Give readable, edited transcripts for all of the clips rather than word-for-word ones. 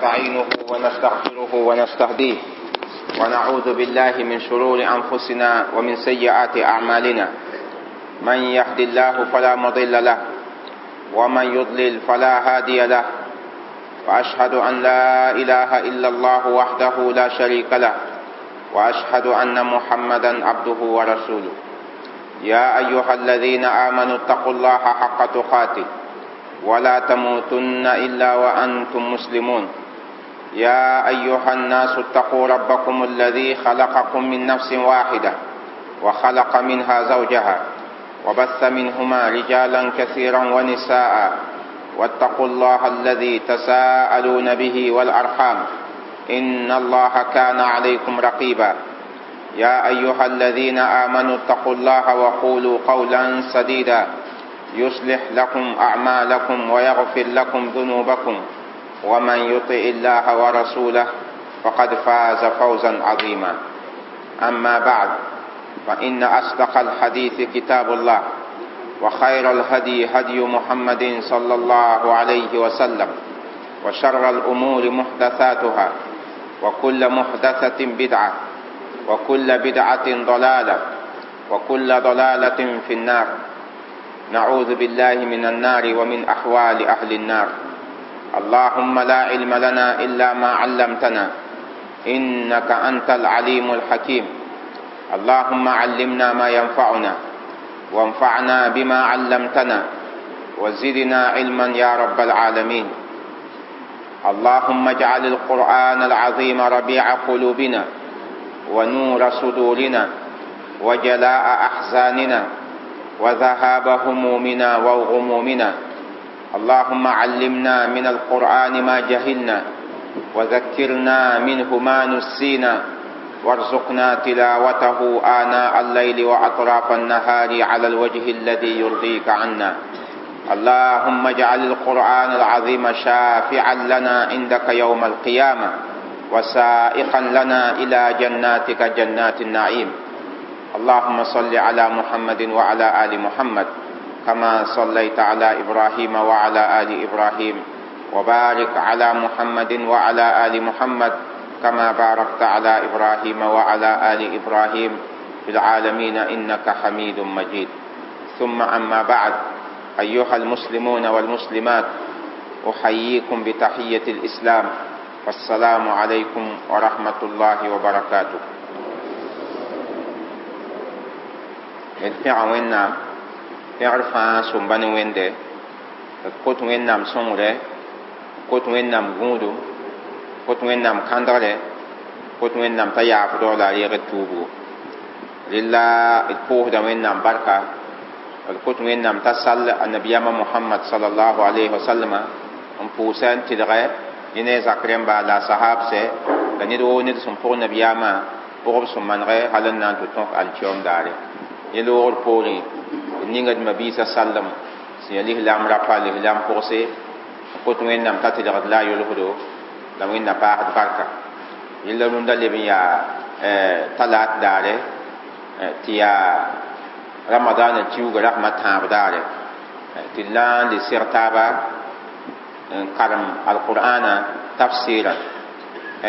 ونستعينه ونستغفره ونستهديه، ونعوذ بالله من شرور أنفسنا ومن سيئات أعمالنا. من يهد الله فلا مضل له، ومن يضلل فلا هادي له. وأشهد أن لا إله إلا الله وحده لا شريك له، وأشهد أن محمدا عبده ورسوله. يا أيها الذين آمنوا اتقوا الله حق تقاته ولا تموتن إلا وأنتم مسلمون. يا أيها الناس اتقوا ربكم الذي خلقكم من نفس واحدة وخلق منها زوجها وبث منهما رجالا كثيرا ونساء، واتقوا الله الذي تساءلون به والأرحام إن الله كان عليكم رقيبا. يا أيها الذين آمنوا اتقوا الله وقولوا قولا سديدا يصلح لكم أعمالكم ويغفر لكم ذنوبكم، ومن يطع الله ورسوله فقد فاز فوزا عظيما. أما بعد، فإن أصدق الحديث كتاب الله، وخير الهدي هدي محمد صلى الله عليه وسلم، وشر الأمور محدثاتها، وكل محدثة بدعة، وكل بدعة ضلالة، وكل ضلالة في النار. نعوذ بالله من النار ومن أحوال أهل النار. اللهم لا علم لنا إلا ما علمتنا إنك أنت العليم الحكيم. اللهم علمنا ما ينفعنا، وانفعنا بما علمتنا، وزدنا علما يا رب العالمين. اللهم اجعل القرآن العظيم ربيع قلوبنا، ونور صدورنا، وجلاء أحزاننا، وذهاب همومنا وغمومنا. اللهم علمنا من القرآن ما جهلنا، وذكرنا منه ما نسينا، وارزقنا تلاوته آناء الليل وأطراف النهار على الوجه الذي يرضيك عنا. اللهم اجعل القرآن العظيم شافعا لنا عندك يوم القيامة، وسائقا لنا إلى جناتك جنات النعيم. اللهم صل على محمد وعلى آل محمد كما صليت على إبراهيم وعلى آل إبراهيم، وبارك على محمد وعلى آل محمد كما باركت على إبراهيم وعلى آل إبراهيم في العالمين إنك حميد مجيد. ثم أما بعد، أيها المسلمون والمسلمات، أحييكم بتحية الإسلام، والسلام عليكم ورحمة الله وبركاته. الفعل وإنام pẽgr fãa sõmba ne wẽnde, d kot Wẽnnaam sõngre, kot Wẽnnaam gũudum, kot Wẽnnaam kãndgre, kot Wẽnnaam t'a yaafdg la a reeg d tuubgo. Rela d pʋʋsda Wẽnnaam barka, d kot Wẽnnaam t'a sall annabiyaamã Mohamad sallallahu alayhi wa sallama n pʋʋsa n tɩlgɛ ne ne a zak rẽmba la a sahabsɛ la ned woo ned sẽn pʋg nabiyaamã pʋgb sẽn manegɛ hal n na n tɩ tõk alkiyoom daare. Yẽ loogr poorẽ d ninga d mabiisã sallem sẽn yaa lislaam rapa lislaam pʋgse n kot Wẽnnaam t'a tɩlgd la a yolsdo la Wẽnna paasd barka. Yella rũndã leb n yaa talaat daare tɩ yaa ramadaanã kiuga rasmã tãab daare tɩ d la n le seg taaba n karem alqur'ana tafsɩɩrã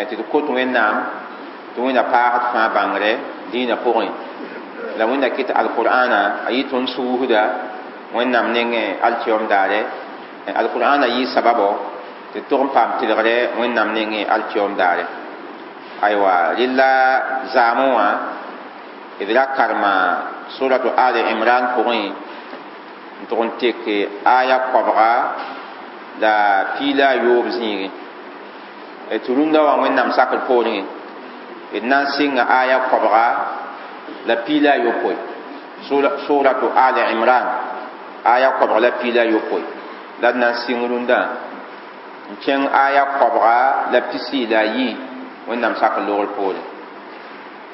tɩ d kot Wẽnnaam tɩ Wẽnna paasd fãa bãngre dĩinã pʋgẽ la Wẽnna kɩt alqur'ana a yɩ tõnd suusda Wẽnnaam nengẽ alkiyoom daare. Alqur'ana yɩ sababo tɩ tog n paam tɩlgre Wẽnnaam nengẽ alkiyoom daare. Aywa, rɩla zaamẽ wã d ra karema suratu Ali Imran pʋgẽ n tʋg n tek aya koabga la piila a yoob zĩigẽ. Tɩ rũndã wã Wẽnnaam sakr poorẽ d na n sɩnga aya koabga la piila a yopoe. Suratu Ali Imran aya koabga la piila a yopoe la d na n sɩng rũndã n kẽng aya koabga la pisi la a yi Wẽnnaam sakr loogr poorẽ.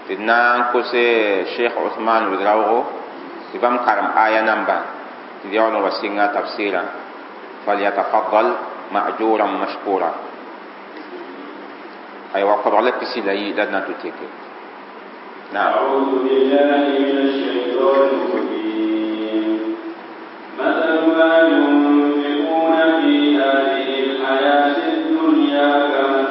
Tɩ d na n kose Cheikh Ousmane Ouedraogo tɩ bãmb karem aya nambã tɩ d yaool n wa sɩnga tafsɩɩrã. Falyatafaddal ma'juran mashkura. Aywa, koabg la pisi la yi la d na n tɩ teke. نعم. أعوذ بالله من الشيطان الرجيم. مثل ما ينفقون في هذه الحياة الدنيا كمثل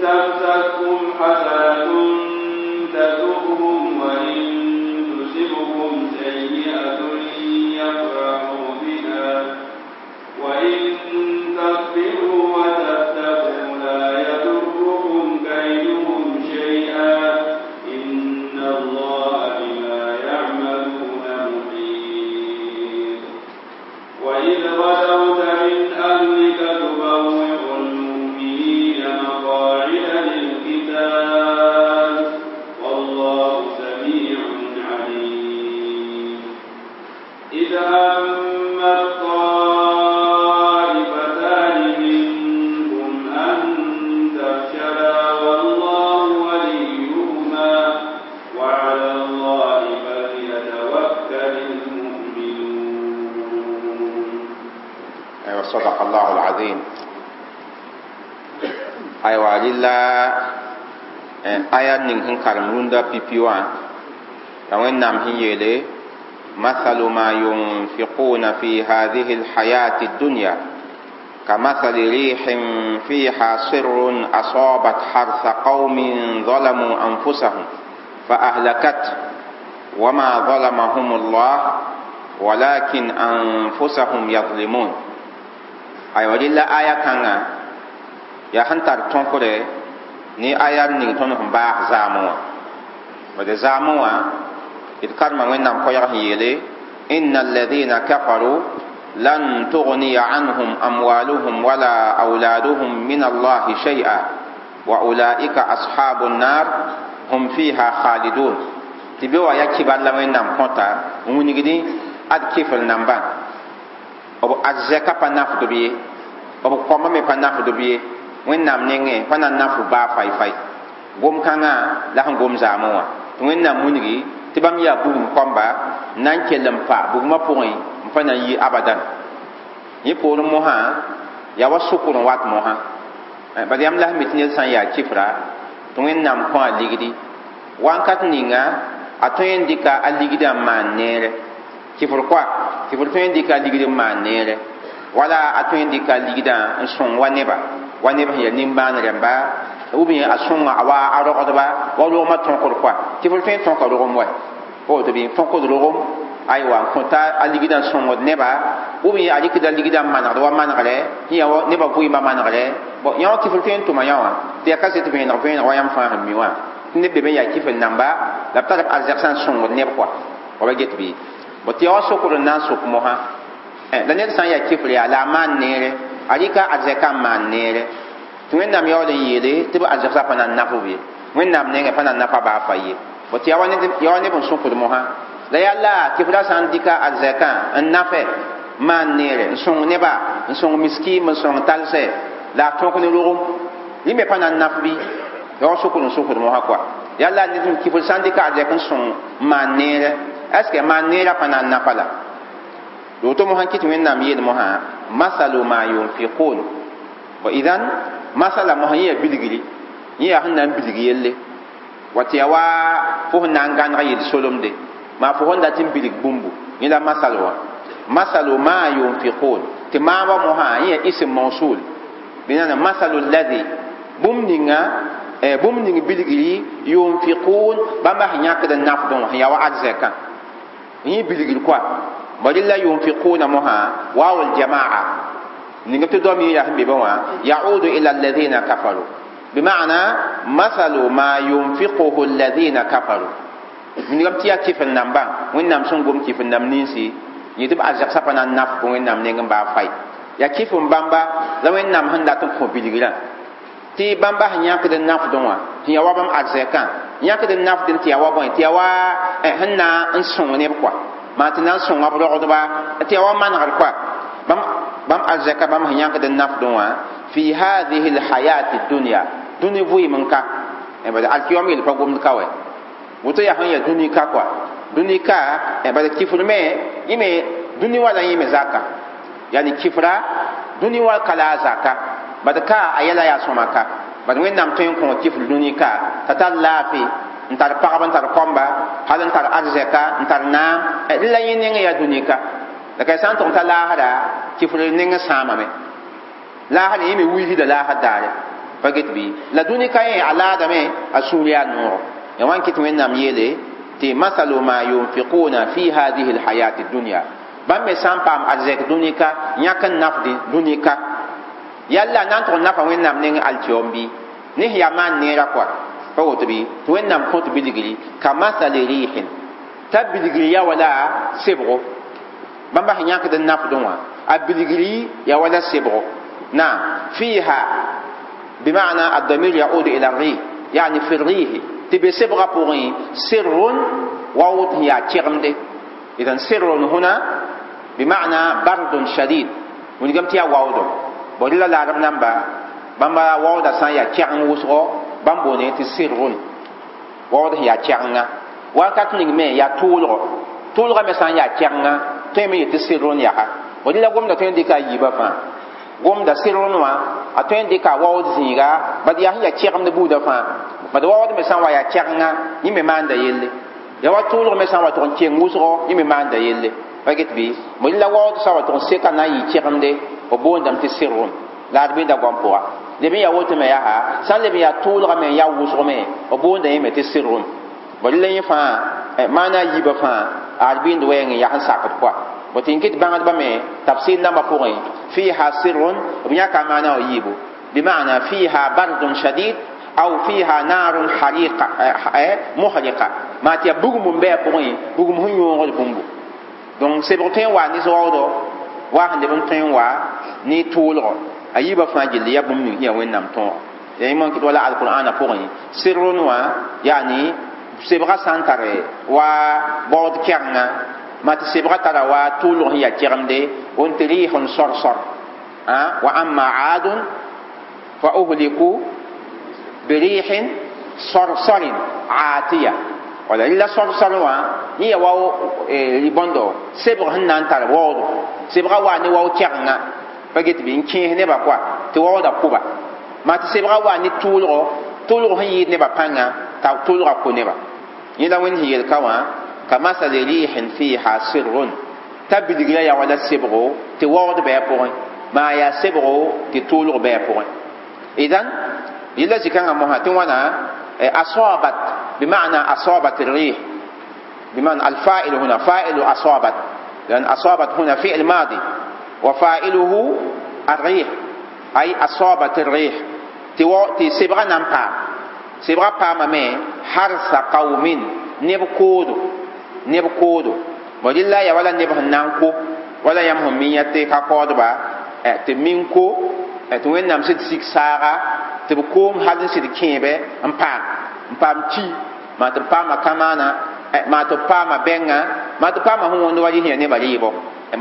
تمسسكم حسنة تسؤهم وإن تصبكم سيئة يفرحوا بها وإن تصبروا وتتقوا لا يضركم كيدهم شيئا إن الله بما يعملون محيط وإذ غدوت من أهلك تبوئ المؤمنين مقاعد للقتال والله سميع عليم إذ هم الطائفتان منكم أن تفشلا والله وليهما وعلى الله فليتوكل المؤمنون. أيوة صدق الله العظيم. أيوة لله آية ning sẽn karem rũndã pipi wã la Wẽnnaam sẽn yeele مثل ما ينفقون في هذه الحياة الدنيا كمثل ريح فيها سر أصابت حرث قوم ظلموا أنفسهم فأهلكت وما ظلمهم الله ولكن أنفسهم يظلمون. أيوة لله آية كان يا هنتر تنكره ni aya ning tõnd sẽn baas zaamẽ wã bad zaamẽ wã d karema Wẽnnaam koɛɛg sẽn yeele inna alladhina kafaru lan tughniya anhum amwaluhum wala awladuhum min allahi shay'a wa ulaika ashabu nnar hum fiha khalidun. Tɩ be wa ya kibar la Wẽnnaam kõta n wilgdẽ ad kɩfr nambã b arzɛka pa nafdb ye, b kõma me pa nafdb ye, Wẽnnaam nengẽ pa na n nafd baa fai-fai. Gom-kãngã la sẽn gom zaamẽ wã tɩ Wẽnnaam wilgi tɩ bãmb yaa bugum kõmba n na n kell n pa bugmã pʋgẽ n pa na n yi abadan. Yẽ poorẽ mosã yaa wa sʋkr n wat mosã bad yãmb la sẽn mi tɩ ned sã n yaa kɩfra tɩ Wẽnnaam kõ a ligdi wãnkat ninga a tõe n dɩka a ligdã n maan neere kɩfr koa kɩfr tõe n dɩka a ligd n maan neere wala a tõe n dɩka a ligdã n sõng wa neba wa neb sẽn yaa nimbãan rẽmba ou bien a sõnga a wa a rogdba wa rogmã tõkr koa kɩfr tõe n tõka rogem wa woto bɩ tõkd rogem aywa n kõta a ligdã n sõngd neba ou bien a rɩkda ligdã n manegd wa manegrɛ yã nebã vɩɩmã manegrɛ bon yã wã kɩfr tõe n tʋma yã wã tɩ yaa kaset vẽeneg vẽeneg wa yãmb fãa sẽn mi wã tɩ neb be me yaa kɩfr namba la b tar b arzɛk sã n sõngd neb koa wa ba get bɩ bon tɩ ya wa sokr n na n sok mosã la ned sã n yaa kɩfr yaa la a maan neere a rɩka arzɛkã n maan neere tɩ Wẽnnaam yaool n yeele tɩ b arzɛgsã pa na n naf b ye Wẽnnaam nengẽ pa na n nafa baa fa ye bon tɩ ya wa neb n sõkd mosã la yaa la kɩfrã sã n dɩka arzɛkã n nafɛ maan neere n sõng neba n sõng miskiim n sõng talsɛ la a tõk ne rogem yẽ me pa na n naf bɩ ya wa sokd n sokd mosã koa yaa la ned kɩfr sã n dɩka arzɛk n sõng n maan neere est ce que maan neerã pa na n nafa la woto mosã kɩ tɩ Wẽnnaam yeel mosã masalu ma yunfiqun wa idan masala mosã yẽ yaa bilgri yẽ yaa sẽn na n bilg yelle wa tɩ yaa wa fo sẽn na n gãneg yel solemde maa fo sẽn dat n bilg bũmbu yẽ la masal wã masalu ma yunfiqun tɩ maamba mosã yẽ yaa ism mawsul bɩ masalu alladhi bũmb ninga bũmb ning bilgri yunfiqun bãmba sẽn yãkd n nafdẽ wã sẽn yaa wa arzɛkã yẽ bilgr koa bari la yunfiquna moha waw aljamaa ninga tɩ dom yẽ yaa sẽn be be wã yaudu ila alladhina kafaru bima'na mathalu ma yunfiquhu alladhina kafaru ningam tɩ yaa kɩfr nambã Wẽnnaam sẽn gom kɩfr nam ninsi yẽ tɩ b arzɛgsã pa na n naf Wẽnnaam neng n baa fai yaa kɩf n bãmba la Wẽnnaam sẽn dat n kõ bilgrã tɩ bãmba sẽn yãkd n nafdẽ wã tɩ yaa wa bãmb arzɛkã yãkd n nafdẽ tɩ yaa wa bõe tɩ yaa wa sẽn na n sõng neb koa maa tɩ na n sõnga b rogdba tɩ yaa wa manegr koa bãmb arzɛka bãmb sẽn yãkd n nafdẽ wã fi hadihi lhayati dunya dũni vɩɩm n ka bad alkiyom yel pa gomd ka wɛ woto yaa sẽn yaa dũni ka koa dũni ka bad kɩfr me yẽ me dũni wa la yẽ me zaka yani kɩfra dũni wa ka la a zaka bad ka a yɛla yaa sõma ka bad Wẽnnaam tõe n kõ kɩfr dũni ka t'a tar laafɩ n tar pagb n tar kõmba hal n tar arzɛka n tar naam la yẽ nengẽ yaa dũni ka la ka sã n tʋg t'a laasra kɩfr nengẽ sãamame laasr yẽ me wilsda laasr daare Pa get bɩ la dũni ka yẽ a laadame a sũur yaa nooro ya wan kɩt Wẽnnaam yeele tɩ masalu ma yunfiquna fi hadihi lhayati dunya bãmb me sã n paam arzɛk dũni ka yãk n nafdẽ dũni ka yalla na n tʋg n nafa Wẽnnaam neng alkiom bɩ ne sẽn yaa maan neera kɔa pa woto bɩ tɩ Wẽnnaam kõt bilgri ka masali rihin t'a bilgri ya wala sebgo bãmba sẽn yãkd n nafdẽ wã a bilgri ya wala sebgo naam fiha بمعنى الضمير يعود إلى الريح يعني في الريح تبي سبغة بوغي سر ووت هي تشغمده إذا سر هنا بمعنى برد شديد ونقام تيا واودو بودلا العرب نمبا بامبا واودا سان يا تشغم وسغو بامبوني تي سر واود هي تشغنا وكات نيغ يا تولغو تولغو مي سان يا تشغنا تيمي تي سر يا بودلا غوم دا تين ديكا ييبا فا gomda sɩrn wã a tõe n dɩka waood zĩiga bad yaa sẽn yaa kɛgemd buudã fãa bad waood me sã n wa yaa kɛgenga yẽ me maanda yelle ya wa tʋʋlg me sã n wa tʋg n keng wʋsgo yẽ me maanda yelle pa get bɩ mo la waood sã wa tʋg n seka na n yɩ kɛgemde b boondame tɩ sɩrn la ad bɩnda goam pʋga leb n yaa woto me yaa sã n leb n yaa tʋʋlga me n yaa wʋsg me b boonda yẽ me tɩ sɩrn bad la yẽ fãa maana a yiibã fãa ad bɩnd wɛɛng n yaa sẽn sakd kɔa bõe tɩ n kɩt bãngdbã me tafsir nambã pʋgẽ fiha sirrun b yãka maana wã yiibu bimana fiha bardun shadid aw fiha narun hariqa muhriqa maa tɩ yaa bugum n bɩ a pʋgẽ bugum sẽn yõogd bũmbu donc sebg tõe n wa ne waoodɔ waa sẽn leb n tõe n wa ne tʋʋlgɔ a yiibã fãa gilli yaa bũmb ning sẽn yaa Wẽnnaam tõogo ya yẽ kɩt wala alqur'ana pʋgẽ sirrun wã yaani sebgã sã n tare wa baood kɛgenga ma tɩ sebgã tara wa tʋʋlg sẽn yaa kɛgemde n tɩ rɩɩs n sor-sor wa amma aadun fa uhliku birihin sorsorin aatiya wala rɩla sorsor wã yẽ ya wa bõndo sebg sẽn na n tar waoodo sebgã waa ne wao kɛgenga pa get bɩ n kẽes nebã kɔa tɩ waooda kʋba maa tɩ sebgã waa ne tʋʋlgo tʋʋlg sẽn yɩɩd nebã pãnga t'a tʋʋlgã kʋ neba yẽ la Wẽnd sẽn yel ka wã كمثل ريح فيها سر تبدغ يا ولا سبغو تورد بها ما يا سبغو تطولغ بها إذن يلا زكان مهاتن وانا أصابت بمعنى أصابت الريح بمعنى الفاعل هنا فاعل أصابت لأن أصابت هنا فعل ماضي وفاعله الريح أي أصابت الريح تي سبغا نمبا سبغا باما مي حرث قوم نبكودو neb koodo bõ rɩla ya wala neb sẽn na n ko wala yãmb sẽn mi yã tɩ ka kaoodba tɩ min ko tɩ Wẽnnaam sɩd sik saaga tɩ b koom hal n sɩd kẽebe n paam ki maa tɩ b paama kamaana maa tɩ b paama bɛngã maa tɩ paama sẽn wõnd wa rɩ sẽn ya nebã rɩɩbɔ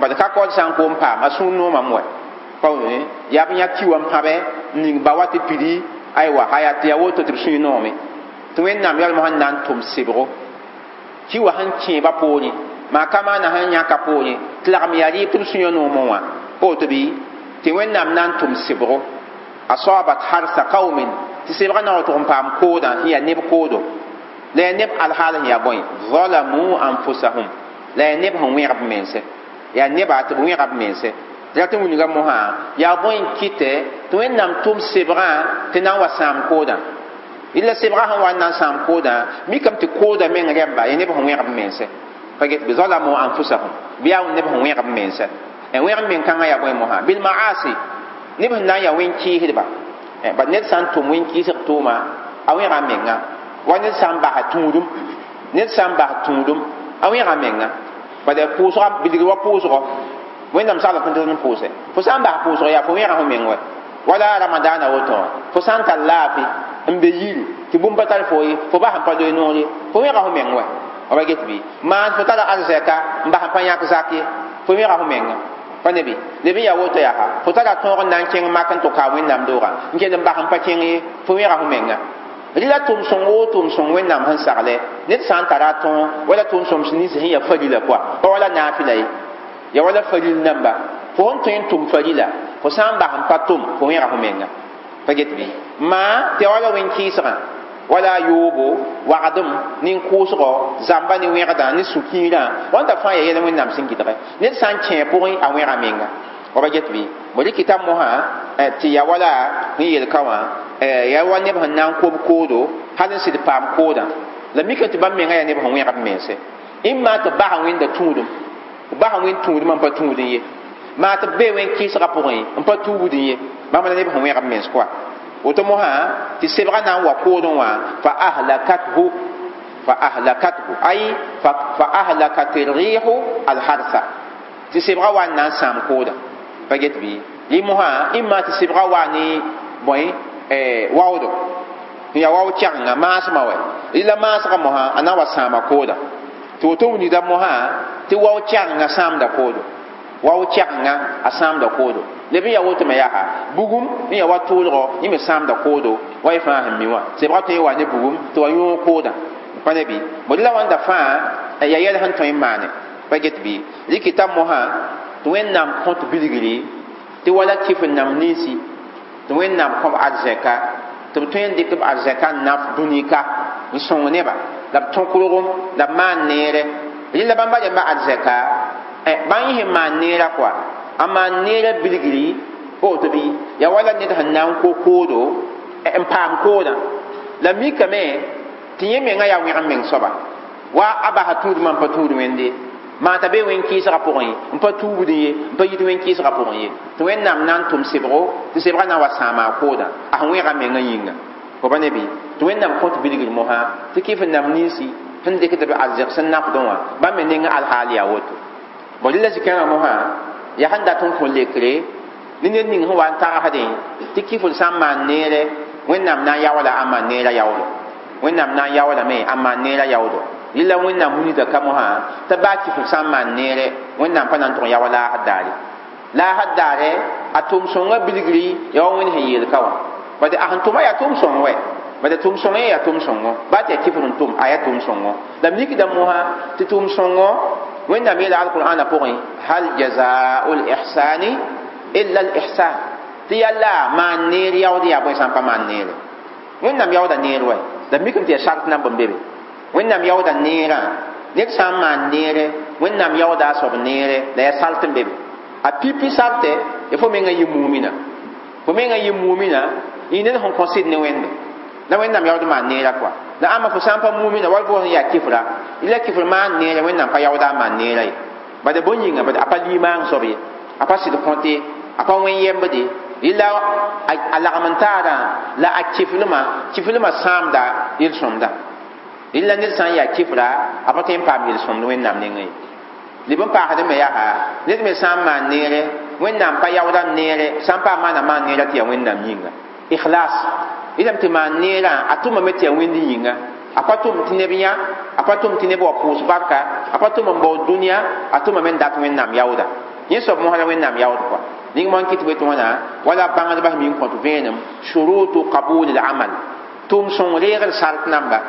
bad ka kaood sã n koom paam a sũur noomame wɛ pa yaa b yã ki wã n pãbɛ n ning ba wa tɩ pidi aywa haya tɩ yaa woto tɩ b sũy noome tɩ Wẽnnaam yalm sẽn na n tʋm sebgo ki wa sẽn kẽeba poorẽ maa ka maana sẽn yãka poorẽ tɩ lagm yaa rɩɩb tɩ b sũyã noomẽ wã pa woto bɩ tɩ Wẽnnaam na n tʋm sebgo asabat harsa qaumin tɩ sebgã na wa tʋg n paam koodã sẽn yaa neb koodo la yaa neb alhaal sẽn yaa bõe zalamu anfusahum la yaa neb sẽn wẽgb mense yaa neba tɩ b wẽga b mense tɩ rat n wilga mosã yaa bõe n kɩtɛ tɩ Wẽnnaam tʋm sebgã tɩ na n wa sãam koodã illa sebgã sẽn wa n na n sãam koodã mikame tɩ koodã meng rẽmba yaa neb sẽn wẽgb mense pa get bɩ zalamu anfusahum bɩ yaa neb sẽn wẽgb mense wẽgb meng kãngã yaa bõe mosã bilmaasi neb sẽn na n yaa wẽn-kɩɩsdba bad ned sã n tʋm wẽn-kɩɩsg tʋʋma a wẽga menga wa ned sã n basa tũudum ned sã n bas tũudum a wẽga menga bad pʋʋsga bilgr wa pʋʋsgɔ Wẽnnaam sagl tõnd n pʋʋsɛ fo sã n bas pʋʋsg yaa fo wẽga fo meng wɛ wala ramadaana woto wã fo sã n tar laafɩ n be yiri tɩ bũmb pa tar fo ye fo bas n pa loe noor ye fo wẽga fo meng wɛ ba get bɩ maan fo tara arzɛka n bas n pa yãk zak ye fo wẽga fo menga pa ne bɩ leb n yaa woto yaa fo tara tõog n na n kẽng mak n tʋ ka Wẽnnaam doogã n kell n bas n pa kẽng ye fo wẽga fo menga rɩla tʋm-sõng woo tʋm-sõng Wẽnnaam sẽn sagle ned sã n tara a tõog wala tʋm-sõms nins sẽn yaa farila pʋa pa wala naafɩla ye ya wala faril namba fo sẽn tõe n tʋm farila fo sã n bas n pa tʋm fo wẽga fo menga pa get bɩ maa tɩ ya wala wẽn-kɩɩsgã wala yoobo wagdem nin-kʋʋsgɔ zãmba ne wẽgdã ne sũ-kiirã wãnda fãa yaa yɛl Wẽnnaam sẽn gɩdgɛ ned sã n kẽ pʋgẽ a wẽga menga wa ba get bɩ bõ rɩkɩta mosã tɩ ya wala sẽn yel ka wã Ya wa neb sẽn na n kob koodo hal n sɩd paam koodã la mika tɩ bãmb menga yaa neb sẽn wẽgd mense ĩmma tɩ basa wẽnda tũudum basa wẽnd tũudum n pa tũudẽ ye maa tɩ b bee wẽn kɩɩsgã pʋgẽ n pa tuubdẽ ye bãmb la neb sẽn wẽgd mens koa woto mosã tɩ sebgã na n wa koodẽ wã fa ahlakathu fa ahlakathu ay fa ahlakat rihu alharsa tɩ sebgã wa n na n sãam koodã pa get bɩ rɩ mosã ĩmma tɩ sebgã wa ne bõe waoodo n yaa wao kɛgenga maasmã wɛ rɩla maasgã mosã a na n wa sãama koodã tɩ woto wilgda mosã tɩ wao kɛgenga sãamda koodo wao kɛgenga a sãamda koodo leb n yaa woto me yaa bugum n yaa wa tʋʋlgɔ yẽ me sãamda koodo wa y fãa sẽn mi wã sebgã tõe n wa ne bugum tɩ wa yõog koodã pa ne bɩ bõe la wãnda fãa yaa yɛl sẽn tõe n maane pa get bɩ rɩkɩta mosã tɩ Wẽnnaam kõt bilgri tɩ wala kɩf n nam ninsi tɩ Wẽnnaam kõb arzɛka tɩ b tõe n dɩk b arzɛka n naf dũnika n sõng neba la b tõkrgem la b maan neere rɩla bãmba rẽmba arzɛka bãn yẽ sẽn maan neera kɔa a maan neera bilgri pa woto bɩ yaa wala ned sẽn na n ko koodo n paam koodã la mikame tɩ yẽ menga yaa wẽg n meng soaba wa a basa tũudmã n pa tũud wẽnde maa t'a be wẽn-kɩɩsgã pʋgẽ n pa tuubdẽ ye n pa yit wẽn-kɩɩsgã pʋgẽ ye tɩ Wẽnnaam na n tʋm sebgo tɩ sebgã na n wa sãama a koodã a sẽn wẽga menga yĩnga fo pa ne bɩ tɩ Wẽnnaam kõt bilgr mosã tɩ kɩf n nam ninsi sẽn dɩkd b arzɛg sẽn nafdẽ wã bãmb me neng alhaal yaa woto bõ rɩla zĩ-kãngã mosã yaa sẽn dat n kõ lekre ne ned ning sẽn wa n tagsdẽ tɩ kɩfd sã n maan neere Wẽnnaam na n yaoola a maan neerã yaoodo Wẽnnaam na n yaoolame a maan neerã yaoodo rɩla Wẽnnaam wilgda ka mosã t'a baa kɩfd sã n maan neere Wẽnnaam pa na n tʋg n yaoa laasd daare laasd daare a tʋʋm sõngã bilgri yaa wa Wẽnd sẽn yeel ka wã bad a sẽn tʋma yaa tʋʋm sõng wɛ bad tʋʋm sõng yẽ yaa tʋʋm sõngo baa tɩ yaa kɩfd n tʋm a yaa tʋʋm sõngo la mikda mosã tɩ tʋʋm sõngo Wẽnnaam yeela alqur'ana pʋgẽ hal jazaa'u lihsani illa lihsan tɩ yalla maan neer yaood yaa bõe sã n pa maan neere Wẽnnaam yaooda neer wɛ la mikame tɩ yaa sart namb n be be Wẽnnaam yaooda neerã ned sã n maan neere Wẽnnaam yaooda a soab neere la yaa sart n be be a pipi sartɛ ya fo menga yɩ mumina fo menga yɩ mumina yɩ ned sẽn kõ sɩd ne Wẽnde la Wẽnnaam yaood maan neerã kɔa la ãmba fo sã n pa mumina wall fo sẽn yaa kɩfra la kɩfr maan neere Wẽnnaam pa yaooda a maan neerã ye bad bõe yĩnga bad a pa limaang soab ye a pa sɩd kõte a pa wẽn yembde rɩla a lagm n taarã la a kɩflmã kɩflmã sãamda yel-sõmda rɩla ned sã n yaa kɩfra a pa tõe n paam yel-sõmd Wẽnnaam nengẽ ye leb n paasd me yaa ned me sã n maan neere Wẽnnaam pa yaooda neere sã n paam maana maan neerã tɩ yaa Wẽnnaam yĩnga ikhlas rɩlame tɩ maan neerã a tʋmame tɩ yaa Wẽnd yĩnga a pa tʋm tɩ neb yã a pa tʋm tɩ neb wa pʋʋs barka a pa tʋm n baood dũniyã a tʋmame n dat Wẽnnaam yaooda yẽ soab mosã la Wẽnnaam yaood kɔa ning moan kɩt be tɩ wãna wala bãngdbã sẽn mi n kõt vẽenem shurutu qabul al-amal tʋʋm sõng reegd sart namba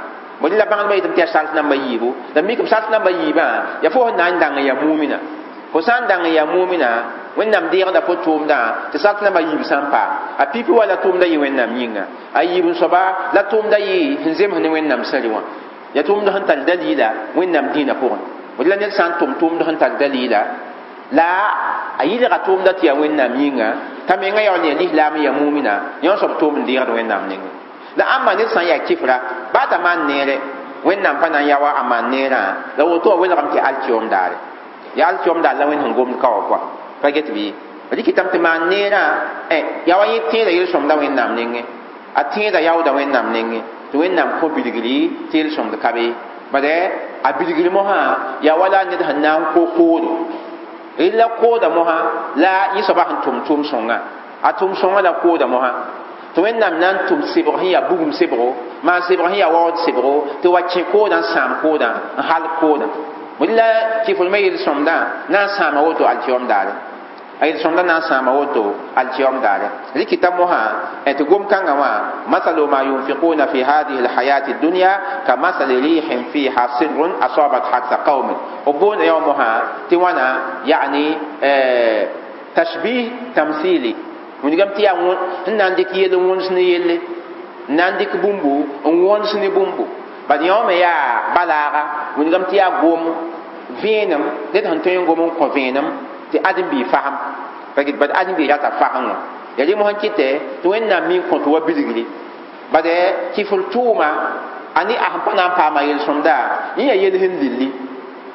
bõe la bãngdbã yetame tɩ yaa sart namba yiibu la mikame sart namba yiibã yaa fo sẽn na n dãng n yaa mumina fo sã n dãng n yaa mumina Wẽnnaam deegda fo tʋʋmdã tɩ sart namba yiib sã n paam a pipi wa la tʋʋmda yɩ Wẽnnaam yĩnga a yiib n soaba la tʋʋmda yɩ sẽn zems ne Wẽnnaam sẽri wã yaa tʋʋmd sẽn tar dalila Wẽnnaam dĩinã pʋgẽ bõe la ned sã n tʋm tʋʋmd sẽn tar dalila la a yɩlga tʋʋmda tɩ yaa Wẽnnaam yĩnga t'a menga yaool n yaa lislaam n yaa mumina yõ soab tʋʋm n deegd Wẽnnaam nengẽ la ãmba ned sã n yaa kɩfra baa t'a maan neere Wẽnnaam pa na n yaoa a maan neerã la woto wã welgame tɩ alkiom daare yaa alkiom daar la Wẽnd sẽn gomd ka wã kɔa pa get bɩ rɩkɩtame tɩ maan neerã yaa wa yẽ tẽeda yel-sõmda Wẽnnaam nengẽ a tẽeda yaooda Wẽnnaam nengẽ tɩ Wẽnnaam kõ bilgri tɩ yel-sõmd ka be bad a bilgri mosã yaa wala ned sẽn na n ko koodo rɩla kooda mosã la yẽ soabã sẽn tʋm tʋʋm sõngã a tʋʋm sõngã la kooda mosã tɩ Wẽnnaam na n tʋm sebg sẽn yaa bugum sebgo maan sebg sẽn yaa waood sebgo tɩ wa kẽ koodã n sãam koodã n halg koodã la kɩfr me yel-sõmdã na n sãama woto alkiom daare a yel-sõmdã na n sãama woto alkiom daare rɩkɩta mosã tɩ gom-kãngã wã masalu ma yunfiquna fi hadihi alhayati dunya ka masali rihin fiha sirrun asabat harsa qaumin b boonda yã wã mosã tɩ wãna yani tashbih tamsili wilgame tɩ yaa n na n dɩk yell n wõns ne yelle n na n dɩk bũmbu n wõns ne bũmbu bad yõ me yaa balaaga wilgame tɩ yaa gom vẽenem ned sẽn tõe n gom n kõ vẽenem tɩ ãdem-biig fasem pa get bad ãdem-biig rata fasem wã Ya rɩ mosã kɩtɛ tɩ Wẽnnaam mi n kõt wa bilgri bad kifl tʋʋma a ne a sẽn pa na n paama yel-sõmda yẽ yaa yel sẽn lilli,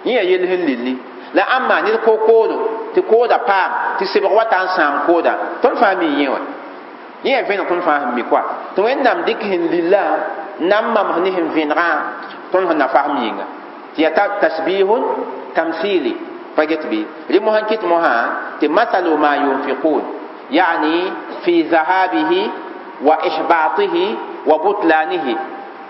yẽ yaa yel sẽn lilli. La ãmba ned ko-koodo tɩ kooda paam tɩ sebg wata n sãam kooda tõnd fãa mi yẽ wã yẽ yaa vẽneg tõnd fãa sẽn mi koa tɩ Wẽnnaam dɩk sẽn lilla n na n mams ne sẽn vẽnegã tõnd sẽn na fasem yĩnga tɩ yaa tasbihun tamthili pa get bɩ rɩ mosã kɩt mosã tɩ mathalu ma yunfiqun yani fi dhahabihi wa ihbatihi wa butlanihi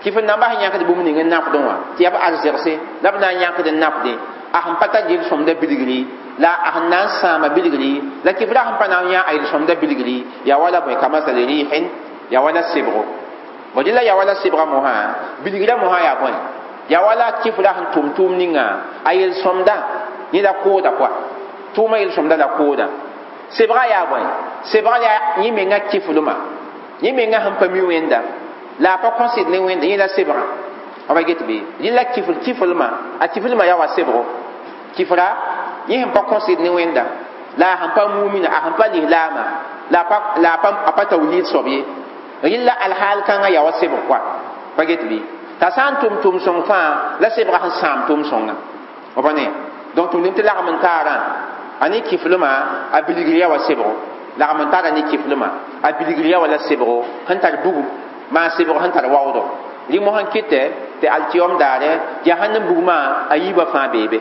kɩf n namba sẽn yãkd bũmb ning n nafdẽ wã tɩ yaa b arzegse la b na n yãkd n nafdẽ a sẽn pa tar yel-sõmda bilgri la a sẽn na n sãama bilgri la kɩfra sẽn pa na n yã a yel-sõmda bilgri yaa wala bõe kamasali rihin yaa wala sebgo bõ dɩ la yaa wala sebga mosã bilgrã mosã yaa bõe yaa wala kɩfra sẽn tʋm tʋʋm ninga a yel-sõmda yẽ la kooda koa tʋʋma yel-sõmda la kooda sebga yaa bõe sebga yaa yẽ menga kɩflmã yẽ menga sẽn pa mi Wẽnda la a pa kõsd ne Wẽnda yẽ la sebga b get bɩ rɩ la kifl kiflmã a kiflmã yaa wa sebgo kifra yẽ sẽn pa kõsd ne Wẽnda la a sẽn pa mumina a sẽn pa lislaama la a pa tawhid soab ye rɩ la alhaal kãngã yaa wa sebg koa pa get bɩ t'a sã n tʋm tʋm sõng fãa la sebga sẽn sãam tʋm sõnga b ne donc tʋm tɩ lagm n taarã a ne kiflmã a bilgr yaa wa sebgo lagm n taara ne kiflmã a bilgr yaa wa la sebgo sẽn tar bugum maa sebg sẽn tar waoodo rɩ mosã kɩtɛ tɩ alkiyom daare jahannam bugmã a yiibã fãa beebe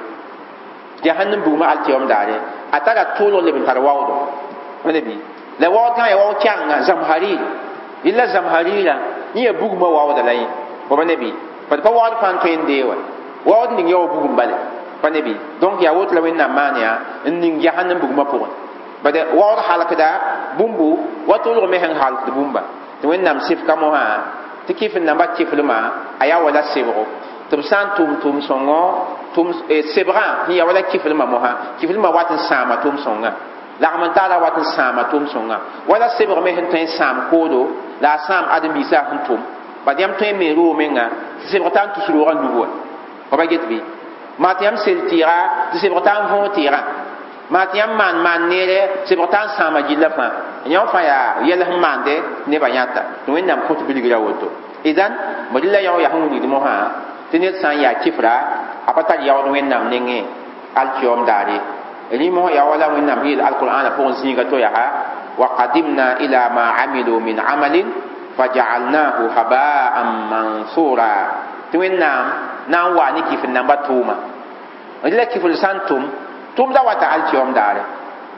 jahannam bugmã alkiyom daare a tara tʋʋlg leb n tar waoodo wẽnda bɩ la waood kãngã yaa waood kɛgenga zamharir yella zamharira yẽ yaa bugmã waooda la yẽ pa ne bɩ bad pa waood fãa n tõe n dee wa waood ning yaa wa bugum bale pa ne bɩ donc yaa woto la Wẽnnaam maan yaa n ning jahannam bugmã pʋgẽ bad waood halkda bũmbu wa tʋʋlg me sẽn halkd bũmba tɩ Wẽnnaam sɩfka mosã tɩ kɩf n namba kiflmã a yaa wala sebgo tɩ b sã n tʋm tʋm sõngo tʋm sebgã sẽn yaa wala kiflmã mosã kiflmã wat n sãama tʋm sõngã lagm n taara wat n sãama tʋm sõnga wala sebg me sẽn tõe n sãam koodo la a sãam ãdem-biisã sẽn tʋm bad yãmb tõe n me roog menga tɩ sebg t'a n tus roogã nugu wã pa get bɩ maa tɩ yãmb sel tɩɩga tɩ sebg t'a n võog tɩɩgã maa tɩ yãmb maan maan neere sebg t'a n sãama gilla fãa yãmb fãa yaa yɛl sẽn maande nebã yãta tɩ Wẽnnaam kõt bilgra woto idan bõ dɩ la yão yaa sẽn wilgd mosã tɩ ned sã n yaa kifra a pa tar yaood Wẽnnaam nengẽ alkiyom daare rẽ mosã yaa wala Wẽnnaam yeel alqur'ana pʋgẽ zĩiga to yaa wa qadimna ila ma amilu min amalin fajaalnahu habaan mansura tɩ Wẽnnaam na n waa ne kifl namba tʋʋma rɩ la kifl sã n tʋm tʋmda wata alkiyom daare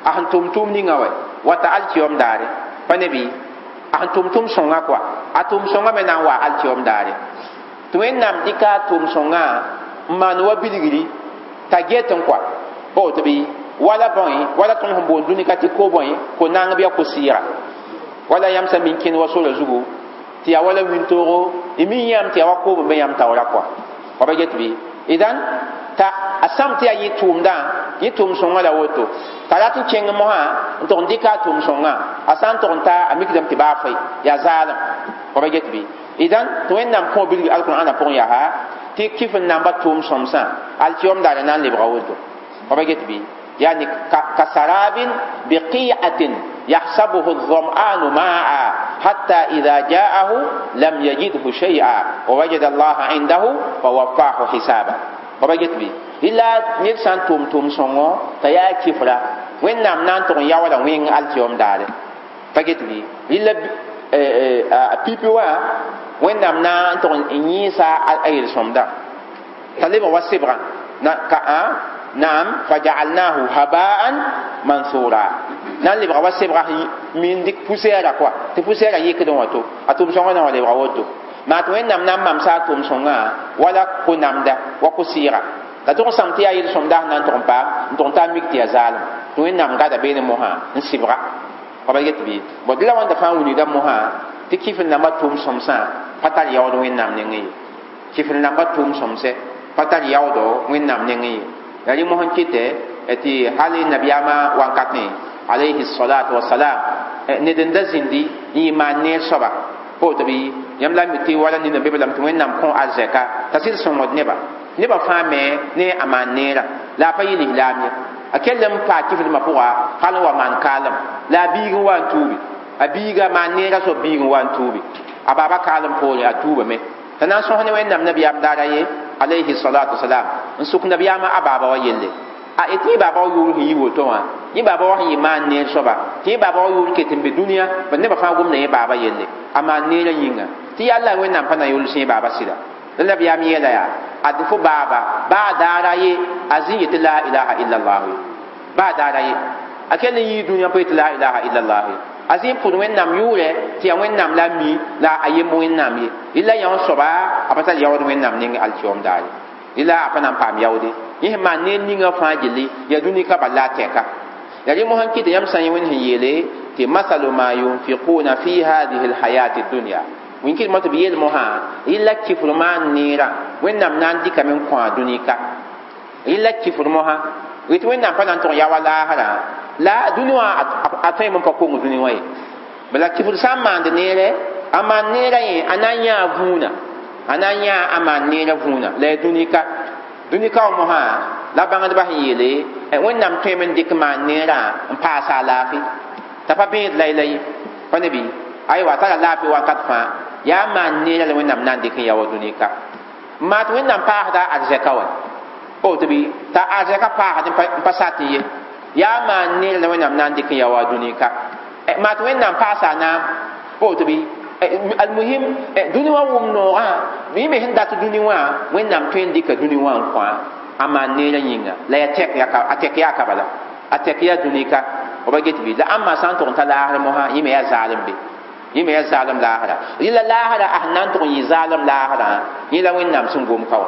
a sẽn tʋm tʋʋm ninga wɛ wata alkiyom daare pa ne bɩ a sẽn tʋm tʋm sõnga koa a tʋm sõnga me na n waa alkiyom daare tɩ Wẽnnaam dɩka a tʋm sõnga n maan wa bilgri t'a get n koa pa woto bɩ wala bõe wala tõnd sẽn boond dũni ka tɩ ko bõe ko naang bɩ a ko-sɩɩga wala yãmb sã min kẽnd wa sora zugu tɩ yaa wala wĩntoogo y mi yãmb tɩ yaa wa koob n be yãmb taoora koa wa pa get bɩ idan t'a a sãm tɩ yaa yẽ tʋʋmdã yẽ tʋʋm sõngã la woto t'a rat n kẽng mosã n tʋg n dɩka a tʋʋm sõngã a sã n tʋg n ta a mikdame tɩ baa fɩ yaa zaalem wa pa get bɩ idan tɩ Wẽnnaam kõ bilg alqur'ana pʋgẽ yaa tɩ kɩf n namba tʋʋm sõmsã alkiyom daara na n lebga woto wa pa get bɩ يعني كسراب بقيعة يحسبه الظمآن ماء حتى إذا جاءه لم يجده شيئا ووجد الله عنده فوفاه حسابا وبجت بي إلا نفسان توم توم سونغو تيا كفرا وين نام نان تون ياولا وين التيوم دار فجت بي إلا بيبي وا وين نام نان تون نيسا أير سومدا تليب وسبرا نا كا نعم فجعلناه هباء منثورا nan lebga wa sebga min dik poussière quoi tɩ poussière yɩkdẽ wã to a tʋm sõngã na wa lebga woto maa tɩ Wẽnnaam na n mamsa a tʋm sõngã wala ko-namda wa ko-sɩɩga la tʋg n sãm tɩ yaa yel-sõmda sẽn na n tʋg n paam n tʋg n taa mik tɩ yaa zaalem tɩ Wẽnnaam gada beene mosã n sɩbga pa ba get bɩ bõ dɩ la wãnda fãa wilgda mosã tɩ kɩf n namba tʋʋm sõmsã pa tar yaood Wẽnnaam nengẽ ye kɩf n namba tʋʋm sõmsɛ pa tar yaoodo Wẽnnaam nengẽ ye la rẽ mosã kɩtɛ tɩ hal nabiyaamã wankatẽ alayhi salatu wasalam ned n da zĩndi n yɩ maan neer soaba pa woto bɩ yãmb la mi tɩ wala nina be lame tɩ Wẽnnaam kõ arzɛka t'a sɩd sõngd neba nebã fãa me ne a maan neerã la a pa yɩ lislaam ye a kell n paa kiflmã pʋga hal n wa maan kaalem la a biig n wa n tuubi A biiga maan neerã soab biig n wa n tuubi a baaba kaalem poore a tuubame t'a na n sõs ne Wẽnnaam nabiyaam daara ye alayhi salatu wasalam n sʋk nabiyaamã a baaba wa yelle a tɩ yẽ baaba wa yʋʋr sẽn yi woto wã yẽ baaba wa sẽn yɩ maan neer soaba tɩ yẽ baaba wa yʋʋr ket n be dũniyã bad nebã fãa gomda yẽ baaba yelle a maan neerã yĩnga tɩ yalla Wẽnnaam pa na yols yẽ baaba sɩda la nabiyaam yeela yaa ad fo baaba baa daara ye a zĩ yetɩ la ilaha illallah ye baa daara ye a kell n yii dũniyã pa yetɩ la ilaha illallah ye a zĩ n pʋd Wẽnnaam yʋʋrɛ tɩ yaa Wẽnnaam la a mi la a yemb Wẽnnaam ye rɩla yã wã soaba a pa tar yaood Wẽnnaam ning alkiom daare rɩla a pa na n paam yaoode yẽ sẽn maan neer ninga fãa gilli yaa dũni ka bal la a tɛka ya rẽ mosã n kɩt yãmb sã n yẽ Wẽnd sẽn yeele tɩ masalu ma yunfiquna fi hadihi lhayati dunya wẽn kɩt mo tɩ b yeel mosã rɩla kifr maan neerã Wẽnnaam na n dɩkame n kõ a dũni ka rɩla kifr mosã yetɩ Wẽnnaam pa na n tʋg yaoa laasrã la dũni wã a tõeme n pa kong dũni wã ye bala kifr sã n maand neerɛ a maan neerã yẽ a na n yãa vũuna a na n yãa a maan neerã vũuna la ya dũni ka dũni ka wã mosã la bãngdbã sẽn yeele Wẽnnaam tõeme n dɩk maan neerã n paasa a laafɩ t'a pa bẽed layla ye pa ne bɩ aywa a tara laafɩ wakat fãa yaa maan neerã la Wẽnnaam na n dɩk n yaoa dũni ka n maa tɩ Wẽnnaam paasda arzɛka wa tɩ bɩ t'a arzɛka paasd n pa sat n ye yaa maan neerã la Wẽnnaam na n dɩk n yaoa dũni ka maa tɩ Wẽnnaam paasa a naam tɩ bɩ almuhim dũni wã wʋm noogã yẽ me sẽn dat dũni wã Wẽnnaam tõe n dɩka dũni wã n kõ a maan neerã yĩnga la ya a tɛk yaa ka bala a tɛk yaa dũni ka b get bɩ la ãmba sã n tʋg n ta laasr mosã yẽ me yaa zaalem be yẽ me yaa zaalem laasra rɩla laasra a sẽn na n tʋg n yɩ zaalem laasrã yẽ la Wẽnnaam sẽn gom ka wã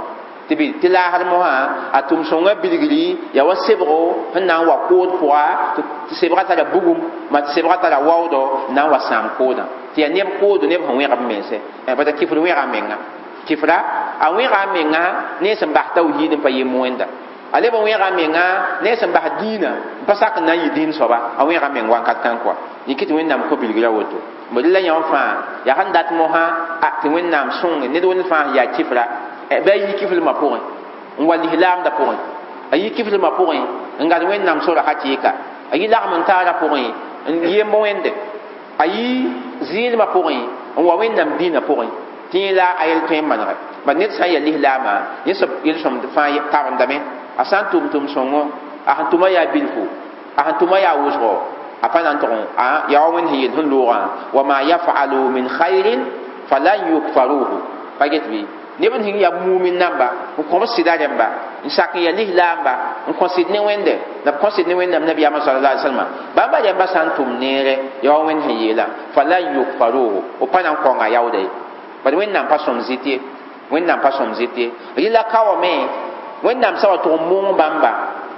tɩ bɩ tɩ laasr mosã a tʋm-sõngã bilgri yaa wa sebgo sẽn na n wa kood pʋga tɩ sebgã tara bugum ma tɩ sebgã tara waoodɔ n na n wa sãam koodã tɩ yaa neb koodo neb sẽn wẽg b mense bata kifr wẽga a menga kifra a wẽga a menga ne sẽn bas tawhiid n pa yem wẽnda a leb n wẽga a menga ne sẽn bas dĩinã n pa sak n na n yɩ dĩin soaba a wẽga a meng wakat kãn kɔa yẽ kɩ tɩ Wẽnnaam kõ bilgra woto bd la yã fãa yaa sẽn dat mosã a tɩ Wẽnnaam sõnge ned wẽnd fãa sẽn yaa kifra bɩ a yi kiflmã pʋgẽ n wa lislaamdã pʋgẽ a yi kiflmã pʋgẽ n gad Wẽnnaam sora hakɩɩka a yi lagm n taarã pʋgẽ n yemb wẽnde a yi zɩɩlmã pʋgẽ n wa Wẽnnaam dĩinã pʋgẽ tɩ yẽ la a yel tõe n manege bad ned sã n yaa lislaamã yẽ soab yel-sõmd fãa karendame a sã n tʋm tʋm-sõngo a sẽn tʋma yaa bilfu a sẽn tʋma yaa wʋsgo a pa na n tʋg yaa wa Wẽnd sẽn yel sẽn loogã wa ma yafalu min khairin falan yukfaruhu pa get bɩ neb n sẽn yaa mumin namba n kõ b sɩda rẽmba n sak n yaa lislaamba n kõ sɩd ne Wẽnde la b kõ sɩd ne Wẽnnaam nabiyaamã sallallahu alaihi wasallam bãmba rẽmba sã n tʋm neere yaa wa Wẽnd sẽn yeelã falan yukfaruhu b pa na n kõnga yaooda ye bad Wẽnnaam pa sõm zɩt ye Wẽnnaam pa sõm zɩt ye rɩla ka wame Wẽnnaam sã wa tʋg n mong bãmba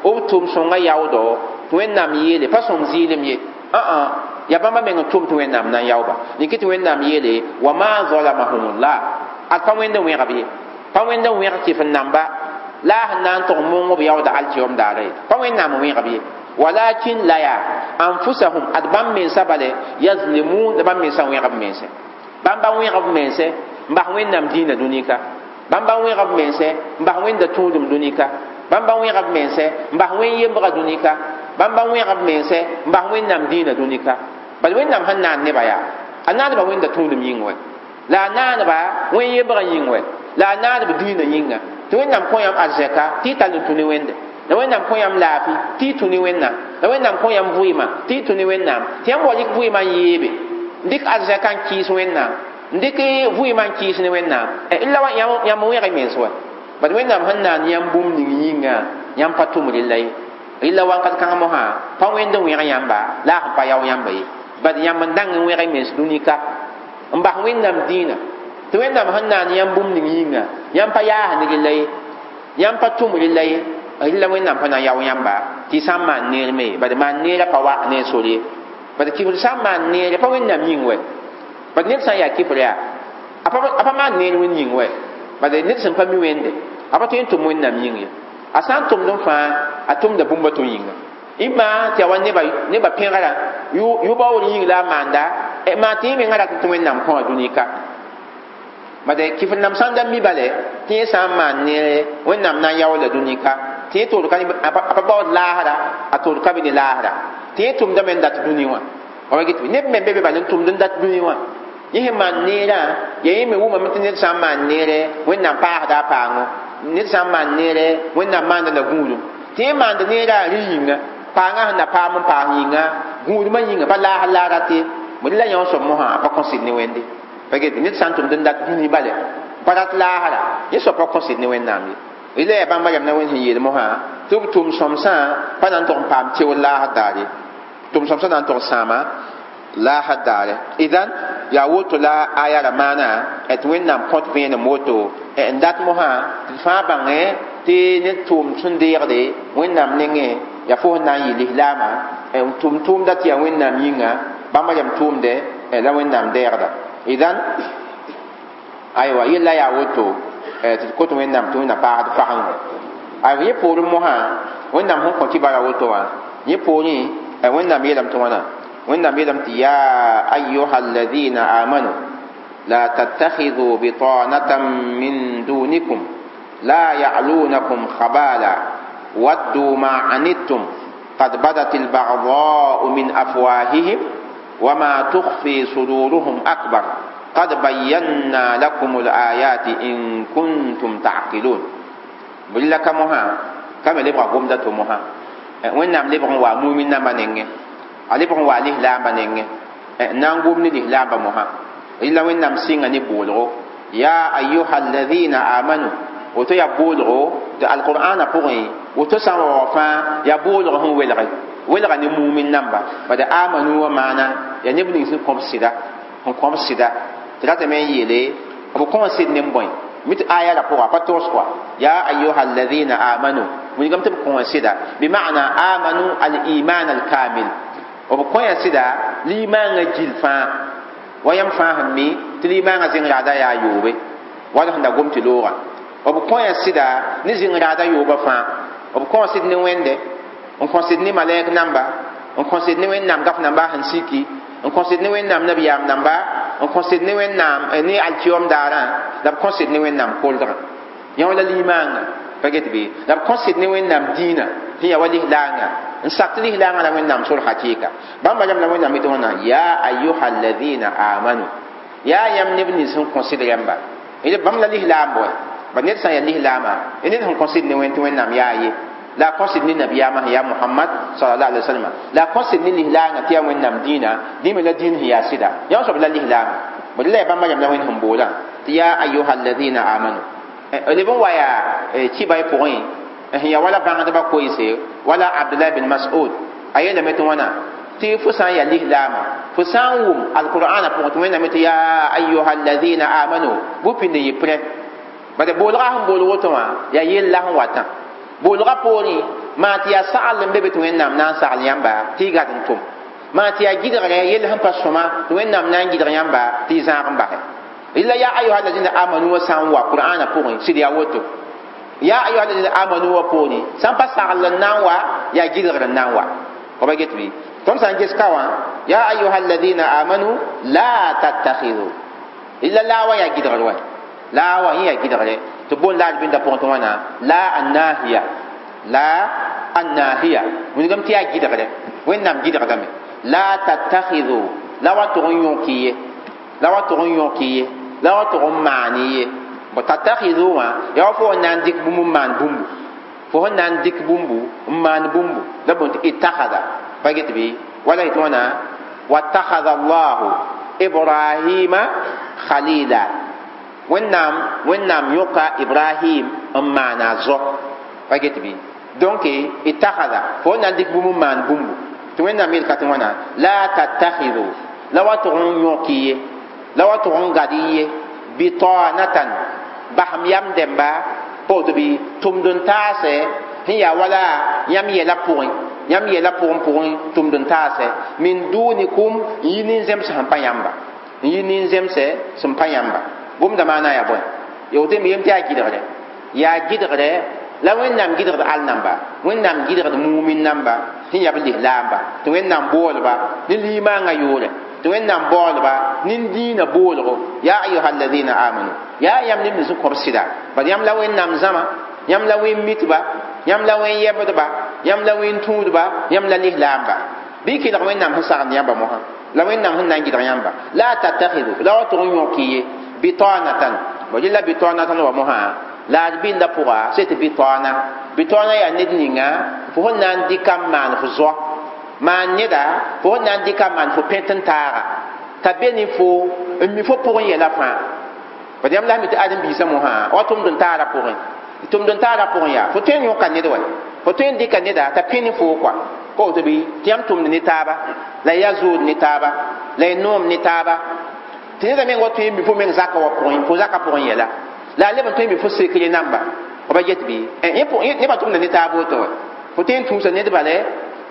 b tʋm-sõngã yaoodɔ tɩ Wẽnnaam yeele pa sõm zɩɩlem ye yaa bãmba meng n tʋm tɩ Wẽnnaam na n yaooba yẽ tɩ Wẽnnaam yeele wa ma zalamahumullah ad pa wẽnd n wẽgb ye pa wẽnd n wẽg kɩf n namba la a sẽn na n tʋg n mong b yaooda alkiom daara ye pa Wẽnnaam n wẽgb ye walakin la yaa anfusahum ad bãmb mensã bale yazlimun la bãmb mensã wẽgb mense bãmba wẽgb mense n bas Wẽnnaam dĩinã dũni ka bãmba wẽgb mense n bas Wẽnda tũudum dũni ka bãmba wẽgb mense n bas wẽn yembga dũni ka bãmba wẽgb mense n bas Wẽnnaam dĩinã dũni ka bal Wẽnnaam sẽn naan nebã yaa a naaneba Wẽnda tũudum yĩng wɛ la a naaneba wẽn yembgã yĩng wɛ la a naaneb dĩinã yĩnga tɩ Wẽnnaam kõ yãmb arzɛka tɩ y tall n tũ ne Wẽnde la Wẽnnaam kõ yãmb laafɩ tɩ y tũ ne Wẽnnaam la Wẽnnaam kõ yãmb vɩɩmã tɩ y tũ ne Wẽnnaam tɩ yãmb wa rɩk vɩɩmã n yeebe n dɩk arzɛka n kɩɩs Wẽnnaam n dɩk vɩɩmã n kɩɩs ne Wẽnnaam la yãmb wẽg y mens wa bad Wẽnnaam sẽn naan yãmb bũmb ning yĩnga yãmb pa tʋm rella ye rella wakat kãng mosã pa wẽnd n wẽg yãmba la a sẽn pa yao yãmba ye bad yãmb n dãng n wẽg y mens dũni ka n bas Wẽnnaam dĩinã tɩ Wẽnnaam sẽn naan yãmb bũmb ning yĩnga yãmb pa yaas ne rella ye yãmb pa tʋm rella ye rella Wẽnnaam pa na n yao yãmba tɩ y sã n maan neer me bad maan neerã pa wa ne sor ye bad kifr sã n maan neere pa Wẽnnaam yĩng wɛ bad ned sã n yaa kifr yaa a pa maan neer Wẽnd yĩng wɛ bad ned sẽn pa mi Wẽnde a pa tõe n tʋm Wẽnnaam yĩng ye a sã n tʋmd n fãa a tʋmda bũmb a to yĩnga ɩma tɩ yaa wa nebã pẽgrã yʋ-baoor yĩng la a maanda maa tɩ yẽ mengã rat tɩ Wẽnnaam kõ a dũni ka bad kifr nam sã n da mi bale tɩ yẽ sã n maan neere Wẽnnaam na n yao la dũni ka tɩ yẽ toor ka a pa baood laasra a toor ka be ne laasra tɩ yẽ tʋmdame n dat dũni wã Wa get neb me be be bal n tʋmd n dat dũni wã yẽ sẽn maan neerã ya yẽ me wʋmame tɩ ned sã n maan neere Wẽnnaam paasda a paango ned sã n maan neere Wẽnnaam maanda la gũudum tɩ yẽ maand neerã rẽ yĩnga paangã sẽn na paam n paas yĩnga gũudmã yĩnga pa laas la a rat ye bõe la yã soab mosã a pa kõ sɩd ne Wẽnde pa get ned sã n tʋmd n dat dũni bale pa rat laasra yẽ soab pa kõ sɩd ne Wẽnnaam ye rɩla yaa bãmba rãmb na Wẽnd sẽn yeel mosã tɩ b tʋm sõmsã pa na n tog n paam teoor laasd daare tʋm sõmsã na n tog sãama laasd daare idan yaa woto la aya ra maana tɩ Wẽnnaam kõt vẽenem woto n dat mosã tɩ d fãa bãngẽ tɩ ned tʋʋm sẽn deegde Wẽnnaam nengẽ yaa fo sẽn na n yɩ lislaama n tʋm tʋʋmda tɩ yaa Wẽnnaam yĩnga bãmba rãmb tʋʋmdɛ la Wẽnnaam deegda idan aywa yella yaa woto tɩ d kot Wẽnnaam tɩ Wẽnnaam paasd pagengo aywa yẽ poorẽ mosã Wẽnnaam sẽn kõ kibara woto wã yẽ poorẽ Wẽnnaam yeelame tɩ wãna Wẽnnaam yeelame tɩ ya ayuha alladina amanu la tattakhidhu bitanatan min dunikum la ya'lunakum khabala waddu ma anittum qad badat albaghdha'u min afwahihim wama tukhfi suduruhum akbar qad bayyana lakum alayati in kuntum ta'qilun billa kamoha kame lebga gomda to moha Wẽnnaam lebg n wa mumin namba nengẽ a lebg n wa lislaamba nengẽ n na n gom ne lislaamba mosã rɩla Wẽnnaam sɩnga ne boolgo ya ayuha alladina amanu woto yaa boolgo tɩ alqur'ana pʋgẽ woto sã n wa wa fãa yaa boolg sẽn welge welga ne mumin namba bad amanu wa maana yaa neb ning sẽn kõb sɩda sẽn kõb sɩda tɩ ratame n yeele b kõ sɩd ne n bõe mit aya la pʋga pa togs kɔa ya ayuha alladina amanu wilgame tɩ b kõ sɩda bima'na amanu al-iman al-kamil b kõ ya sɩda limaangã gil fãa wa yãmb fãa sẽn mi tɩ limaangã zẽng raada yaa yoobe wala sẽn da gom tɩ loogã b kõ ya sɩda ne zẽng raada yoobã fãa b kõ sɩd ne Wẽnde n kõ sɩd ne malɛk namba n kõ sɩd ne Wẽnnaam gaf namba sẽn siki n kõ sɩd ne Wẽnnaam nabiyaam namba n kõ sɩd ne Wẽnnaam ne alkiyom daarã la b kõ sɩd ne Wẽnnaam koldgã yã wala limaangã pa get bɩ la b kõ sɩd ne Wẽnnaam dĩinã sẽn yaa wa lislaangã n sak tɩ lislaangã la Wẽnnaam sor hakɩɩka bãmba rãmb la Wẽnnaam tɩ wãna ya ayuha alladina amanu yaa yãmb neb nins sẽn kõ sɩd rãmba bãmb la lislaam bõe ba ned sã n yaa lislaama ned sẽn kõ sɩd ne Wẽnd tɩ Wẽnnaam yaa ye la kõ sɩd ne nabiyaamã sẽn yaa Muhammad sallallahu alaihi wasallam la kõ sɩd ne lislaangã tɩ yaa Wẽnnaam dĩinã dĩme la dĩin sẽn yaa sɩda yã soab la lislaama bõe la yaa bãmba rãmb la Wẽnd sẽn boolã tɩ ya ayuha alladina amanu leb n wa yaa kiba y pʋgẽ sẽn yaa wala bãngdbã koeese wala Abdullah bin Mas'ud a yeelame tɩ wãna tɩ fo sã n yaa lislaama fo sã n wʋm alqur'ana pʋgẽ tɩ Wẽnnaam tɩ ya ayuha alladina amanu bʋ pĩnd n yɩ prɛ bad boolga sẽn bool woto wã yaa yella sẽn watã boolga poorẽ maa tɩ yaa sagl n be be tɩ Wẽnnaam na n sagl yãmba tɩ y gad n tʋm maa tɩ yaa gɩdgre yell sẽn pa sõma tɩ Wẽnnaam na n gɩdg yãmba tɩ y zãag n basɛ illa ya ayuha alladina amanu wa sã n wa qur'ana pʋgẽ sɩd yaa woto ya ayuha alladina amanu wa poorẽ sã n pa sagl n na n wa yaa gɩdgr n na n wa fa ba get bɩ tõnd sã n ges ka wã ya ayuha alladina amanu la tattakhidhu illa la wa yaa gɩdgr wa la wa yẽ yaa gɩdgre tɩ boond la bĩnda pʋgẽ tɩ wãna la annahiya la annahiya wilgame tɩ yaa gɩdgre Wẽnnaam gɩdgdame la tattakhidhu la wa tʋg n yõk ye la wa tʋg n yõk ye la wa tʋg n maan ye bõ tattakhidhu wã yaa wa fo n na n dɩk bũmb n maan bũmbu fo sẽn na n dɩk bũmbu n maan bũmbu la boond tɩ ittakhada pa get bɩ wala yetɩ wãna wattakhadha allahu ibrahima khalila Wẽnnaam yõka Ibrahim n maana a zo pa get bɩ donc ittakhada fo n na n dɩk bũmb n maan bũmbu tɩ Wẽnnaam yel ka tɩ wãna la tattakhidhu la wa tʋg n yõk ye la wa tʋg n gad ye bitanatan basem yam dẽmba pa woto bɩ tʋmd n taasɛ sẽn yaa wala yãmb yɛla pʋgẽ yãmb yɛla pʋgẽ tʋmd n taasɛ min dunikum n yi nin-zems sẽn pa yãmba n yi nin-zemsɛ sẽn pa yãmba gomda maana yaa bõe ya woto me yem tɩ yaa gɩdgre yaa gɩdgre la Wẽnnaam gɩdgd al namba Wẽnnaam gɩdgd mumin namba sẽn yaa b lislaamba tɩ Wẽnnaam boolba ne limaangã yʋʋrɛ tɩ Wẽnnaam baoolba ne dĩinã boolgo ya ayuha alladina amanu yaa yãmb neb nins n kõb sɩda bad yãmb la Wẽnnaam zãma yãmb la wẽn mitba yãmb la wẽn yɛbdba yãmb la wẽn tũudba yãmb la lislaamba bɩ kelg Wẽnnaam sẽn sagend yãmba mosã La wẽnnaam sẽn na n gɩdg yãmba la tattakhidu la wa tʋg n yõk ye bitanatan bo la bitanatan wa mosã la d bɩnda pʋga sẽn tɩ bitaana bitaana yaa ned ninga fo sẽn na n dɩka n maan fo zoa maan neda fo sẽn na n dɩka n maan fo pẽt n taaga t'a be ne fo n mi fo pʋgẽ yɛla fãa bad yãmb la mi tɩ ãdem-biisã mosã wa tʋmd n taara pʋgẽ tʋmd n taara pʋgẽ yaa fo tõe n yõka ned wa fo tõe n dɩka neda t'a pẽ ne foo kɔa pa woto bɩ tɩ yãmb tʋmd ne taaba la ya zood ne taaba la y noom ne taaba tɩ neda meng wa tõe n mi fo meng zaka wa pʋgẽ fo zaka pʋgẽ yɛla la a leb n tõe n mi fo sekre namba b ba get bɩ nebã tʋmda ne taab woto wa fo tõe n tũusa ned bale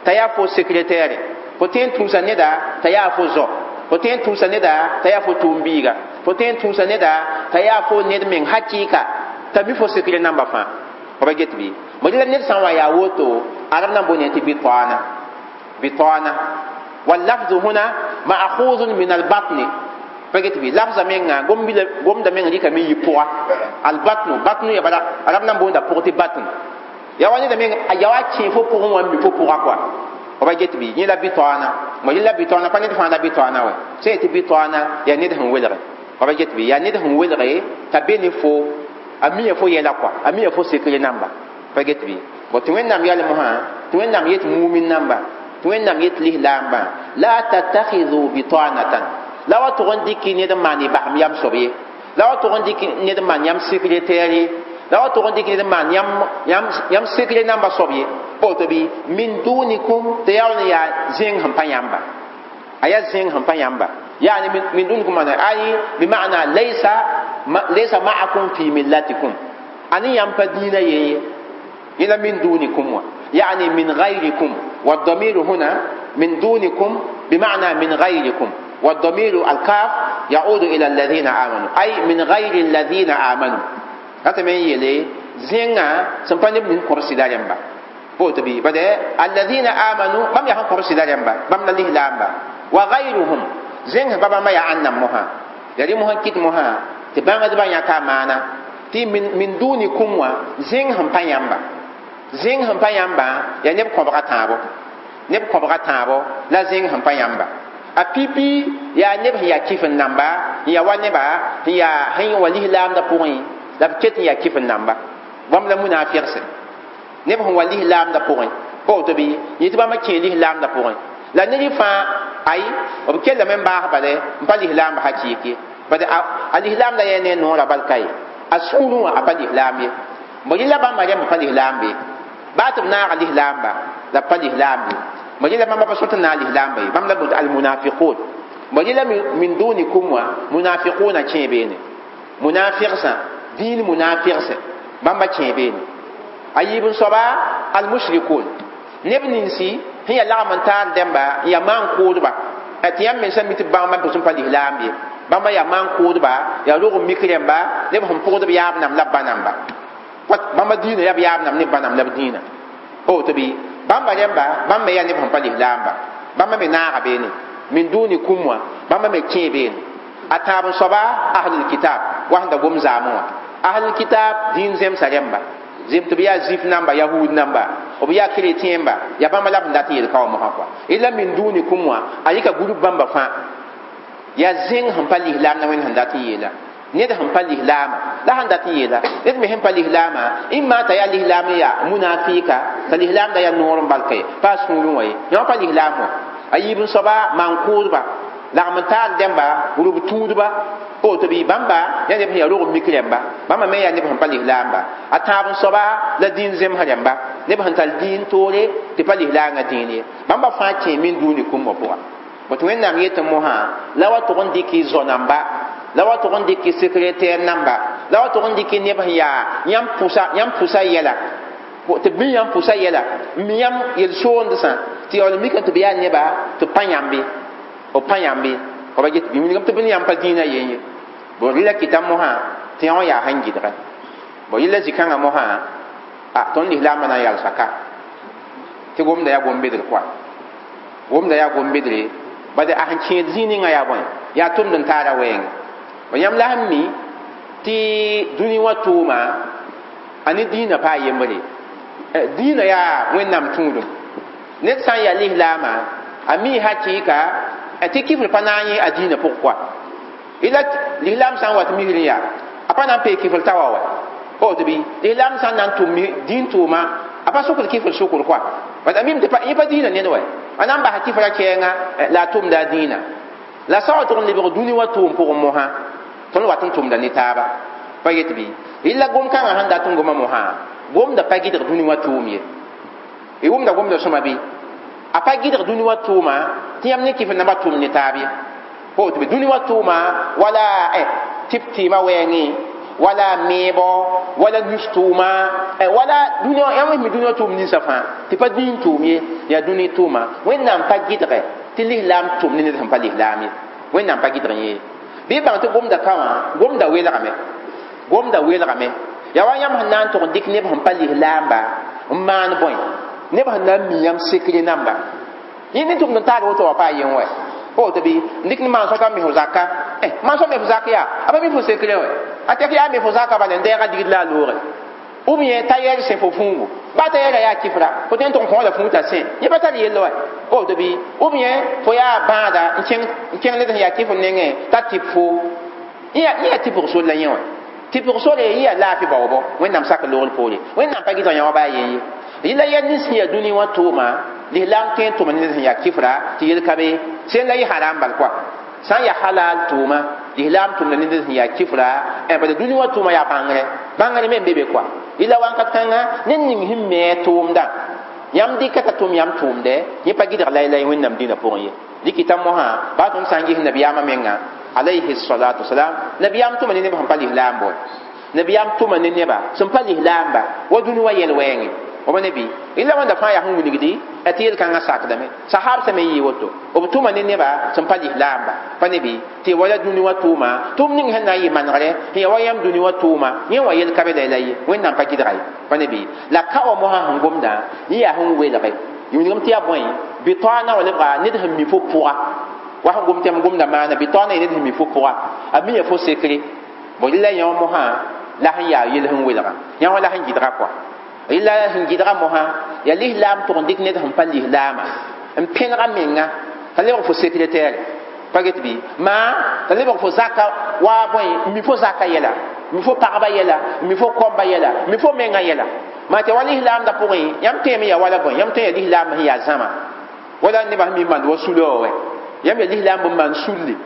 t'a yaa fo sekretɛɛre fo tõe n tũusa neda t'a yaa fo zɔ fo tõe n tũusa neda t'a yaa fo tʋʋm-biiga fo tõe n tũusa neda t'a yaa fo ned meng hakɩɩka t'a mi fo sekre namba fãa f ba get bɩ bõe la ned sã n wa yaa woto arab na n boond tɩ bitaana bitaana واللفظ هنا مأخوذ من البطن فقلت بي لفظ menga gomda menga dika mi yipuga albatnu batnu ya bala arab nan bonda pugti batn ya wani da menga ya wa chi fo pugu wa mi fo puga kwa o ba get bi ni la bitana mo la bitana pa ni fa la bitana wa sai ti bitana ya ni da hun welre o ba get bi ya ni da hun welre ta be ni fo ami fo yela kwa ami fo sekre namba pa get bi bo ti wẽnnaam yalem sã tɩ wẽnnaam yet mumin namba tɩ wẽnnaam yet lislaambã la tattakhidhu bitanatan la wa tʋg n dɩk ned n maan y basem yam soab ye la wa tʋg n dɩk ned n maan yãmb sekretɛɛr ye la wa tʋg n dɩk ned n maan yãmb sekre namba soab ye pa woto bɩ min dunikum tɩ yaa n yaa zẽng sẽn pa yãmba a yaa zẽng sẽn pa yãmba yaani min dunikum maana ay bima'na laysa ma'akum fi millatikum ani yãmb pa dĩinã yen ye إلى من دونكم يعني من غيركم والضمير هنا من دونكم بمعنى من غيركم والضمير الكاف يعود إلى الذين آمنوا أي من غير الذين آمنوا هذا من يلي زينا سنفني من كرسي داريمبا بوتبي بدأ الذين آمنوا بام يهان كرسي داريمبا بام نليه لامبا وغيرهم زين بابا ما يعنا مها يلي مها كيت مها تبان دبان يكا معنا تي من دونكم زين هم بيامبا zẽng sẽn pa yãmbã yaa neb kõbga tãabo neb kõbga tãabo la zẽng sẽn pa yãmba a pipi yaa neb sẽn yaa kɩf n namba n yaa wa neba sẽn yaa sẽn wa lislaamdã pʋgẽ la b ket n yaa kɩf n namba bãmb la munaafɩgse neb sẽn wa lislaamdã pʋgẽ pa woto bɩ yẽ tɩ bãmba kẽe lislaamdã pʋgẽ la ned fãa ay b kellame n baas bale n pa lislaamba hakɩɩk ye bad a lislaamdã yaa ne noorã bal ka ye a sũurẽ wã a pa lislaam ye bõ yẽla bãmba rẽmb pa lislaam be baa tɩ b naaga lislaamba la pa lislaam ye bõ yẽla bãmba pa sot n naag lislaamba ye bãmb la boond almunafiqun bõ yẽla min dunikum wã munafiquna kẽe beene munafigsã dĩin munafigsẽ bãmba kẽe beene a yiib n soaba almushrikun neb ninsi sẽn yaa lagm n taar dẽmba n yaa maan-kʋʋdba tɩ yãmb mensã mi tɩ bãmba pʋsẽ pa lislaam ye bãmba yaa maan-kʋʋdba yaa rog n mik rẽmba neb sẽn pʋgd b yaab nam la b ba namba bãmba dĩinã yaa b yaab nam ne b ba nam la b dĩinã pa woto bɩ bãmba rẽmba bãmb me yaa neb sẽn pa lislaamba bãmba me naaga beene min dunikum wã bãmba me kẽe beene a tãab n soaba ahlul kitab wa sẽn da gom zaamẽ wã ahlul kitab dĩin zemsa rẽmba zem tɩ b yaa zif namba yahud namba b yaa chrétien ba yaa bãmba la b n dat n yel ka wã mosã kɔa ila min dunikum wã a yika group bãmba fãa yaa zẽng sẽn pa lislaam na wẽnd sẽn dat n yeela ned sẽn pa lislaama la sẽn dat n yeela ned me sẽn pa lislaama imma t'a yaa lislaam n yaa munafika t'a lislaamda yaa noor n balka ye pa a sũurẽ wã ye yã pa lislaam wã a yiib n soaba maan-kʋʋdba lagm n taar dẽmba rub tũudba pa woto bɩ bãmba yaa neb sẽn yaa rog n mik rẽmba bãmba me yaa neb sẽn pa lislaamba a tãab n soaba la dĩin zemsã rẽmba neb sẽn tar dĩin toore tɩ pa lislaangã dĩin ye bãmba fãa kẽ min dũuni kũmbã pʋga bõe wẽnnaam yetɩ mosã la wa tʋg n dɩk y zo namba la wa tʋg n dɩk y sekretɛɛr namba la wa tʋg n dɩk neb sẽn yaa yãmb pʋsa yɛla tɩ b mi yãmb pʋsa yɛla n mi yãmb yel-soondsã tɩ yaool mikame tɩ b yaa neba tɩ b pa yãmbe b pa yãmbe b ba get bɩ wilgame tɩ b ne yãmb pa dĩinã yen ye bõ rɩla kɩta mosã tɩ yã wã yaa sẽn gɩdgɛ bõ yella zĩ-kãngã mosã a tõnd lislaambã na n yalsa ka tɩ gomda yaa gom-bedr koa gomda yaa gom-bedre bad a sẽn kẽed zĩig ninga yaa bõe yaa tʋmd n taara wɛɛngẽ bõ yãmb la sẽn mi tɩ dũni wã tʋʋma a ne dĩinã paa yembre dĩinã yaa wẽnnaam tũudum ned sã n yaa lislaama a mi hakɩɩka Tɩ kifr pa na n yẽ a dĩinã pʋg koa ila lislaam sã n wat misr n yaa a pa na n pee kifr ta wa wa woto bɩ lislaam sã n na n tʋm dĩin tʋʋma a pa sʋkd kifr sʋkr koa bad a mim tɩ yẽ pa dĩinã ned wa a na n basa kifra kɛɛngã la a tʋmda a dĩinã la sã wa tʋg n lebg dũni wã tʋʋm pʋgẽ mosã tõnd wat n tʋmda ne taaba pa yet bɩ yella gom-kãngã sẽn dat n goma mosã gomda pa gɩdg dũni wã tʋʋm ye y wʋmda gomda sõma bɩ a pa gɩdg dũni wã tʋʋma tɩ yãmb ne kifr namba tʋm ne taab ye woto bɩ dũni wã tʋʋma wala tɩp tɩɩmã wɛɛngẽ wala meebo wala nus tʋʋma wala dũni yãmb mi dũni wã tʋʋm ninsã fãa tɩ pa dĩin tʋʋm ye yaa dũni tʋʋma wẽnnaam pa gɩdgɛ tɩ lislaam tʋm ne ned sẽn pa lislaam ye wẽnnaam pa gɩdg yẽ bɩ bãng tɩ gomda ka wã gomda welgame gomda welgame yaa wa yãmb sẽn na n tʋg n dɩk neb sẽn pa lislaamba n maan bõe neb sẽn na n mi yãmb sekre namba yẽ ne tʋmd n taag woto wa pa yen wɛ woto bɩ n dɩk ne maan sõta n mi fo zaka maan sõa me fo zak yaa a pa mi fo sekre wɛ a tɛk yaa me fo zaka bala n dɛɛga digd la a loore ou bien tayɛr sẽ fo fũugu ba tayɛra yaa kifra fo tõe n tʋg n kõ la fũu t'a sẽ yẽ pa tar yell wɛ woto bɩ ou bien fo yaa bãada n kẽng ned sẽn yaa kifr nengẽ t'a tɩp fo yẽ yaa tɩpg sor la yẽ wɛ tɩpg sore yẽ yaa laafɩ baoobo wẽnnaam sak loogr poore wẽnnaam pa gɩdg yã wa baa yen ye yɩla yaa nins sẽn yaa dũni wã tʋʋma lislaam tõe n tʋma ne ned sẽn yaa kifra tɩ yel ka be sẽn la yɩ haram bal koa sã n yaa halal tʋʋma lislaam tʋmda ne ned sẽn yaa kifra bala dũni wã tʋʋma yaa bãngre bãngre me n be be koa yɩla wãnkat kãnga ned ning sẽn me a tʋʋmdã yãmb dɩka t'a tʋm yãmb tʋʋmdɛ yẽ pa gɩdg laylay wẽnnaam dĩnã pʋgẽ ye dɩkɩta mosã baa tõnd sã n ges nabiyaamã menga alayhi salatu wasalam nabiyaam tʋma ne neb sẽn pa lislaam bõe nabiyaam tʋma ne neba sẽn pa lislaamba wa dũni wa yɛl wɛɛngẽ b ne bɩ illa wãnda fãa yaa sẽn wilgdi tɩ yel-kãngã sakdame sahab sã me yɩ woto b tʋma ne neba sẽn pa lislaamba pa ne bɩ tɩ wala dũni wã tʋʋma tʋʋm ning sẽn na n yɩ manegrɛ sẽn yaa wa yãmb dũni wã tʋʋma yẽ wã yel ka be la ye wẽnnaam pa gɩdga ye pa ne bɩ la ka wã mosã sẽn gomdã yẽ yaa sẽn welge wilgem tɩ yaa bõe bɩ-taoona wa lebga ned sẽn mi fo pʋga wa sẽn gom tɩ yãmb gomda maana bɩ-taoona yẽ ned sẽn mi fo pʋga a mi ya fo sekre bõ rɩla yã wã mosã la sẽn yaa yel sẽn welga yã wã la sẽn gɩdga kɔa illa sẽn gɩdga mosã yaa lislaam tʋg n dɩk ned sẽn pa lislaama n pẽnega menga t'a lebg fo sekretɛɛre pa get bɩ maa t'a lebg fo zaka wa bõe mi fo zaka yɛla mi fo pagba yɛla mi fo kɔmba yɛla mi fo menga yɛla maa tɩ wa lislaamdã pʋgẽ yãmb tõeme yaa wala bõe yãmb tõe yaa lislaam sẽn yaa zãma wala nebã sẽn mi mand wa sulã wa wɛ yãmb yaa lislaam bõn maan sulli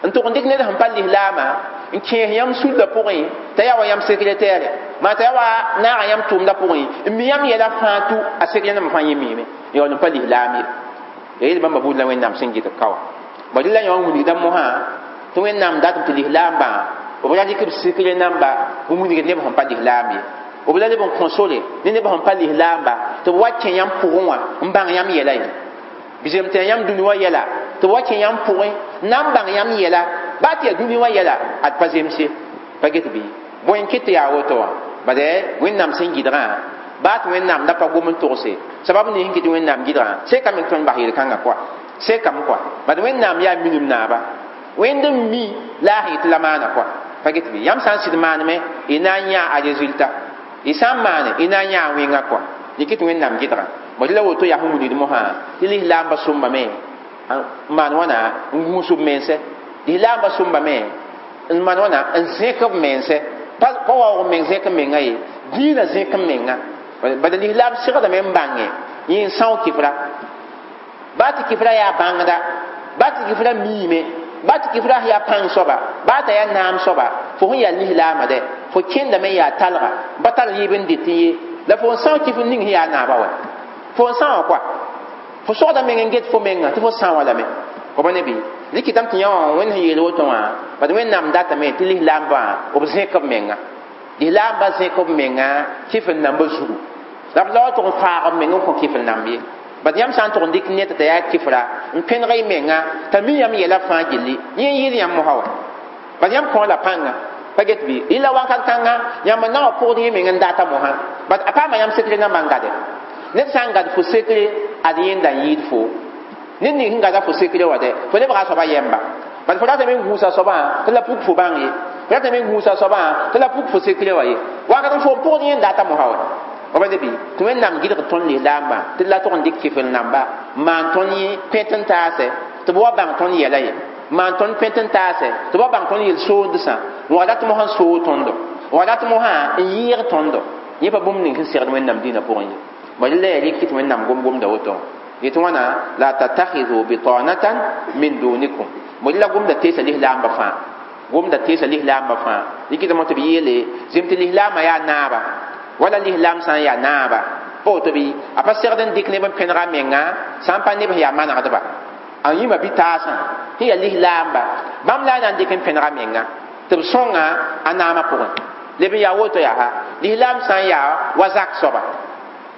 n tʋg n dɩk ned sẽn pa lislaama n kẽes yãmb sulla pʋgẽ t'a yaa wa yãmb sekretɛɛre maa t'a yaa wa naaga yãmb tʋʋmdã pʋgẽ n mi yãmb yɛla fãa tʋ a sekre namba fãa yẽ miime yaool n pa lislaam ye ya yel bãmba buud la wẽnnaam sẽn gɩdg ka wã bõ rɩla yã wã wilgda mosã tɩ wẽnnaam datm tɩ lislaambã b ra dɩk b sekre namba n wilgd neb sẽn pa lislaam ye b la leb n kõ sore ne neb sẽn pa lislaamba tɩ b wa kẽ yãmb pʋgẽ wã n bãng yãmb yɛla ye bɩ tɩ yãmb dũni wã yɛla tɩ b wa kẽ yãmb pʋgẽ na n bãng yãmb yɛla baa tɩ yaa dũni wã yɛla ad pa zems ye pa get bɩ bõe n kɩt tɩ yaa woto wã bad wẽnnaam sẽn gɩdgã baa tɩ wẽnnaam da pa gom n togse sabab ning sẽn kɩt wẽnnaam gɩdgã sekame tɩ tõnd bas yel-kãngã kɔa sekame kɔa bad wẽnnaam yaa minim naaba wẽnd n mi la a sẽn yetɩ la maana kɔa pa get bɩ yãmb sã n sɩd maaneme y na n yãa a résultat y sã n maane y na n yãa a wẽngã kɔa dɩk tɩ wẽnnaam gɩdgã bõ la woto yaa sẽn wilgd mosã tɩ lislaambã sõmbame n maan wãna n gũus b mense lislaambã sõmbame n maan wãna n zẽk b mense pa waoog meng zẽk n menga ye dĩinã zẽk n menga bala lislaam segdame n bãnge yẽ n são kifra baa tɩ kifra yaa bãngda baa tɩ kifra miime baa tɩ kifra yaa pãng soaba baa t'a yaa naam soaba fo sẽn yaa lislaama dɛ fo kẽndame n yaa talga n pa tar yɩɩb n dɩt ye la fo n são kifr ning sẽn yaa naaba wa fo n sã wã kɔa fo sogda meng n get fo menga tɩ fo sã wã lame b ne bɩ dɩkɩtame tɩ yã wã wẽnd sẽn yeel woto wã bad wẽnnaam datame tɩ lislaambã b zẽk b menga lislaambã zẽk b menga kifr nambã zugu la b la wa tʋg n faag b meng n kõ kifr namb ye bad yãmb sã n tʋg n dɩk ned t'a yaa kifra n pẽneg y menga t'a mi yãmb yɛla fãa gilli yẽ n yɩɩd yãmb mosã wa bad yãmb kõ la pãnga pa get bɩ yɩla wãnkat kãnga yãmb n na wã pʋgd yẽ meng n data mosã bad a paama yãmb sekre nambã n gade ned sã n gad fo sekre ad yẽnda n yɩɩd fo ned ning sẽn gada fo sekre wa dɛ fo lebga a soaba yɛmba bad fo ratame n gũusa soabã tɩ la puk fo bãng ye fo ratame n gũusa soabã tɩ la puk fo sekre wa ye wakat n fo n pʋgd yẽn data mosã wa b ne bɩ tɩ wẽnnaam gɩdg tõnd lislaambã tɩ la tʋg n dɩk kifr namba n maan tõnd yẽ pẽt n taase tɩ b wa bãng tõnd yɛla ye maan tõnd pẽt n taase tɩ b wa bãng tõnd yel-soondsã n wa rat mosã n soog tõndo n wa rat mosã n yɩɩg tõndo yẽ pa bũmb ning sẽn segd wẽnnaam dĩinã pʋgẽ ye bala la yaa rɩk tɩ wẽnnaam gom-gomda woto yetɩ wãna la tattakhidhu bitanatan min dunikum bala la gomda teesa lislaambã fãa gomda teesa lislaambã fãa rɩkɩtame tɩ b yeele zem tɩ lislaamã yaa naaba wala lislaam sã n yaa naaba pa woto bɩ a pa segd n dɩk neb n pẽnega a menga sã n pa neb sẽn yaa manegdba a yĩma bɩ-taasã sẽn yaa lislaamba bãmb la a na n dɩk n pẽnega menga tɩ b sõnga a naamã pʋgẽ leb n yaa woto yaa lislaam sã n yaa wa zak soaba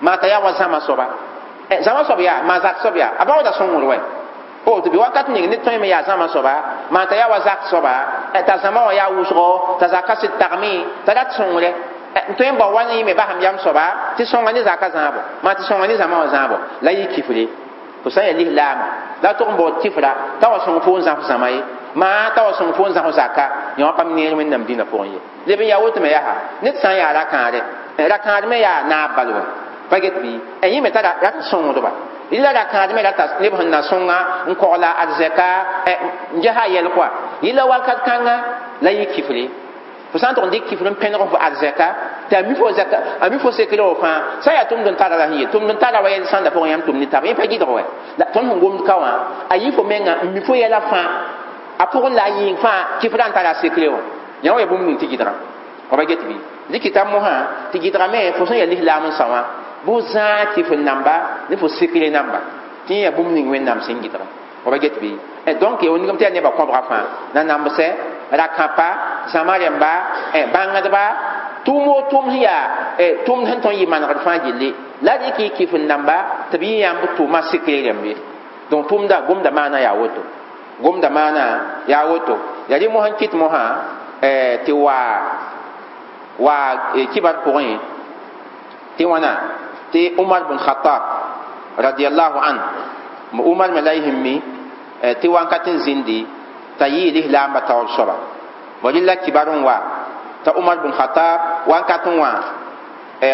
maa t'a yaa wa zãma soaba zãma soab yaa maa zak soab yaa a baooda sõngr wɛ pa woto bɩ wakat ning ned tõeme yaa zãma soaba maa t'a yaa wa zak soaba t'a zãma wã yaa wʋsgo t'a zaka sɩd tagme t'a rat sõngre n tõe n bao wa ne yẽme basem yam soaba tɩ sõnga ne zaka zãabo maa tɩ sõnga ne zãma wã zãabo la yɩ kifre fo sã n yaa lislaama la tʋg n baood kifra t'a wa sõng fo n zãf zãma ye maa t'a wa sõng fo n zãf zaka yã wã pam neer wẽnnaam dĩnã pʋgẽ ye leb n yaa woto me yaa ned sã n yaa ra-kãare ra-kãad me yaa naab bal wɛ pa get bɩ yẽ me t'a rat n sõngdba yɩla ra-kãad me rata neb sẽn na sõnga n kogla arzɛka n ges a yɛl kɔa yɩla wakat kãnga la yɩ kifre fo sã n tʋg n dɩk kifr n pẽneg fo arzɛka tɩ a mi fo zɛka a mi fo sekre wã fãa sã n yaa tʋmd n tara la sẽn ye tʋmd n tara wa yɛl sãnda pʋgẽ yãmb tʋm ne taaba yẽ pa gɩdg wɛ la tõnd sẽn gomd ka wã a yɩ fo menga n mi fo yɛla fãa a pʋgẽ la a yĩng fãa kifrã n tara a sekre wã yã wã yaa bũmb ning tɩ gɩdga wa pa get bɩ dɩkɩta mosã tɩ gɩdgame fo sẽn yaa lislaam n sao wã bʋ zãag kifr namba ne fo sekre namba tɩ yẽ yaa bũmb ning wẽnnaam sẽn gɩdga wa pa get bɩ donc ya wingame tɩ yaa nebã kõbga fãa nanambsɛ ra-kãpa zãma rẽmba bãngdba tʋʋm o tʋʋm sẽn yaa tʋʋmd sẽn tõnd yɩ manegd fãa gilli la rɩk y kifr namba tɩ b yɩ yãmb tʋʋma sekre rẽmb ye donc tʋʋmda gomda maana yaa woto gomda maana yaa woto yaa rɩ mosã n kɩt mosã tɩ wa kibar pʋgẽ tɩ wãna tɩ Umar bin Khattab radiyallahu an Umar me la y sẽn mi tɩ wãnkat n zĩndi t'a yɩɩ lislaambã taoor soaba bõ rɩla kibar n wa t'a Umar bin Khattab wãnkat n wã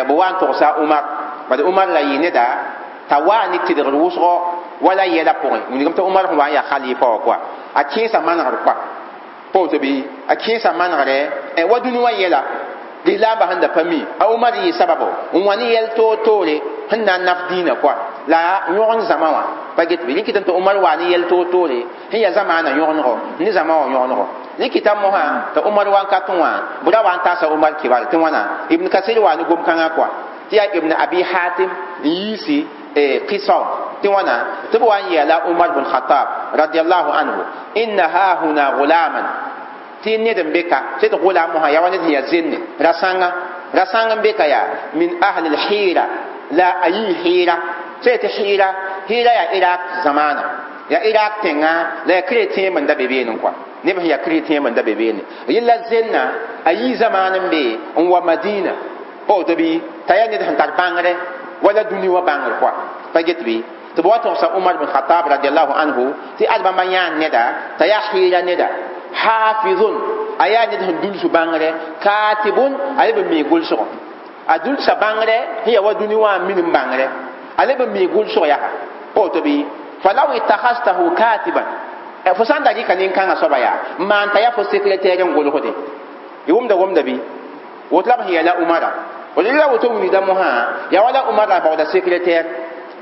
b wa n togsa Umar bad Umar la yɩ neda t'a waa ne tɩdgr wʋsgo wala yɛla pʋgẽ wilgame tɩ Umar sẽn wa n yaa khalifa wã kɔa a kẽesa manegr kɔa pa woto bɩ a kẽesa manegrɛ wa dũni wã yɛla lislaambã sẽn da pa mi a Umar yɩ sababo n wa ne yɛl toor-toore sẽn na n naf dĩinã kɔa la yõgen zãma wã pa get bɩ rɩkɩtame tɩ Umar waa ne yɛl toor-toore sẽn yaa zamaana yõgenego ne zãma wã yõgenego rɩkɩta mosã t'a Umar wãnkat n wã bʋ ra wa n taasa Umar kibar tɩ wãna Ibn Kasir waa ne gom-kãngã kɔa tɩ yaa Ibn Abi Hatim n yiisi qisa tɩ wãna tɩ b wa n yeela Umar bin Khattab radiallahu anhu inna hahuna gulaman tɩ ned n be ka tɩ d gulam mosã yaa wa ned sẽn yaa zenne ra-sãnga ra-sãng n be ka yaa min ahli lhira la a yii hira tɩ tɩ hira hira yaa Iraq zamaana yaa Iraq tẽŋa la yaa chrétien n da be beene kɔa neb sẽn yaa chrétien n da be beene yella zenna a yii zamaan n be n wa Madina pa woto bɩ t'a yaa ned sẽn tar bãngre wala dũni wã bãngr kɔa pa get bɩ tɩ b wa togsa Umar bin Khattab radiallahu anhu tɩ ad bãmba yãan neda t'a yaa hɩɩra neda hafizun a yaa ned sẽn dulsu bãngre katibun a leb n mi gʋlsgɔ a dulsa bãngre sẽn yaa wa dũni wã n minim bãngre a leb n mi gʋlsg yaa pa woto bɩ falaw ittakhadtahu katiban fo sã n da rɩka nin-kãngã soaba yaa n maan t'a yaa fo secrétaire n gʋlsde y wʋmda gomda bɩ woto la b sẽn yɛla Umara la woto wilgda mosã yaa wala Umar la baooda secrétaire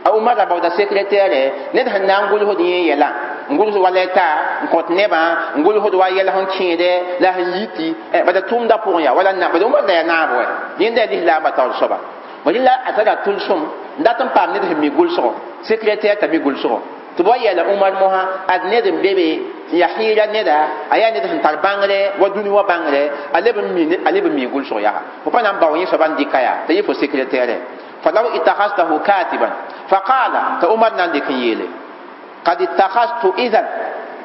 a Umar la baooda secrétaire ned sẽn na n gʋlsd yẽ yɛla n gʋlsd wa lɛta n kõt nebã n gʋlsd wa yɛl sẽn kẽede la sẽn yiti bada tʋʋmda pʋgẽ yaa wala bada Umar la yaa naab wɛ yẽnda yaa lislaambã taoor soaba bõ rɩla a tara tʋlsem n dat n paam ned sẽn mi gʋlsgo secrétaire t'a mi gʋlsgo tɩ b wa yeela Umar mosã ad ned n be be n yaa hɩɩra neda a yaa ned sẽn tar bãngre wa dũni wã bãngre a leb n mi gʋlsg yaa fo pa na n bao yẽ soaba n dɩka yaa t'a yɩ fo secrétaire falaw ittakhadtahu katiban faqala t'a Umar na n dɩk n yeele qad ittakhadtu idhan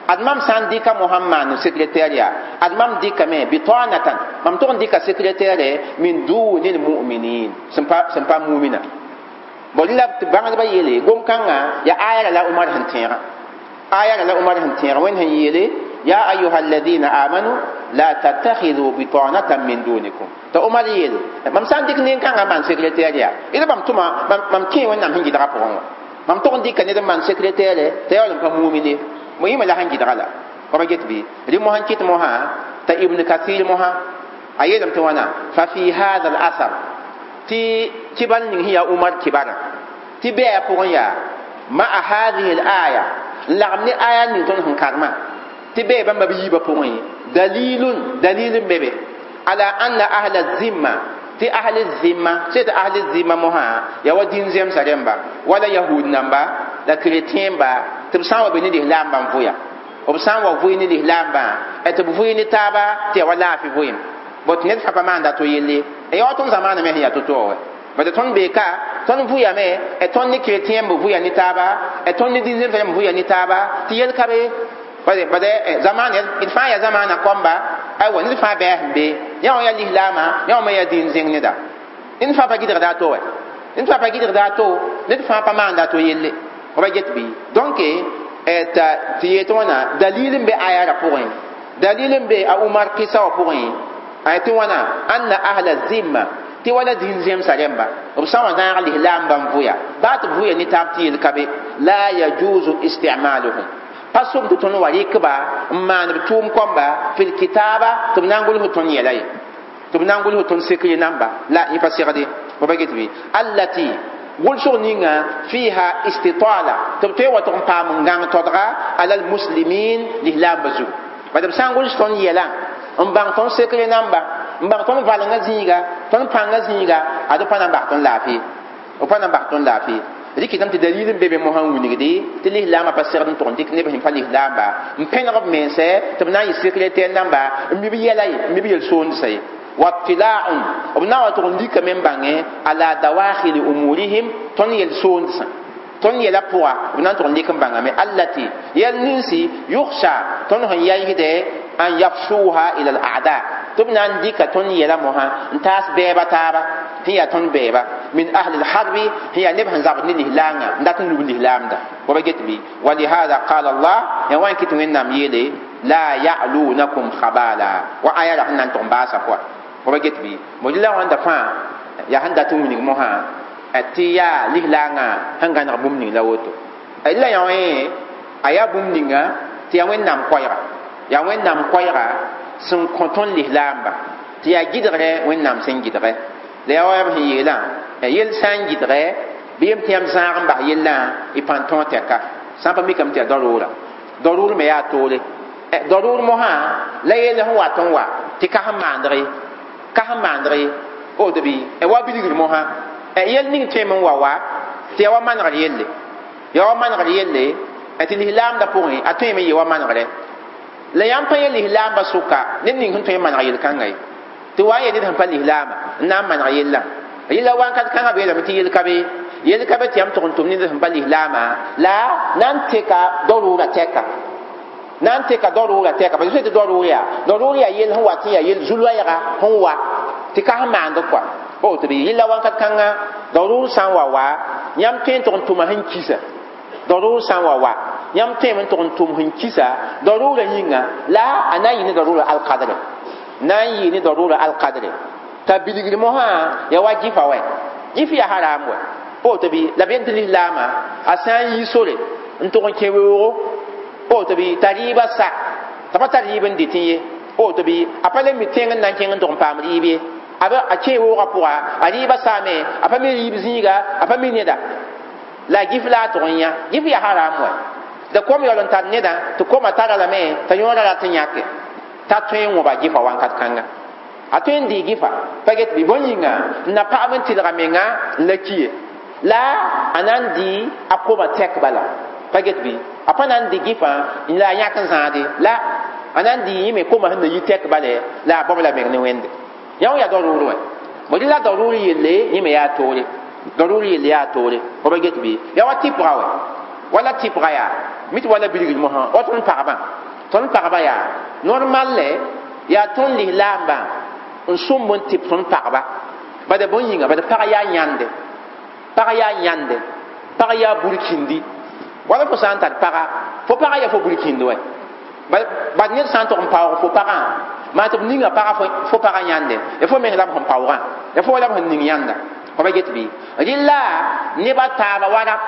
ad mam sã n dɩka Mohamad n secrétaire yaa ad mam dɩkame bitanatan mam tʋg n dɩka secrétaire min duni lmuminin sẽn pa mumina bõ la tɩ bãngdbã yeele gom-kãngã yaa aya la Umar sẽn tẽegã aya la Umar sẽn tẽeg wẽnd sẽn yeele ya ayuha alladina amanu la tattakhidhu bitanatan min dunikum t'a Umar yeele mam sã n dɩk nin-kãngã n maan secrétaire yaa d bãmb tʋma mam kẽ wẽnnaam sẽn gɩdgã pʋgẽ wã mam tʋg n dɩka ned n maan secrétaire t'a yaool n pa mumine Mo yĩma la sẽn gɩdga la wa pa get bɩ rɩ mosã kɩt mosã t'a Ibn Kathir mosã a yeelame tɩ wãna fa fi hada al asar tɩ kibar ning sẽn yaa Umar kibarã tɩ bɛɛ pʋgẽ yaa ma'a hadihi al aya n lagem ne aya ning tõnd sẽn karemã tɩ bɛɛ bãmba b yiibã pʋgẽ dalilun dalil n be be ala anna ahla zimma tɩ ahli zimma sẽn tɩ ahli zimma mosã yaa wa dĩn-zemsã rẽmba wala yahud namba la chrétien ba tɩ b sã n wa be ne lislaambã n vʋya b sã n wa vʋɩ ne lislaambã tɩ b vʋɩ ne taaba tɩ yaa wa laafɩ vʋɩem bot ned fãa pa maanda to yelle yaa wa tõnd zamaana me sẽn yaa to-to wɛ bad tõnd bee ka tõnd vʋyame tõnd ne chrétien b vʋya ne taaba tõnd ne dĩn-zemsã rẽmb vʋya ne taaba tɩ yel ka be bad zamaana d fãa yaa zamaana kõmba aywa ned fãa bɛɛ sẽn be yã wã yaa lislaamã yã wã me yaa dĩn-zẽng neda ned fãa pa gɩdgda a to wɛ ned fãa pa gɩdgda a to ned fãa pa maanda a to yelle wa get bɩ donc tɩ yetɩ wãna dalil n be aya ra pʋgẽ dalil n be a Umar kɩsa wã pʋgẽ a tɩ wãna anna ahla zimma tɩ wala dĩn-zemsã rẽmba b sã n wa zãag lislaambã n vʋya baa tɩ b vʋya ne taab tɩ yel ka be la yajuzu istimaluhum pa sʋm tɩ tõnd wa rɩkba n maan b tʋʋm kõmba fil kitaaba tɩ b na n gʋls tõnd yɛla ye tɩ b na n gʋls tõnd sekre namba la yẽ pa segde wa pa get bɩ allati gʋlsg ninga fiha istitala tɩ b tõe n wa tʋg n paam n gãng todga alal muslimin lislaambã zugu bad b sã n gʋls tõnd yɛlã n bãng tõnd sekre namba n bãng tõnd valengã zĩiga tõnd pãngã zĩiga ad b pa na n bas tõnd laafɩ b pa na n bas tõnd laafɩ rɩkɩtame tɩ dalil n be be mosã n wilgde tɩ lislaambã pa segd n tʋg n dɩk neb sẽn pa lislaamba n pẽneg b mense tɩ b na n yɩ secrétaire namba n mi b yɛla ye n mi b yel-soondsa ye واطلاع b na wa tʋg n likame n bãngẽ ala dawakhili umurihim tõnd yel-soondsã tõnd yɛla pʋga b na n tʋg n lik n bãngame allati yɛl ninsi yukhsha tõnd sẽn yaisde an yafshuha ila al a'da tɩ b na n dɩka tõnd yɛla mosã n taas bɛɛba taaba sẽn yaa tõnd bɛɛba min ahli lharbi sẽn yaa neb sẽn zabd ne lislaangã n dat n lub lislaamda wa ba get bɩ walihada qala Allah ya wa n kɩ tɩ Wẽnnaam yeele la ya'lunakum khabala wa aya ra sẽn na n tʋg n baasa pʋga wa ba get bɩ mo la wãnda fãa yaa sẽn dat n wilg mosã tɩ yaa lislaangã sẽn gãneg bũmb ning la woto la yã wã a yaa bũmb ninga tɩ yaa Wẽnnaam koɛɛga yaa Wẽnnaam koɛɛga sẽn kõ tõnd lislaamba tɩ yaa gɩdgrɛ Wẽnnaam sẽn gɩdgɛ la yaa wa b sẽn yeelã yel sã n gɩdgɛ bɩ yem tɩ yãmb zãag n bas yellã y pãn tõog tɛka sã n pa mikame tɩ yaa daroora daroor me yaa toore daroor mosã la yell sẽn wat n wa tɩ ka sẽn maandg ye ka sẽn maandg ye woto bɩ wa bilgr mosã yel ning tõeme n wa wa tɩ yaa wa manegr yelle yaa wa manegr yelle tɩ lislaamdã pʋgẽ a tõeme n yee wa manegrɛ la yãmb pa yẽ lislaambã sʋka ned ning sẽn tõe n maneg yel-kãnga ye tɩ wa n yee ned sẽn pa lislaama n na n maneg yellã yella wãnkat kãngã beelame tɩ yel ka be yel ka be tɩ yãmb tʋg n tʋm ned sẽn pa lislaama la na n teka daroora tɛka na n teka daroora tɛka parce que tɩ daroor yaa yel sẽn wa tɩ yaa yel zu-loɛɛga sẽn wa tɩ ka sẽn maand kɔa woto bɩ yella wãnkat kãngã daroor sã n wa wa yãmb tõe n tʋg n tʋma sẽn kisa daroor sã n wa wa yãmb tõeme n tʋg n tʋm sẽn kisa daroora yĩnga la a na n yɩ ne daroora alkadre na n yɩ ne daroora alkadre t'a bilgr mosã yaa wa gɩfa wɛ gɩf yaa haram wɛ woto bɩ la b yel tɩ lislaamã a sã n yi sore n tʋg n kẽ weoogo woto bɩ t'a rɩɩbã sa t'a pa tar rɩɩb n dɩtẽ ye woto bɩ a pa le mi tẽng n na n kẽng n tʋg n paam rɩɩb ye a kẽ woogã pʋga a rɩɩbã saame a pa mi rɩɩb zĩiga a pa mi neda la gɩf la a tʋg n yã gɩf yaa haram wɛ da kom yaool n tar nedã tɩ koma tara lame t'a yõora rat n yãke t'a tõe n wõba gɩfa wãnkat kãnga a tõe n dɩɩ gɩfa pa get bɩ bõn yĩnga n na pagb n tɩlga menga n la ki ye la a na n dɩ a koma tɛk bala pa get bɩ a pa na n dɩ gɩfã la a yãk n zãade la a na n dɩ yẽ me koma sẽn na yi tɛk bale la a bao la meng ne Wẽnde yã wã yaa daroor wɛ mo dɩ la daroor yelle yẽ me yaa toore daroor yelle yaa toore fo pa get bɩ yaa wa tɩpga wɛ wala tɩpga yaa mi tɩ wala bilgr mosã wa tõnd pagba yaa normal lɛ yaa tõnd lislaambã n sõmb n tɩp tõnd pagba bad bõn yĩnga bad pag yaa yãnde pag yaa yãnde pag yaa burkindi wala fo sã n tar paga fo paga yaa fo burkindi wɛ bad ned sã n tʋg n paoog fo pagã maa tɩ b ninga paga fo pagã yãnde ya fo meng la b sẽn paoogã ya fo la b sẽn ning yãnda Pa get bɩ rɩla neba taaba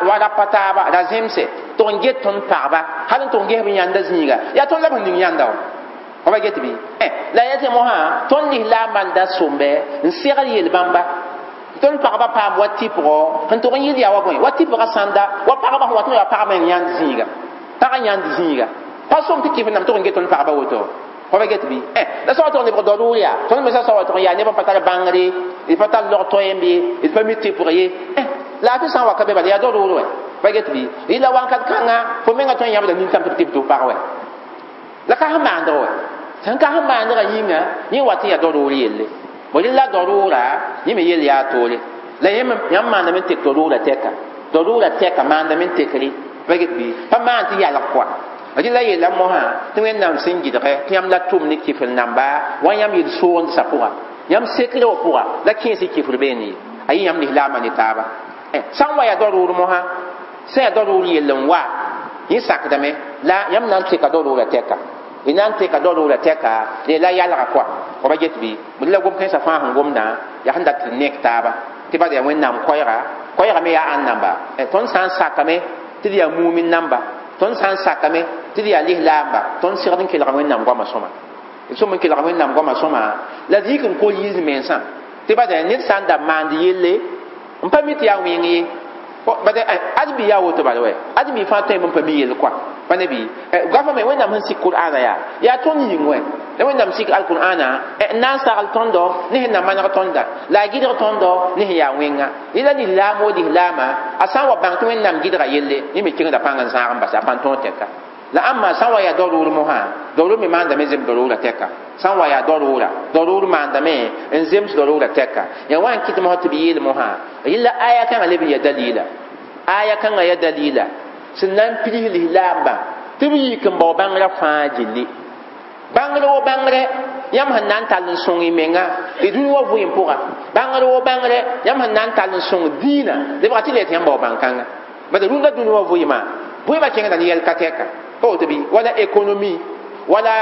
wa rapa taaba ra zemse tʋg n get tõnd pagba hal n tʋg n ges b yãnda zĩiga yaa tõnd la b sẽn ning yãnda wa pa get bɩ la ya tɩ mosã tõnd lislaambã n da sõmbe n segd yel-bãmba tõnd pagba paam wa tɩpgɔ sẽn tʋg n yɩl yaa wa bõe wa tɩpga sãnda wa pagba sẽn wa tɩ yaa pagba n yãnd zĩiga pag n yãnd zĩiga pa sõm tɩ kɩf nam tʋg n get tõnd pagba woto pa get bɩ la sã wa tʋg lebg daruur yaa tõnd me sã wa tʋg n yaa neb n pa tar bãngre d pa tar log toɛɛmb ye d pa mi tɩpg ye laafɩ sã n wa ka be bala yaa daruur wɛ pa get bɩ rɩla wãnkat kãnga fo menga tõe n yãbda nintãm tɩ b tɩp tɩ f pag wɛ la ka sẽn maandg wɛ sẽn ka sẽn maandgã yĩnga yẽ wa tɩ yaa daruur yelle bõ rɩla daruura yẽ me yell yaa toore la yãmb maandame n tek daruura tɛka daruura tɛka maandame n tekre pa get bɩ pa maan tɩ yalg kɔa rɩla yella mosã tɩ wẽnnaam sẽn gɩdgɛ tɩ yãmb la tʋm ne kɩfr namba wa yãmb yel soogdsa pʋga yãmb sekre wã pʋga la kẽes y kɩfr beene ye a yɩ yãmb lislaambã ne taaba sã n wa yaa daruur mosã sã yaa daruur yell n wa yẽ sakdame la yãmb na n teka daruura tɛka y na n teka daruura tɛka la yalga kɔa pa get bɩ la gom kãensã fãa sẽn gomdã yaa sẽn dat tɩ nek taaba tɩ bad yaa wẽnnaam koɛɛga koɛɛga me yaa ãn namba tõnd sã n sakame tɩ d yaa mumin namba tõnd sã n sakame tɩ d yaa lislaamba tõnd segd n kelga wẽnnaam goamã sõma d sõm n kelga wẽnnaam goamã sõma la d yik n kol yiis mensã tɩ bad yaa ned sã n da maand yelle n pa mi tɩ yaa wẽng ye bad ad bi yaa woto bala wɛ ad mi fãa tõeme n pa mi yell kɔa pa ne bɩ goafã me wẽnnaam sẽn sik qur'ana yaa yaa tõnd yĩng wɛ la wẽnnaam sik alqur'ana n na n sagl tõndo ne sẽn na maneg tõnda la a gɩdg tõndo ne sẽn yaa wẽnga rɩla lislaam wo lislaama a sã n wa bãng tɩ wẽnnaam gɩdga yelle yẽ me kẽngda pãng n zãag n bas a pãn tõog tɛka la ãmba sã n wa yaa daruur mosã daruur me maandame zems daruura tɛka sã n wa yaa daruura daruur maandame n zems daruura tɛka yaa wa n kɩt mosã tɩ b yeel mosã rɩla aya kãngã leb n ya dalila aya kãngã ya dalila sẽn na n pids lislaambã tɩ b yik n bao bãngrã fãa gilli bãngr wo bãngre yãmb sẽn na n tall n sõng y menga y dũni wa vɩɩm pʋga bãngr wo bãngre yãmb sẽn na n tall n sõng dĩinã lebga tɩ le tɩ yãmb bao bãn-kãnga bad rũndã dũni wa vɩɩmã vɩɩmã kẽngda ne yɛl ka tɛka pa woto bɩ wala économie wala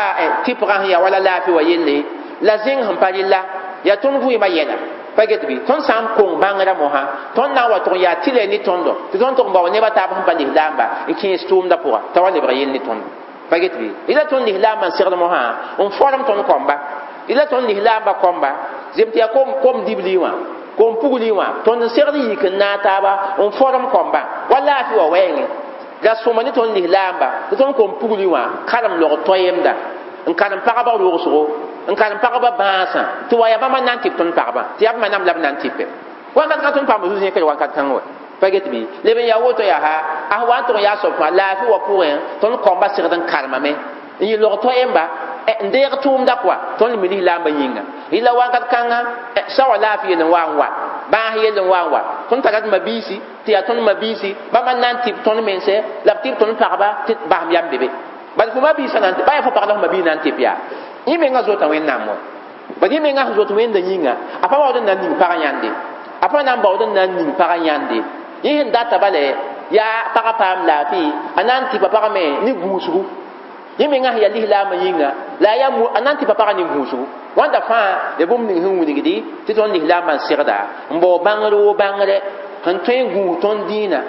tɩpgã sẽn yaa wala laafɩ wa yelle la zẽng sẽn pa rɩla yaa tõnd vɩɩmã yɛla pa get bɩ tõnd sã n kong bãngrã mosã tõnd na n wa tʋg n yaa tɩ ne tõndo tɩ tõnd tʋg n bao nebã taab sẽn pa lislaamba n kẽes tʋʋmdã pʋga t'a wa lebg yell ne tõndo pa get bɩ rɩla tõnd lislaambã n segd mosã n form tõnd kɔmba rɩla tõnd lislaambã kɔmba zem tɩ yaa kom dibli wã kom pugli wã tõnd n segd yik n naag taaba n form kɔmbã wa laafɩ wa wɛɛngẽ la sõma ne tõnd lislaamba tɩ tõnd kom pugli wã karem log toɛɛmda n karem pagba rogsgo n karem pagba bãasã tɩ wa yaa bãmba na n tɩp tõnd pagba tɩ yaa bãmba nam la b na n tɩpe wakat ka tõnd paam zu-zẽkre wakat kãng wɛ pa get bɩ leb n yaa woto yaa ha a wa n tʋg n yaa soab fãa laafɩ wa pʋgẽ tõnd kɔmba segd n karemame n yɩ log toɛɛmba n deeg tʋʋmda kɔa tõnd mi lislaambã yĩnga rɩla wakat kãnga sã wa laafɩ yell n wa n wa bãas yell n wa n wa tõnd tara d mabiisi tɩ yaa tõnd mabiisi bãmba n na n tɩp tõnd mense la b tɩp tõnd pagba tɩ basem yam be be bad fo mabiisã na ba yaa fo pag la fo mabiis na n tɩp yaa yẽ menga zota wẽnnaam wɛ bad yẽ menga sẽn zot wẽnda yĩnga a pa baood n na n ning pag yãnde a pa na n baood n na n ning pag yãnde yẽ sẽn data bala yaa pagã paam laafɩ a na n tɩpa pagame ne gũusgu yẽ menga sẽn yaa lislaambã yĩnga la a yaa a na n tɩpa pagã ne gũusgu wãnda fãa ya bũmb ning sẽn wilgdi tɩ tõnd lislaambã n segda n bao bãngr wo bãngre sẽn tõe n gũus tõnd dĩinã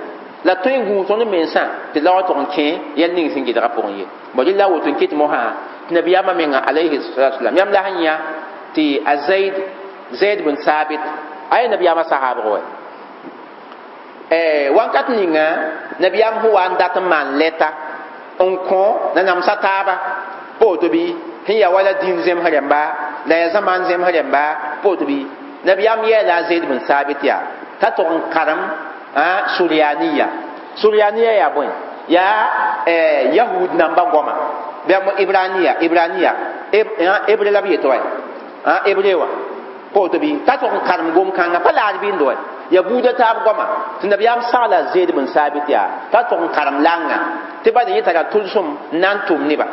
la tõe n gũus tõnd mensã tɩ la wa tʋg n kẽ yɛl ning sẽn gɩdga pʋgẽ ye bõ rɩla woto n ket mosã tɩ nabiyaamã menga alayhi salatu wasalam yãmb la sẽn yã tɩ a zaid zaid bin sabit a yaa nabiyaamã sahaabg wɛ wãnkat ninga nabiyaam sẽn wa n dat n maan lɛta n kõ nanamsã taaba pa woto bɩ sẽn yaa wala dĩin zemsg rẽmba la yaa zãmaan zemsg rẽmba pa woto bɩ nabiyaam yɛɛla a zaid bin sabit yaa t'a tʋg n karem suryaniya suryaniya yaa bõe yaa yahud namba goama bɩ ibraniya ibraniya hebre la b yetɩ wa hebre wã pa woto bɩ t'a tʋg n karem gom-kãngã pa laad bɩnd wa ya buudã taab goama tɩ nabiyaam sagla zeed bin sabit yaa t'a tʋg n karem langã tɩ bad yẽ tara tʋlsem n na n tʋm neba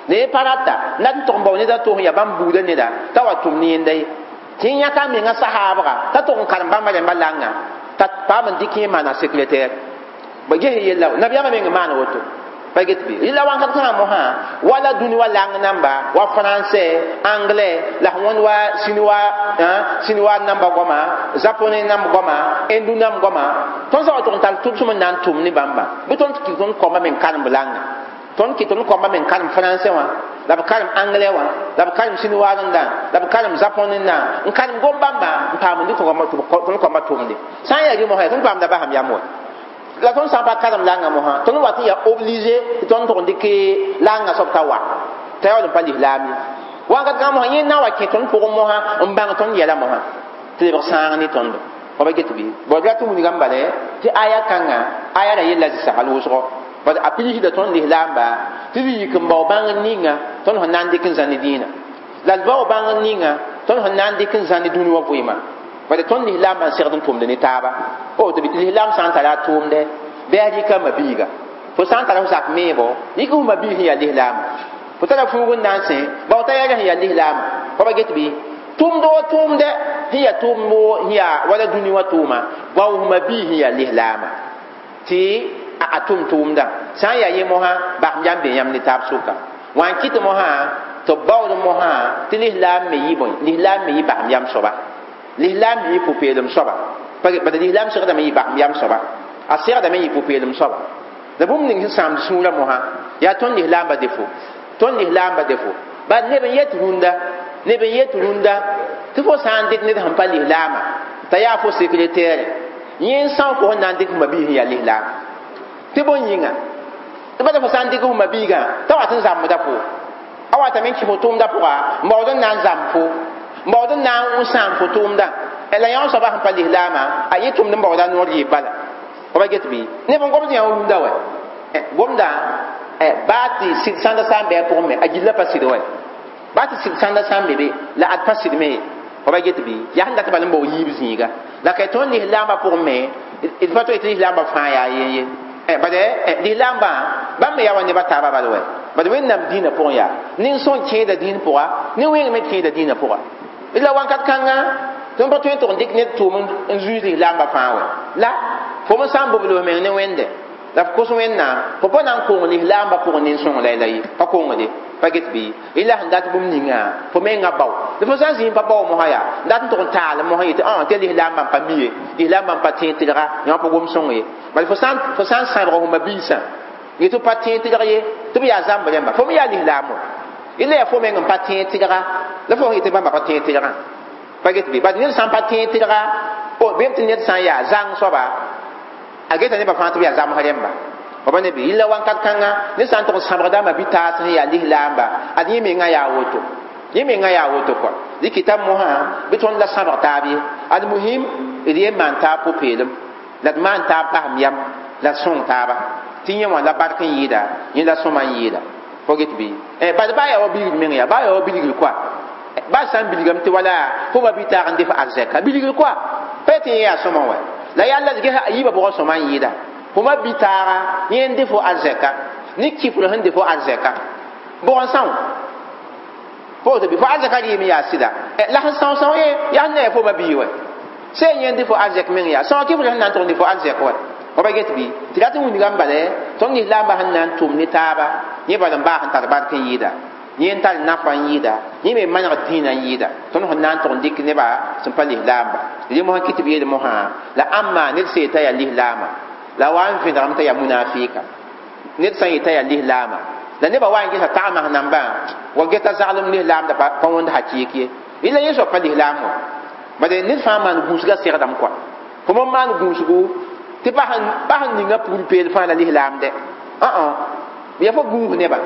ne pa rata na n tʋg n bao neda tʋs ya bãmb buudã neda t'a wa tʋm ne yẽnda ye tɩ yẽ yãka a menga sahaabga t'a tʋg n karem bãmba rẽmba langã t'a paam n dɩk yẽ maana secrétaire ba ges yella nabiyaamã meng n maan woto Pa get bɩ rɩla wãnkat kãngã mosã wala dũni wa lang namba wa français, anglais la wõnd wa chinois, chinois namba goama, japonais namb goama, hindu namb goama. Tõnd sã wa tʋg n tall tʋb sõm n na n tʋm ne bãmba bɩ tõnd kɩ tõnd koamba me n karem langa, tõnd kɩ tõnd koamba me n karem français wã, la b karem anglais wã, la b karem chinois rẽndã, la b karem japonais rẽndã, n karem gom bãmba n paam n dɩk tõnd koamba tʋmde. Sã n yaa rɩ mosã tõnd paamda basam yam wa. La tõnd sã n pa karem langa mosã, tõnd wat n yaa obligé tɩ tõnd tʋg n dɩk langa soab t'a wa t'a yaool n pa lislaam ye. Wakat kãngã mosã yẽ na wa kẽ tõnd pʋgẽ mosã n bãng tõnd yɛla mosã tɩ lebg sãang ne tõndo. Fa ba get bɩ bõe la tɩ wilgame bala tɩ aya kãngã aya ra yella zɩsagl wʋsgo bad a pigsda tõnd lislaamba tɩ d yik n bao bãngr ninga tõnd sẽn na n dɩk n zãni dĩinã, la d bao bãngr ninga tõnd sẽn na n dɩk n zãni dũni wã vɩɩmã. Bad tõnd lislaambã n segd n tʋmd ne taaba. O tɩ lislaam sã n tara a tʋʋmdɛ bɩ a rɩka ma-biiga, fo sã n tara fo zak meebo yik fo ma-biig sẽn yaa lislaama, fo tara fuug n na n sẽ bao t'a yɛl sẽn yaa lislaama. Fa ba get bɩ tʋmd wa tʋʋmdɛ sẽn yaa tʋʋmd sẽn yaa wala dũni wã tʋʋma bao fo ma-biig sẽn yaa lislaama tɩ a tʋm tʋʋmdã. Sã n yaa yẽ mosã basem yam be yãmb ne taab sʋka wã n kɩt mosã tɩ b baood mosã tɩ lislaam me yɩ bõe, lislaam me yɩ basem yam soaba, lislaam me yɩ pʋ-peelem soaba. Bad lislaam segdame yɩ basem yam soaba, a segdame yɩ pʋ-peelem soaba. La bũmb ning sẽn sãamd sũurã mosã yaa tõnd lislaambã defo, tõnd lislaambã defo. Bad neb n yet rũndã, neb n yet rũndã tɩ fo sã n dɩk ned sẽn pa lislaama t'a yaa fo sekretɛɛre, yẽ n são fo sẽn na n dɩk f ma-biis sẽn yaa lislaam tɩ bõe yĩnga tɩ bala fo sã n dɩk f ma-biigã t'a wat n zãmbda fo, a watame n kɩ fo tʋʋmdã pʋga n baood n na n zãmb fo, n baood n na n sãam fo tʋʋmdã. La yã soaba sẽn pa lislaamã a yẽ tʋmd n baooda noor yɩɩb bala. Fa ba get bɩ neb n gomd yã wa rũndã wɛ gomda baa tɩ sɩd sãnda sã n bɩ a pʋgẽ me a gilla pa sɩd wɛ, baa tɩ sɩd sãnda sã n be be la ad pa sɩd me ye. Fa ba get bɩ yaa sẽn dat bal n bao yiib zĩiga la ka tõnd lislaambã pʋgẽ me d pa toe tɩ lislaambã fãa yaa yen ye. Bad lislaambã bãmb me yaa wa neba taaba bal wɛ, bad Wẽnnaam dĩinã pʋgẽ yaa nin-sõn kẽeda dĩin pʋga, nin-wẽng me kẽeda dĩinã pʋga. La wãnkat kãngã tõnd pa tõe n tʋg n dɩk ned tʋʋm n zuiis lislaambã fãa wɛ. La fo me sã n bobl f meng ne Wẽnde la f kos Wẽnnaam, fo pa na n kong lislaambã pʋgẽ nin-sõng la ye pa kongde. Pa get bɩ ila sẽn dat bũmb ninga fo mengã bao la fo sã n zĩig pa bao mosã yaa dat n tʋg n taal mosã yetɩ tɩ lislaambã n pa mi ye, lislaambã n pa tẽeg tɩlga yã pa gom sõng ye. Bala fo sã n sãbg fo ma-biisã yetɩ pa tẽeg tɩlg ye tɩ b yaa zãmb rẽmba, fo me yaa lislaam wã ila yaa fo meng n pa tẽeg tɩlga la fo yetɩ bãmba pa tẽeg tɩlgã. Pa get bɩ bad ned sã n pa tẽeg tɩlga bɩ tɩ ned sã n yaa zãng soaba a geta nebã fãa tɩ b yaa zãmsg rẽmba. Fa ba ne bɩ yella wãnkat kãngã ned sã n tʋg n sãbgda ma-bi-taas sẽn yaa lislaamba ad yẽ mengã yaa woto, yẽ mengã yaa woto kɔa dɩkɩta mosã bɩ tõnd la sãbg taab ye. Ad muhim d yen maan taab pʋ-peelem la d maan taab basem yam la d sõng taaba tɩ yẽ wã la bark n yɩɩda, yẽ la sõma n yɩɩda. Fo get bɩ bad baa yaa wa bilgr meng yaa baa yaa wa bilgr kɔa baa sã n bilgame tɩ wala fo ma-bi-taag n dɩ f arzɛka bilgr kɔa pa tɩ yẽ yaa sõma wɛ la yaa la ges a yiibã bʋgã sõma n yɩɩda. Fo ma-bi-taaga yẽ n dɩ fo arzɛka ne kifr sẽn dɩ fo arzɛka bʋg n são fo tɩ fo arzɛka rɩɩm yaa sɩda la sẽn são são ye yaa sẽn na yaa fo ma-bii wɛ sẽn yẽ n dɩ fo arzɛk meng yaa sõa kifr sẽn na n tʋg n dɩ fo arzɛk wɛ. Fa ba get bɩ tɩ rat n wilgame bala tõnd lislaambã sẽn na n tʋm ne taaba yẽ bal n baa sẽn tar bark n yɩɩda, yẽ n tar nafa n yɩɩda, yẽ me manegd dĩinã n yɩɩda. Tõnd sẽn na n tʋg n dɩk nebã sẽn pa lislaamba rẽ mosã kɩ tɩ b yeel mosã la ãmma ned sẽn yetã yaa lislaama la wa n vẽdgame t'a yaa munafɩɩka. Ned sã n yetã yaa lislaama la nebã wa n gesa tagmas nambã wa geta zaglem lislaamda pa wõnd hakɩɩk ye ila yẽ soab pa lislaam wã. Bad ned fãa maan gũusgã segdame kɔa fo me maan gũusgu tɩ pa sẽn ninga pugl peel fãa la lislaamdɛ yaa fo gũus nebã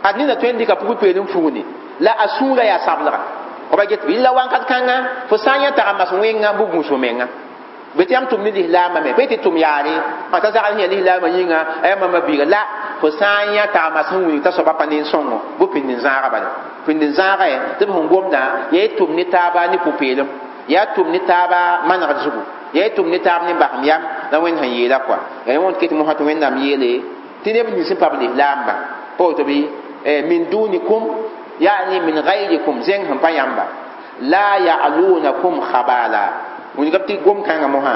ad nina tõe n dɩka pugl peel n fugni la a sũurã yaa sablga. Fa ba get bɩ la wãnkat kãngã fo sã n yã tagemas wẽnga bɩ gũus fo menga bɩ tɩ yãmb tʋm ne lislaambã me pa tɩ tʋm yaare t'a zagl sẽn yaa lislaambã yĩnga a yaa mama biiga la fo sã n yã tagemas sẽn wilg t'a soaba pa nin-sõngo bɩ pĩnd n zãaga bala pĩnd n zãaga tɩ b sẽn gomdã yaa y tʋm ne taaba ne pʋ-peelem, yaa tʋm ne taaba manegd zugu, yaa y tʋm ne taab ne basem yam la Wẽnd sẽn yeela kɔa. Yaa wõnd ket mosã tɩ Wẽnnaam yeele tɩ neb nins sẽn pa b lislaamba pa woto bɩ min dunikum yani min gayrikum zẽng sẽn pa yãmba la ya'lunakum khabala wilgame tɩ gom kãngã mosã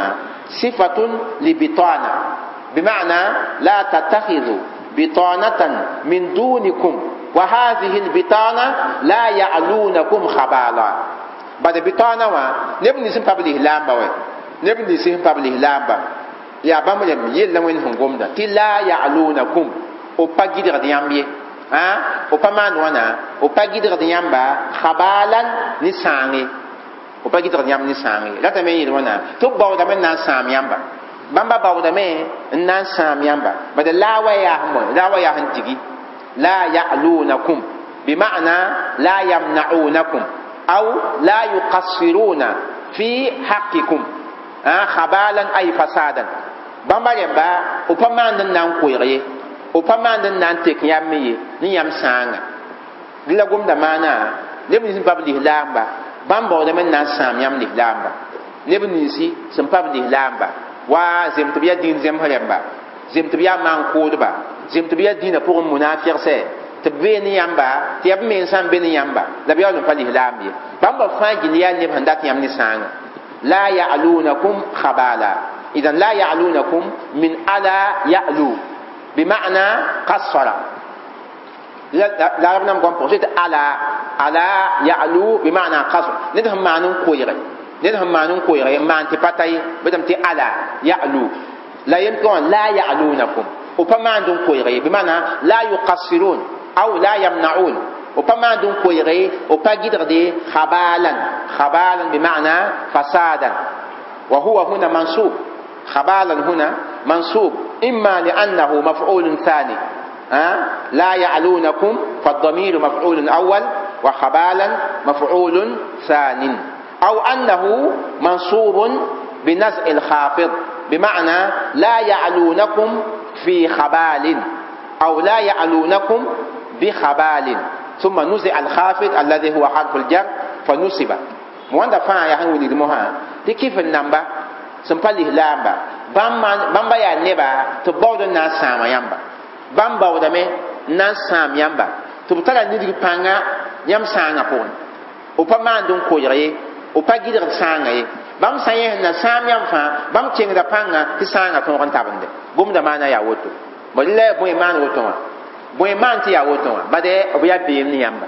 sifatun libitana bima'na la tattakhidhu bitanatan min dunikum wa hadhihi albitana la ya'lunakum khabala. Bad bitana wã neb nins n pa b lislaamba wɛ, neb nins sẽn pa b lislaamba yaa bãmb rẽmb yella Wẽnd sẽn gomda tɩ la ya'lunakum, b pa gɩdgd yãmb ye, b pa maan wãna, b pa gɩdgd yãmba khabalan ne sãang ye, b pa gɩdgd yãmb ne sãang ye. Ratame n yeel wãna tɩ b baoodame n na n sãam yãmba, bãmba baoodame n na n sãam yãmba. Bad la wa yaa sẽn bõe, la wa yaa sẽn digi la ya'lunakum bima'na la yamna'unakum aw la yuqassiruna fi haqqikum khabalan ay fasadan. Bãmba rẽmba b pa maand n na n koeeg ye, b pa maand n na n tek yãmb me ye ne yãmb sãanga. Dẽ la gomda maana neb nins n pa b lislaamba bãmb baoodame n na n sãam yãmb lislaamba, neb ninsi sẽn pa b lislaamba wa zem tɩ b yaa dĩin zemsẽ rẽmba, zem tɩ b yaa maan-kʋʋdba, zem tɩ b yaa dĩinã pʋgẽ munafɩgsɛ tɩ b bee ne yãmba, tɩ yaa b mensã n be ne yãmba la b yaool n pa lislaam ye. Bãmba fãa gill yaa neb sẽn dat yãmb ne sãanga. La ya'lunakum khabala, idan la ya'lunakum min ala ya'lu bima'na qassara. La rab nam gom pʋgẽ tɩ ala, ala ya'lu bima'na qasr, ned sẽn maan n koeege, ned sẽn maan n koeege n maan tɩ pa ta ye, bɩ tɩ ala ya'lu la yem tɩ la ya'lunakum, b pa maand n koeege ye, bima'na la yuqassirun aw la yamna'un, b pa maand n koeege, b pa gɩdgde khabalan, khabalan bima'na fasadan, wa huwa huna mansub, khabalan huna mansub imma li'annahu maf'ulun thani. لا يعلونكم فالضمير مفعول أول وخبالا مفعول ثان، أو أنه منصوب بنزع الخافض بمعنى لا يعلونكم في خبال أو لا يعلونكم بخبال، ثم نزع الخافض الذي هو حرف الجر فنصب. مواندا فا يا هنولي المها دي كيف النمبا سنبالي لامبا بامبا يا نبا تبود الناس ساما يامبا bãmb baoodame n na n sãam yãmba tɩ b tara nidg pãnga yãmb sãangã pʋgẽ, b pa maand n koeeg ye, b pa gɩdgd sãangã ye. Bãmb sã yẽ sẽn na sãam yãmb fãa bãmb kẽngda pãnga tɩ sãangã tõog n tabende. Gomda maana yaa woto, bad la bõe maan woto wã, bõe maan tɩ yaa woto wã, bad b yaa beem ne yãmba,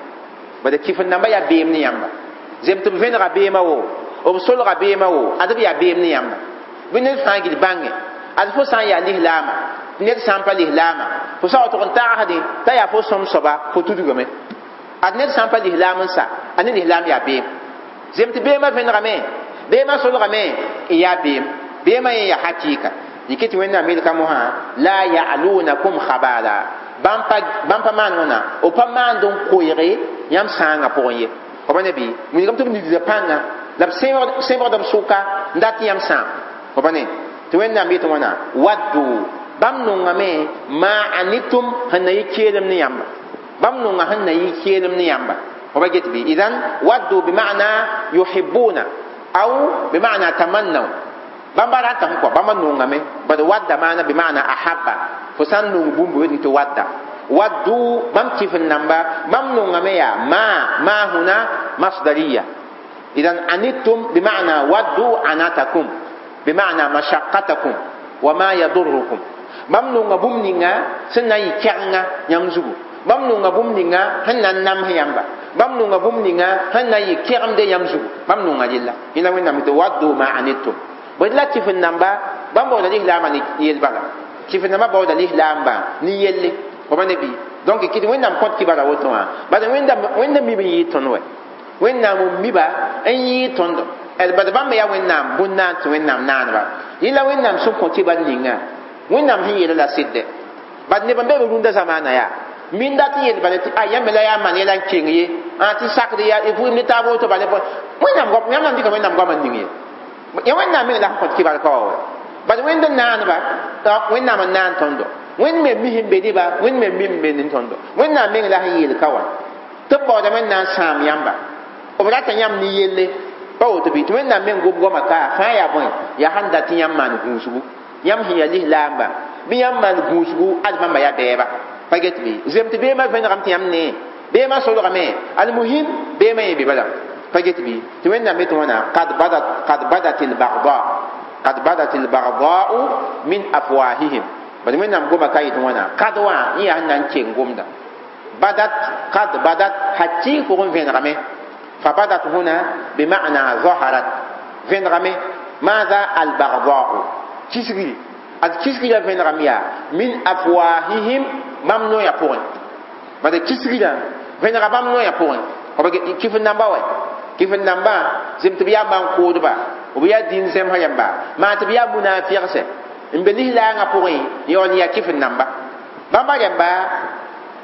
bad kɩf-n-dãmba yaa beem ne yãmba. Zem tɩ b vẽnega beemã wo, b solga beemã wo, ad b yaa beem ne yãmba. Bɩ ned fãa gil bãnge ad fo sã n yaa lislaama, ned sã n pa lislaama fo sã wa tʋg n tagsdẽ t'a yaa fo sõm soaba fo tudgame. Ad ned sã n pa lislaam n sa, a ne lislaam yaa beem. Zem tɩ beemã vẽnegame, beemã solgame n yaa beem, beemã yẽ yaa hakɩɩka. Yike tɩ Wẽnnaam yelka mosã la ya'lunakum khabala, bãmb pa maan wãna, b pa maand n koeege yãmb sãangã pʋgẽ ye. F ne bɩ wilgame tɩ b nidda pãnga la b sẽbgd b sʋka n dat yãmb sãam. F ne tɩ Wẽnnaam yetɩ wãna waddu, bãmb nongame ma anitum sẽn na yɩ keelem ne yãmba, bãmb nonga sẽn na yɩ keelem ne yãmba. F ba get bɩ idan waddu bima'na yuhibbuna aw bima'na tamannaw, bãmba ratame kɔ bãmba nongame, bad wadda maana bima'na ahabba, fo sã n nong bũmb wetẽ tɩ wadda. Waddu bãmb kɩf-n-namba bãmb nongame yaa ma huna masdariya. Idan anittum bima'na waddu anatakum bima'na mashaqqatakum wa ma yadurrukum, bãmb nonga bũmb ninga sẽn na n yɩ kɛgenga yãmb zugu, bãmb nonga bũmb ninga sẽn na n nams yãmba, bãmb nonga bũmb ninga sẽn na n yɩ kɛgemde yãmb zugu, bãmb nonga rella. Yẽla Wẽnnaam tɩ waddu ma anittum. Bõe la kɩf-n-namba bãmb baooda lislaambã ne yel bala, kɩf-n-nambã baooda lislaambã ne yelle. F ne bɩ donc kɩt Wẽnnaam kõt kibara woto wã, bad Wẽnnaam mib n yɩɩd tõnd wɛ, Wẽnnaam n miba n yɩɩd tõndo. Bad bãmb yaa Wẽnnaam bũn-naan tɩ Wẽnnaam naaneba. Yẽla Wẽnnaam sẽn kõ kibar ninga Wẽnnaam sẽn yeela la sɩdde. Bad neb n be b rũndã zamaana yaa min dat n yel bala tɩ a yãmb la yaa maan yɛla n keng ye, tɩ sakd yaa vʋʋm ne taab woto bala Wẽnnaam goam, yãmb na n dɩka Wẽnnaam goamã n ning ye. Ya Wẽnnaam meng la sẽn kõt kibar ka wa wɛ. Bad Wẽnd n naaneba, Wẽnnaam n naan tõndo, Wẽnd me mis n be neba, Wẽnd me mi n be ne tõndo. Wẽnnaam meng la sẽn yeel ka wã tɩ b baoodame n na n sãam yãmba, b rata yãmb ne yelle pa woto bɩ. Tɩ Wẽnnaam meng gom goamã ka fãa yaa bõe, yaa sãn dat tɩ yãmb maan gũusgu, yãmb sẽn yaa lislaamba bɩ yãmb maan gũusgu ad bãmba yaa bɛɛba. Pa get bɩ zem tɩ beemã vẽnegame tɩ yãmb nee, beemã solgame, almuhim beemã yẽ be bala. Pa get bɩ tɩ Wẽnnaam yetɩ wãna qad badat albagda, qad badat albagdau min afwahihim. Bad wẽnnaam goma ka yet wãna kad wã yẽ yaa sẽn na n keng gomda badat kad badat hakɩɩg pʋgẽ vẽnegame fa badat huna bima'na zaharat vẽnegame maada albagdau kisgri ad kisgrã vẽnegame yaa min afwahihim bãmb noyã pʋgẽ bad kisgrã vẽnega bãmb noyã pʋgẽ kɩf n namba wɛ kɩf n nambã zem tɩ b yaa maan-koodba b yaa dĩin zẽmsã yãmba maa tɩ b yaa munaafɩgse n be lislaangã pʋgẽ yaool n yaa kɩf n namba bãmba rẽmba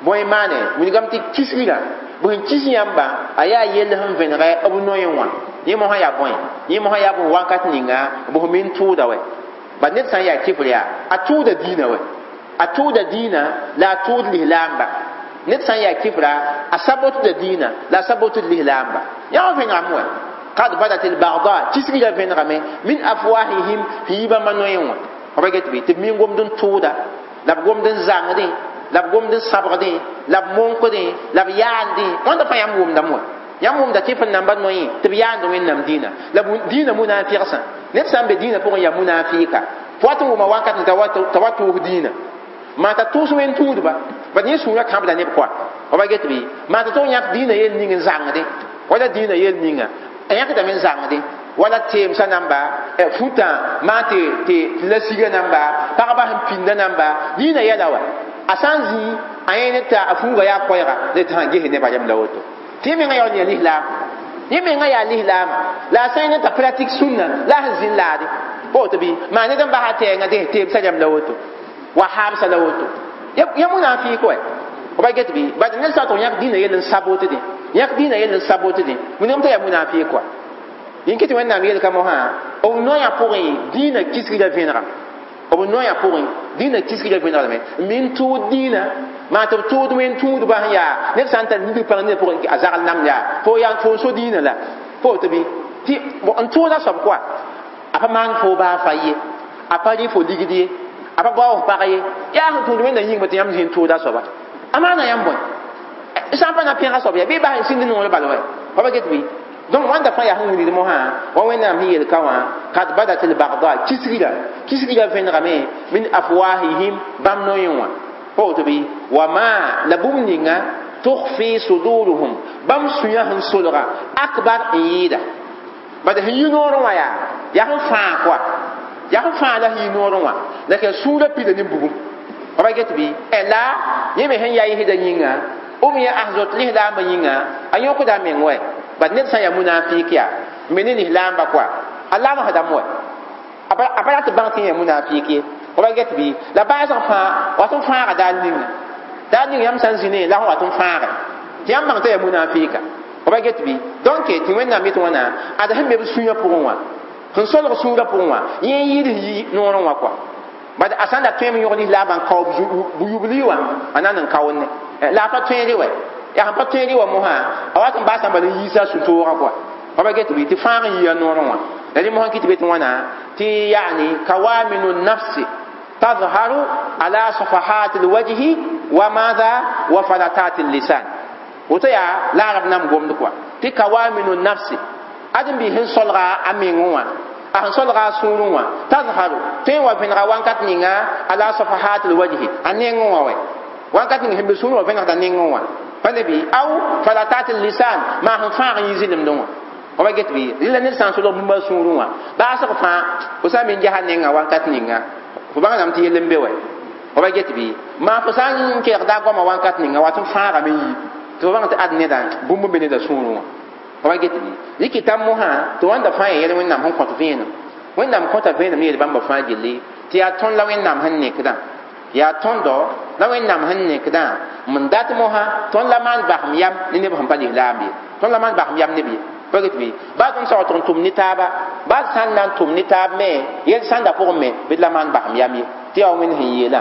bõe maane wilgame tɩ kisgrã b sẽn kis yãmba a yaa yell sẽn vẽnegɛ b noyẽ wã yẽ mosã yaa bõe yẽ mosã yaa bõe wakat ninga b sẽn min tʋʋda wɛ bad ned sã n yaa kɩfr yaa a tʋʋda dĩinã wɛ a tʋʋda dĩinã la a tʋʋd lislaamba ned sã n yaa kɩfra a sabotda dĩinã la a sabotd lislaamba yaa wã vẽnegame wɛ kad badat albagda kisgrã vẽnegame min afwahihim sẽn yi bãmba noyẽ wã b get bɩ tɩ b min gomd n tʋʋda la b gomd n zãngdẽ la b gomd n sabgdẽ la b monkdẽ la b yaandẽ wãnda fãa yãmb wʋmdame wɛ yãmb wʋmda kɩf n namba noyẽ tɩ b yaand wẽnnaam dĩinã la dĩinã munaafɩgsã ned sã n be dĩinã pʋgẽ yaa munaafɩka fo wat n wʋma wakat t'a wa tʋʋs dĩinã maa t'a tʋʋs wẽn tũudba bad yẽ sũurã kãbda neb koa b get bɩ maa t'a tʋg yãk dĩinã yel ning n zãngdẽ wala dĩinã yel ninga a yãkdame n zãngdẽ wala teemsã namba futã maa tɩ la siga namba pagba sẽn pĩnda namba dĩinã yɛla wa a sã n zĩ a yẽ ne t'a a fuuga yaa koɛɛga la tɩ sã ges nebã rem la woto tɩ yẽ menga yaool n yaa lislaam yẽ menga yaa lislaama la a sã n ne t'a pratik sũnna la a sẽn zĩn laade woto bɩ maa ned n basa tɛɛngã dẽ teemsã rem la woto wa haamsã la woto ya munafɩɩk wɛ b get bɩ bad ned sã tɩ yãk dĩinã yell n sabotdẽ yãk dĩinã yell n sabotdẽ wilgame t'a yaa munafɩɩk wa yĩn tɩ wẽnnaam yelka mosã b noyã pʋgẽ dĩinã kisgrã vẽnega b noyã pʋgẽ dĩinã kisgrã vẽnegrame n min tʋʋd dĩinã maa tɩ b tʋʋd wẽn tũudbã sẽn yaa ned sã n tar nidg pãng ned pʋgẽ a zagl namd yaa fo yaa fo n so dĩinã la fo tɩ bɩ tɩ n tʋʋda soab koa a pa maan fo baa fa ye a pa rɩ fo ligd ye a pa bao f pag ye yaa sẽn tũud wẽnna yĩngme tɩ yãmb zĩ n tʋʋda soaba a maana yãmb bõe sã n pa na pẽga soab ya bɩ bas n sĩnd noor bal wɛ pa pa get bɩ donc wãnda fãa yaa sẽn wilgd mosã wa wẽnnaam sẽn yel ka wã kad badat albagda kisgrã kisgrã vẽnegame min afwahihim bãmb noyẽ wã pa woto bɩ wa ma la bũmb ninga tukhfi suduruhum bãmb sũyã sẽn solga akbar n yɩɩda bad sẽn yi noorẽ wã yaa yaa sẽn fãa koa yaa sẽn fãa la sẽn yi noorẽ wã la ka sũurã pida ne bugum pa get bɩ la yẽ me sẽn yaa yɩsda yĩnga b yẽ asdot lislaambã yĩnga a yõkda a meng wɛ bad ned sã n yaa munafik yaa n be ne lislaamba koa a lamsdame wɛ a pa rat bãng tɩ yã munafik ye b get bɩ la baasg fãa wat n fãaga daar ninga daar ning yãmb sã n zĩ ne la sẽn wat n fãage tɩ yãmb bãng t'a yaa munafika b get bɩ donc tɩ wẽnnaam yet wãna ad sẽn be b sũyã pʋgẽ wã sẽn solg sũurã pʋgẽ wã yẽ n yɩɩd yi noorẽ wã koa bad a sã n da tõeme yõg lislaambã n kao bu-yubli wã a na n kaoonne la a pa tõeere wɛ yaa sẽn pa tõeere wã mosã a wat n baasã bala n yiisa a sũ-toogã koa pa ba get bɩ tɩ fãag n yia noorẽ wã la rẽ mosã kɩ tɩ be tɩ wãna tɩ yaani kawaminu nafsi tazharu ala safahat alwajhi wa madha wa falatat allisan woto yaa la arab nam gomd koa tɩ kawaminu nafsi ãdem bɩ sẽn solga a mengẽ wã a sẽn solga a sũurẽ wã tazharu tõe n wa vẽnega wankat ninga ala safahat alwajhi a nengẽ wã wɛ wankat ning sẽn be sũurẽ wã vẽnegda nengẽ wã pa ne bɩ aw falatat allisan maa sẽn fãag n yi zɩlemdẽ wã b get bɩ rɩla ned sã n solg bũmb a sũurẽ wã baasg fãa fo sã n me n ges a nenga wankat ninga fo bãngdame tɩ yell n be wɛ b get bɩ maa fo sã n kelgda a goama wankat ninga wat n fãagame yi tɩ fo bãng tɩ ad neda bũmb n be neda sũurẽ wã b get bɩ rɩkɩta mosã tɩ wãnda fãa ya yɛl wẽnnaam sẽn kõt vẽenem wẽnnaam kõta vẽenem ne yel bãmba fãa gilli tɩ yaa tõnd la wẽnnaam sẽn nekdã yaa tõndo la wẽnnaam sẽn nekdã n dat mosã tõnd la maan basem yam ne neb sẽn pa lislaam ye tõnd la maan basem yam neb ye pa get bɩ baa tõnd saoog tɩ n tʋm ne taaba baa d sã n na n tʋm ne taab me yel sãnda pʋgẽ me bɩ d la maan basem yam ye tɩ yaa wa wẽnd sẽn yeelã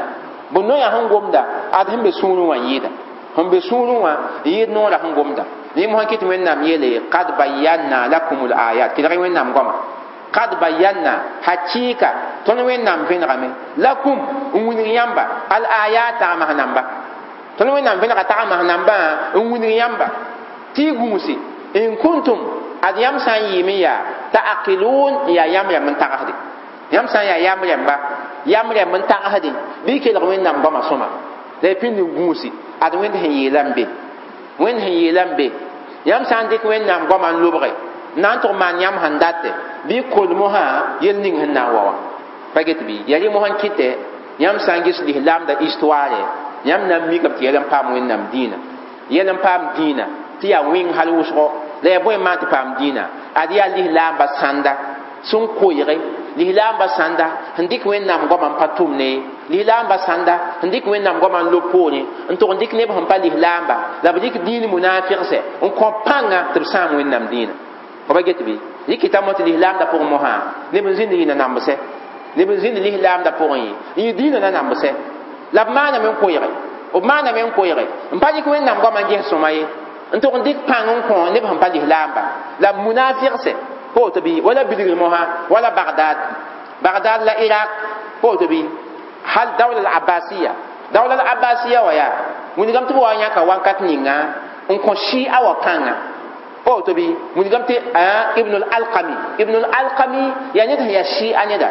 bõ noyã sẽn gomda ad sẽn be sũurẽ wã n yɩɩda sẽn be sũurẽ wã n yɩɩd noorã sẽn gomda rẽ mosã kɩ tɩ wẽnnaam yeele kad bayanna lakum l ayat kelg wẽnnaam goama kad bayanna hakɩɩka tõnd wẽnnaam vẽnegame lakum n wilg yãmba al ayat tagsmas namba tõnd wẽnnaam vẽnega tagsmas nambã n wilg yãmba tɩ y gũusi in kuntum ad yãmb sã n yɩɩm n yaa ta'aqilun n yaa yãmb rãmb n tagsde yãmb sã n yaa yãmb rãmba Yam rẽmb n tagsdẽ bɩ kelg Wẽnnaam goamã sõma la y pĩnd n gũusi ad Wẽnd sẽn yeela n be Wẽnd sẽn yeela n be yãmb sã n dɩk Wẽnnaam goamã n lobge na n tʋg maan yãmb sẽn datɛ bɩ kol mosã yel ning sẽn na n wa wã pa get bɩ ya rẽ mosã n kɩtɛ yãmb sã n ges lislaamda histoire yãmb na n mikame tɩ yɛl n paam Wẽnnaam dĩinã yɛl n paam dĩinã tɩ yaa wẽng hal wʋsgo la yaa bõe n maan tɩ paam dĩinã ad yaa lislaamba sãnda sẽn koeege lislaamba sãnda sẽn dɩk Wẽnnaam goamã n pa tʋmne lislaamba sãnda sẽn dɩk Wẽnnaam goamã n lob poorẽ n tʋg n dɩk neb sẽn pa lislaamba la b dɩk dĩin munaafɩgsɛ n kõ pãnga tɩ b sãam Wẽnnaam dĩinã fa ba get bɩ yɩ kɩtame tɩ lislaamda pʋgẽ mosã neb n zĩnd yɩ nambsɛ neb n zĩnd lislaamda pʋgẽ ye n yɩ dĩinã na nambsɛ la b maaname n koeege b maaname n koeege n pa dɩk Wẽnnaam goamã n ges sõma ye n tʋg n dɩk pãng n kõ neb sẽn pa lislaamba la munaafɩgsɛ poto bi wala bilgr mosã wala Bagdad Bagdad la Iraq poto bi hal dawla al abbasiya dawla al abbasiya wa yaa wilgame tɩ b wa yãka wakat ninga n kõ shia wa pãnga poto bi wilgame tɩ Ibn al Alqami Ibn al Alqami yaa ned sẽn yaa shia neda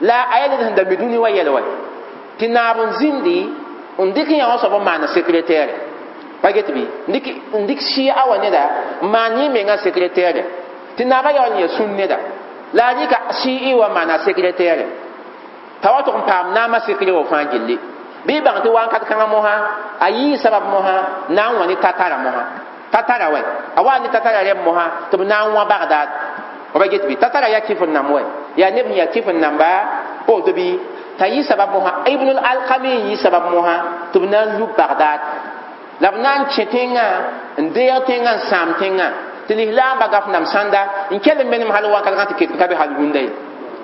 la a yaa ned sẽn da mi dũni wa yɛl wa tɩ naab n zĩndi n dɩk yã wã soab n maana secrétaire pa get bɩ n dɩk shia wa neda n maan yẽ menga secrétaire tɩ naabã yaool n yaa sũn neda la a rɩka shii wa maana secrétaire t'a wa tʋg n paam naamã secret wa fãa gilli bɩ bãng tɩ wakat kãngã mosã a yii sabab mosã na n wã ne tatara mosã tatara wɛ a wa ne tatara rẽmb mosã tɩ b na n wã Bagdad ba get bɩ tatara yaa kɩf n namb wɛ yaa neb sẽn yaa kɩf n namba woto bɩ t'a yɩ sabab mosã Ibn al Alqami n yɩ sabab mosã tɩ b na n lub Bagdad la b na n kẽ tẽngã n deeg tẽngã n sãam tẽngã tɩ lislaamba gaf nam sãnda n kell n menem hal wakat kãng tɩ ket n ka be hal rũndã ye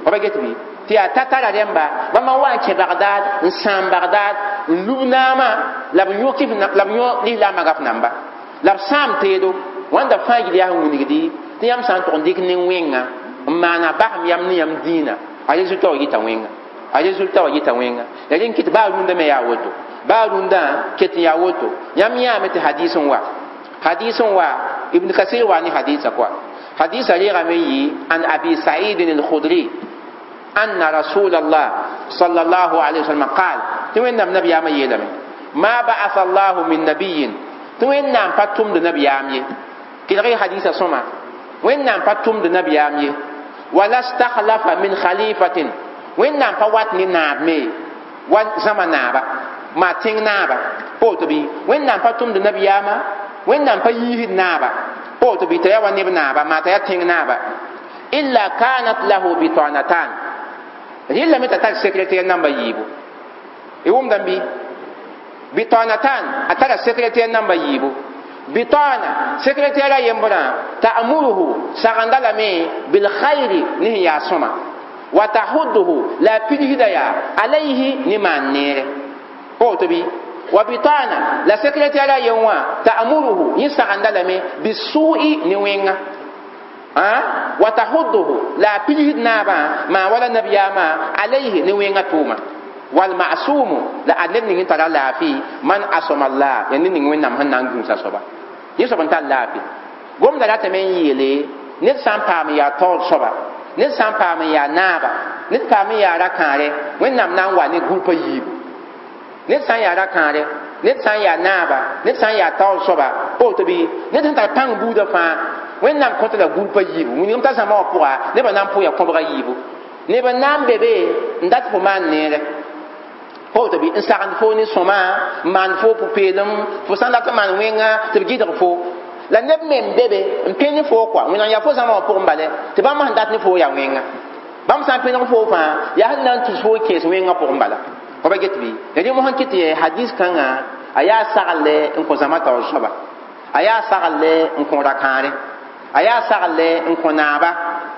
fa ba get bɩ tɩ yaa tatara rẽmba bãmba n wa n kẽ Bagdad n sãam Bagdad n lub naamã la b yõ kɩf la b yõ lislaambã gaf namba la b sãam teedo wãnda fãa gil yaa sẽn wilgdi tɩ yãmb sã n tʋg n dɩk nin-wẽnga n maana basem yam ne yãmb dĩinã a résultat wa yita wẽnga a résultat wa yita wẽnga ya rẽn kɩt baa rũndã me yaa woto baa rũndã ket n yaa woto yãmb yãame tɩ hadis n wa hadis n wa Ibn Kasir wa ne hadisa kɔa hadisa reegame yɩ an Abi Said al-Khudri anna rasul Allah sallallahu alaihi wasallam qaal tɩ Wẽnnaam nabiyaamã yeelame ma ba'atha Allahu min nabiyin tɩ Wẽnnaam pa tʋmd nabiyaam ye kelg hadisa sõma Wẽnnaam pa tʋmd nabiyaam ye wala stakhlafa min khalifatin Wẽnnaam pa wat ne naab me wa zãma naaba maa tẽng naaba poto bɩ Wẽnnaam pa tʋmd nabiyaamã Wẽnnaam pa yiisd naaba poto bɩ t'a yaa wa neb naaba maa t'a yaa tẽng naaba illa kanat lahu bitanatan rɩlame t'a tar secrétaire namba yiibu y wʋmdame bɩ bitanatan a tara secrétaire namba yiibu bitana secrétaire a yembrã ta'muruhu sagenda lame bil khayri ne sẽn yaa sõma wa tahudduhu la a pidsda yaa alayhi ne maan neere woto bɩ wa bitana la secrétaire a yen wã ta'muruhu yẽ sagenda lame bisu'i ne wẽnga wa tahudduhu la a pidsd naabã maa wala nabiyaamã alayhi ne wẽnga tʋʋma wal ma'sumu la ad ned ning n tara laafɩ man asama Allah ya ned ning Wẽnnaam sẽn na n gũusa soaba yẽ soab n tar laafɩ gomda ratame n yeele ned sã n paam n yaa taoor soaba ned sã n paam n yaa naaba ned paam n yaa ra-kãare Wẽnnaam na n wa ne gũupa yiibu ned sã n yaa ra-kãare ned sã n yaa naaba ned sã n yaa taoor soaba woto bɩ ned sẽn tar pãng buudã fãa Wẽnnaam kõta la gũupa yiibu wilgem t'a zãma wã pʋga nebã na n pʋ yaa kõbga yiibu neb n na n be be n dat fo maan neere woto bɩ n sagend fo ne sõma n maan fo pʋ-peelem fo sã n dat n maan wẽnga tɩ b gɩdg fo la neb me n be be n pẽ ne fo kɔa Wẽnnaam yaa fo zãma wã pʋgẽ bale tɩ bãmb sẽn dat ne fo yaa wẽnga bãmb sã n pẽneg fo fãa yaa sẽn na n tus fo n kẽes wẽngã pʋgẽ bala fa ba get bɩ ya rẽ mosã kɩt tɩ hadis kãngã a yaa sagle n kõ zãma taoor soaba a yaa sagle n kõ ra-kãare a yaa sagle n kõ naaba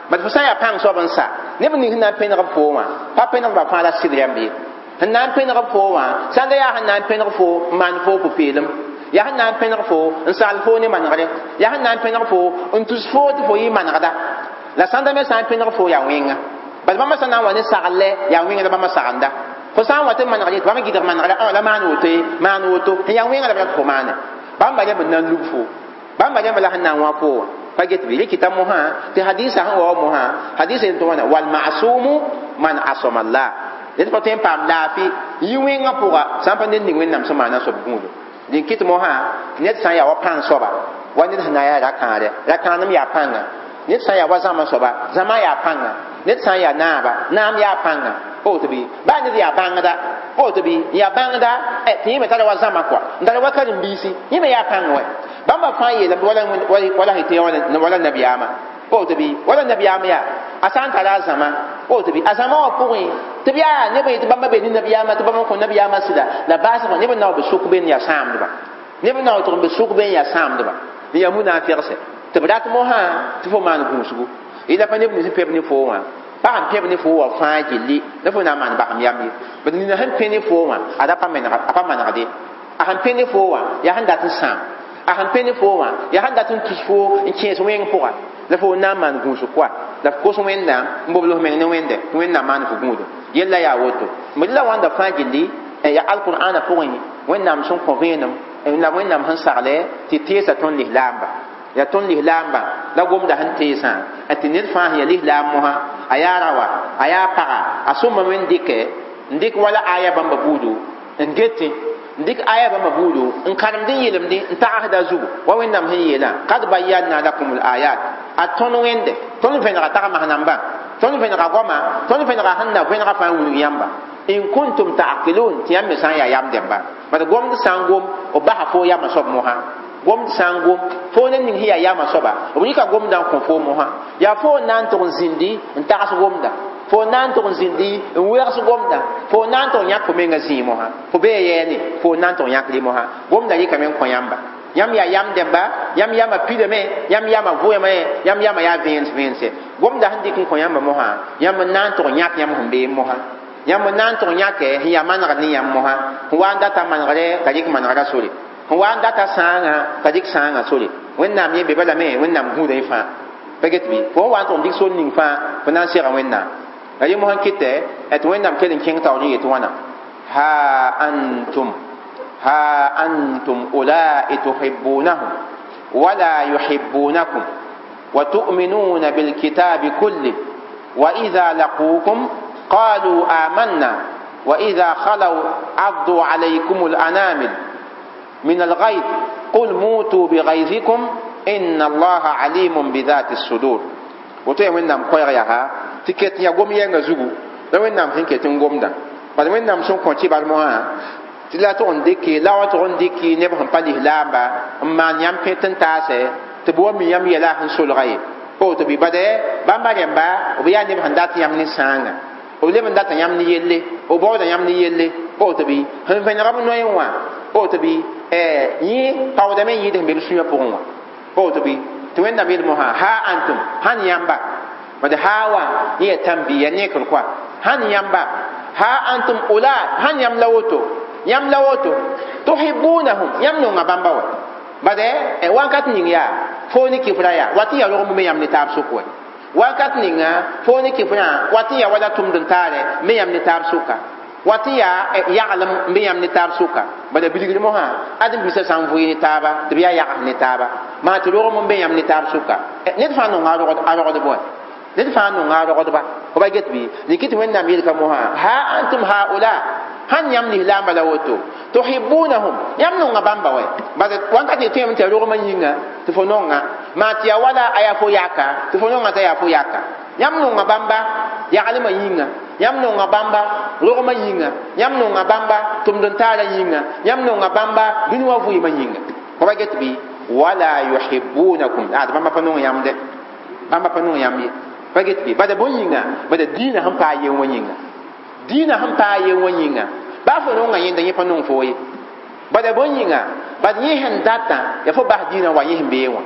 bad fo sã n yaa pãng soab n sa neb ning sẽn na n pẽneg b fo wã pa pẽneg ba fãa la sɩd rãmb ye sẽn na n pẽneg fo wã sãn da yaa sẽn na n pẽneg fo n maan fo pʋ-peelem yaa sẽn na n pẽneg fo n sagl fo ne manegre yaa sẽn na n pẽneg fo n tus fo tɩ fo yɩ manegda la sãnda me sã n pẽneg fo yaa wẽnga bala bãmba sã na n wa ne sagle yaa wẽnga la bãmba sagenda fo sã n wa tɩ manegre tɩ bãmb gɩdg manegre la maan woto ye maan woto n yaa wẽnga la b rat fo maane bãmba rẽmb n na n lub fo bãmba rẽmb la sẽn na n wã fo wã pa get bɩ rɩkɩta mosã tɩ hadisa sẽn wa wa mosã hadisa yen tɩ wãna wal masumu man asama Allah Ned pa tõe n paam laafɩ yɩ wẽngã pʋga sã n pa ned ning Wẽnnaam sẽn maana soab gũudum. Dẽn kɩt mosã ned sã n yaa wa pãng soaba wa ned sẽn na n yaa ra-kãadɛ ra-kãadem yaa pãnga, ned sã n yaa wa zãma soaba zãma yaa pãnga, ned sã n yaa naaba naam yaa pãnga. Woto bɩ baa ned yaa bãngda, woto bɩ n yaa bãngda tɩ yẽ me tara wa zãma kɔa n tara wa karen-biisi, yẽ me yaa pãng wɛ. Bãmba fãa yeelame wala sẽn tɩ wala nabiyaamã, woto bɩ wala nabiyaam yaa a sã n tara a zãma, woto bɩ a zãma wã pʋgẽ tɩ b yaa neb n yetɩ bãmba be ne nabiyaamã tɩ bãmba n kõ nabiyaamã sɩda la baasgã neb n na wa b sʋk be n yaa sãamdba, neb n na wa tʋg n be sʋk be n yaa sãamdba n yaa munafɩgse tɩ b rat mosã tɩ fo maan gũusgu. Yẽla pa neb nins n pẽb ne foo wã pag n pẽb ne foo wã fãa gilli la fo na n maan basem yam ye. Bad nina sẽn pẽ ne foo wã ad a pa manegde, a sẽn pẽ ne foo wã yaa sẽn dat n sãam, a sẽn pẽ ne foo wã yaa sẽn dat n tus foo n kẽes wẽng pʋga la fo na n maan gũusg koa la f kos Wẽnnaam n bobl f meng ne Wẽnde tɩ Wẽnnaam maan fo gũudum. Yella yaa woto b la wãnda fãa gilli yaa alqur'ana pʋgẽ Wẽnnaam sẽn kõ vẽenem la Wẽnnaam sẽn sagle tɩ teesa tõnd lislaamba yaa tõnd lislaambã la gomda sẽn teesã tɩ ned fãa sẽn yaa lislaam mosã a yaa raoa a yaa paga a sõma me n dɩkɛ n dɩk wala aya bãmba buudu n getẽ n dɩk aya bãmba buudu n karemd n yelemdẽ n tagsda zugu wa Wẽnnaam sẽn yeelã kad bayanna lakum l ayat a tõnd Wẽnde tõnd vẽnega tagmas nambã tõnd vẽnega goama tõnd vẽnega sẽn na vẽnega fãa n wilg yãmba in kuntum ta'qilun tɩ yãmb me sã n yaa yam dẽmba. Bad gomd sã n gom b basa fo yamã soab mosã, gomd sã n gom fo ne ning sẽn yaa yamã soaba b rɩka gomdã n kõ fo mosã yaa fo n na n tʋg n zĩndi n tags gomda, fo n na n tʋg n zĩndi n wegs gomda, fo n na n tʋg n yãk fo menga zĩig mosã fo bee yɛɛne fo n na n tʋg n yãk rɩ mosã gomda rɩkame n kõ yãmba. Yãmb yaa yam dẽmba, yãmb yamã pidame, yãmb yamã vʋʋame, yãmb yamã yaa vẽens vẽense. Gomda sẽn dɩk n kõ yãmba mosã yãmb n na n tʋg n yãk yãmb sẽn bee mosã, yãmb n na n tʋg n yãkɛ sẽn yaa manegr ne yãmb mosã sẽn wa n data manegre t'a rɩk manegrã sore, sẽn wa n data sãangã t'a rɩk sãangã sore. Wẽnnaam yẽ be balame Wẽnnaam gũuda yẽ fãa pa get bɩ fo n wa n tʋg n dɩk sor ning fãa fo na n sega Wẽnnaam. La yẽ mosã kɩtɛ tɩ Wẽnnaam kell n kẽng taoor n yet wãna ha antum ha antum ulai tuhibbunahum wala yuhibbunakum wa tu'minuna bilkitabi kulli wa idha laqukum qalu amanna wa idha khalaw addu alaykum al-anamil min al-ghayth qul mutu bighaythikum inna allaha alimun bidhati as-sudur. Woto ya Wẽnnaam koɛɛg yaa tɩ ket n yaa gom yɛngã zugu la Wẽnnaam sẽn ket n gomda bad Wẽnnaam sẽn kõ kɩbar mosã tɩ la tʋg n dɩke la wa tʋg n dɩk neb sẽn pa lislaamba n maan yãmb pẽt n taasɛ tɩ b wa mi yãmb yɛla sẽn solga ye. Woto bɩ bad bãmba rẽmba b yaa neb sẽn dat yãmb ne sãanga, b leb n data yãmb ne yelle, b baooda yãmb ne yelle. Woto bɩ sẽn vẽnega b noẽ wã woto bɩ yẽ paoodame n yɩɩd sẽn be b sũyã pʋgẽ wã. Woto bɩ tɩ Wẽnnaam yeel mosã ha antum sãn yãmba bad ha wã yẽ yaa tãn-bi yaa nekr koa sãn yãmba ha antum ula sãn yãmb la woto yãmb la woto tuhibbunahum yãmb nonga bãmba wa bad wakat ning yaa fo ne kifra yaa wat n yaa rog me yãmb ne taab sʋk wɛ wakat ninga fo ne kifrã wat n yaa wala tʋmd n taarɛ me yãmb ne taab sʋka wat n yaa yaglem n be yãmb ne taab sʋka bala bilgr mosã ad n bisa sã n vʋɩ ne taaba tɩ b yaa yags ne taaba maa tɩ rogem n be yãmb ne taab sʋka ned fãa nonga a rogdb wɛ ned fãa nonga a rogdba fo ba get bɩ rɩk tɩ Wẽnnaam yelka mosã ha antum haula sãn yãmb lislaambã la woto tuhibbunahum yãmb nonga bãmba wɛ bad wãnkat tɩ tõeme tɩ ya rogmã yĩnga tɩ fo nonga maa tɩ yaa wala a yaa fo yaka tɩ fo nonga t'a yaa fo yaka yãmb nonga bãmba yaglmã yĩnga yãmb nonga bãmba rogmã yĩnga yãmb nonga bãmba tʋmd n taarã yĩnga yãmb nonga bãmba dũni wã vɩɩmã yĩnga fo ba get bɩ wala yuhibbunakum ad bãmba pa nong yãmb dɛ bãmba pa nong yãmb ye pa get bɩ bada bõn yĩnga bada dĩinã sẽn paa yen wã yĩnga dĩinã sẽn paa yen wã yĩnga baa fo nonga yẽnda yẽ pa nong fo ye bada bõn yĩnga bad yẽ sẽn datã yaa fo bas dĩinã wa yẽ sẽn bee wã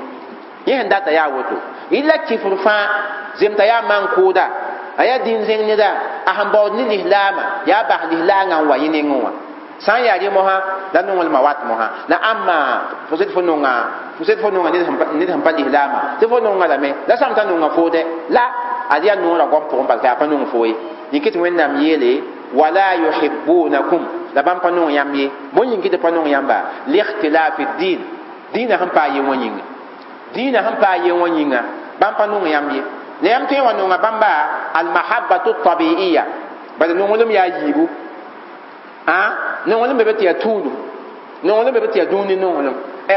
yẽ sẽn data yaa woto yɩla kifr fãa zemta yaa man-kʋʋda a yaa dĩn-zẽng neda a sẽn baood ne lislaamã yaa bas lislaangã n wa yẽ nengẽ wã sã n yaa rẽ mosã la nonglmã wat mosã la ãmba fo sed fo nonga fo sed fo nonga ned sẽn pa lislaamã tɩ fo nonga lame la sãm t'a nonga foodɛ la ad yaa noorã goam pʋgẽ bala t'a yaa pa nong fo ye yĩk tɩ Wẽnnaam yeele wala yuhibbunakum la bãmb pa nong yãmb ye bõn yĩng tɩ pa nong yãmba likhtilafi din dĩinã sẽn paa yen wã yĩnga dĩinã sẽn paa yen wã yĩnga bãmb pa nong yãmb ye la yãmb tõe n wa nonga bãmba almahabbatu tabiiya Bala nonglem yaa yiibu a nonglem be tɩ yaa tũudum nonglem be tɩ yaa dũni nonglem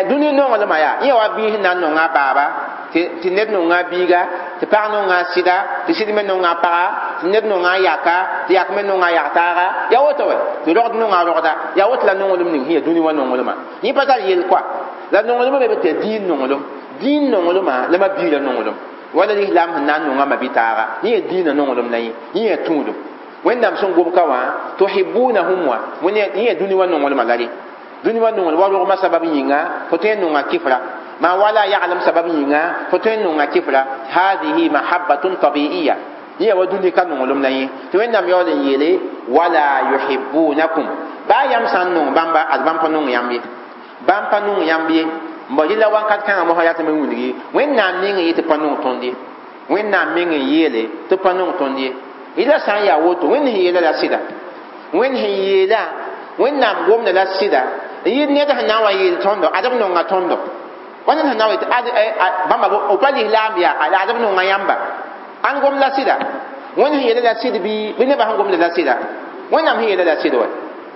dũni nonglmã yaa yẽ wa biis na n nonga a baaba tɩ ned nonga a biiga tɩ pag nonga a sɩda tɩ sɩd me nonga a paga tɩ ned nonga a yaka tɩ yak me nonga a yak-taaga yaa woto wɛ tɩ rogd nonga a rogda yaa woto la nonglem ning sẽn yaa dũni wã nonglmã yẽ pa tar yel koa la nonglmã be tɩ yaa dĩin nonglem dĩin nonglmã la ma biirã nonglem wala lislaam sẽn na n nonga ma-bi-taaga yẽ yaa dĩinã nonglem la yẽ yẽ yaa tũudum wẽnnaam sẽn gom ka wã tuhibunahum wã yẽ yaa dũni wã nonglmã la rẽ dũni wã nonglem wa rogmã sabab yĩnga fo tõe n nonga kɩfra ma wala yaglem sabab yĩnga fo tõe n nonga kɩfra hadihi mahabbatun tabiiya yẽ wa dũni ka nonglem la yẽ tɩ wẽnnaam yaool n yeele wala yuhibunakum baa yãmb sã n nong bãmba ad bãmb pa nong yãmb ye bãmb pa nong yãmb ye n bao rɩla wãnkat kãngã mosã yaa tɩ me wilgi wẽnnaam meng n yɩ tɩ pa nong tõnd ye wẽnnaam meng n yeele tɩ pa nong tõnd ye rɩla sã n yaa woto wẽnd sẽn yeela la sɩda wẽnd sẽn yeela wẽnnaam gomda la sɩda n yɩ ned sẽn na n wa yeel tõndo ad b nonga tõndo wa ned sẽn na n wa yetɩ bãmba b pa lislaam yaa la ad b nonga yãmba ãn gom la sɩda wẽnd sẽn yeela la sɩd bɩ nebã sẽn gomda la sɩda wẽnnaam sẽn yeela la sɩd wa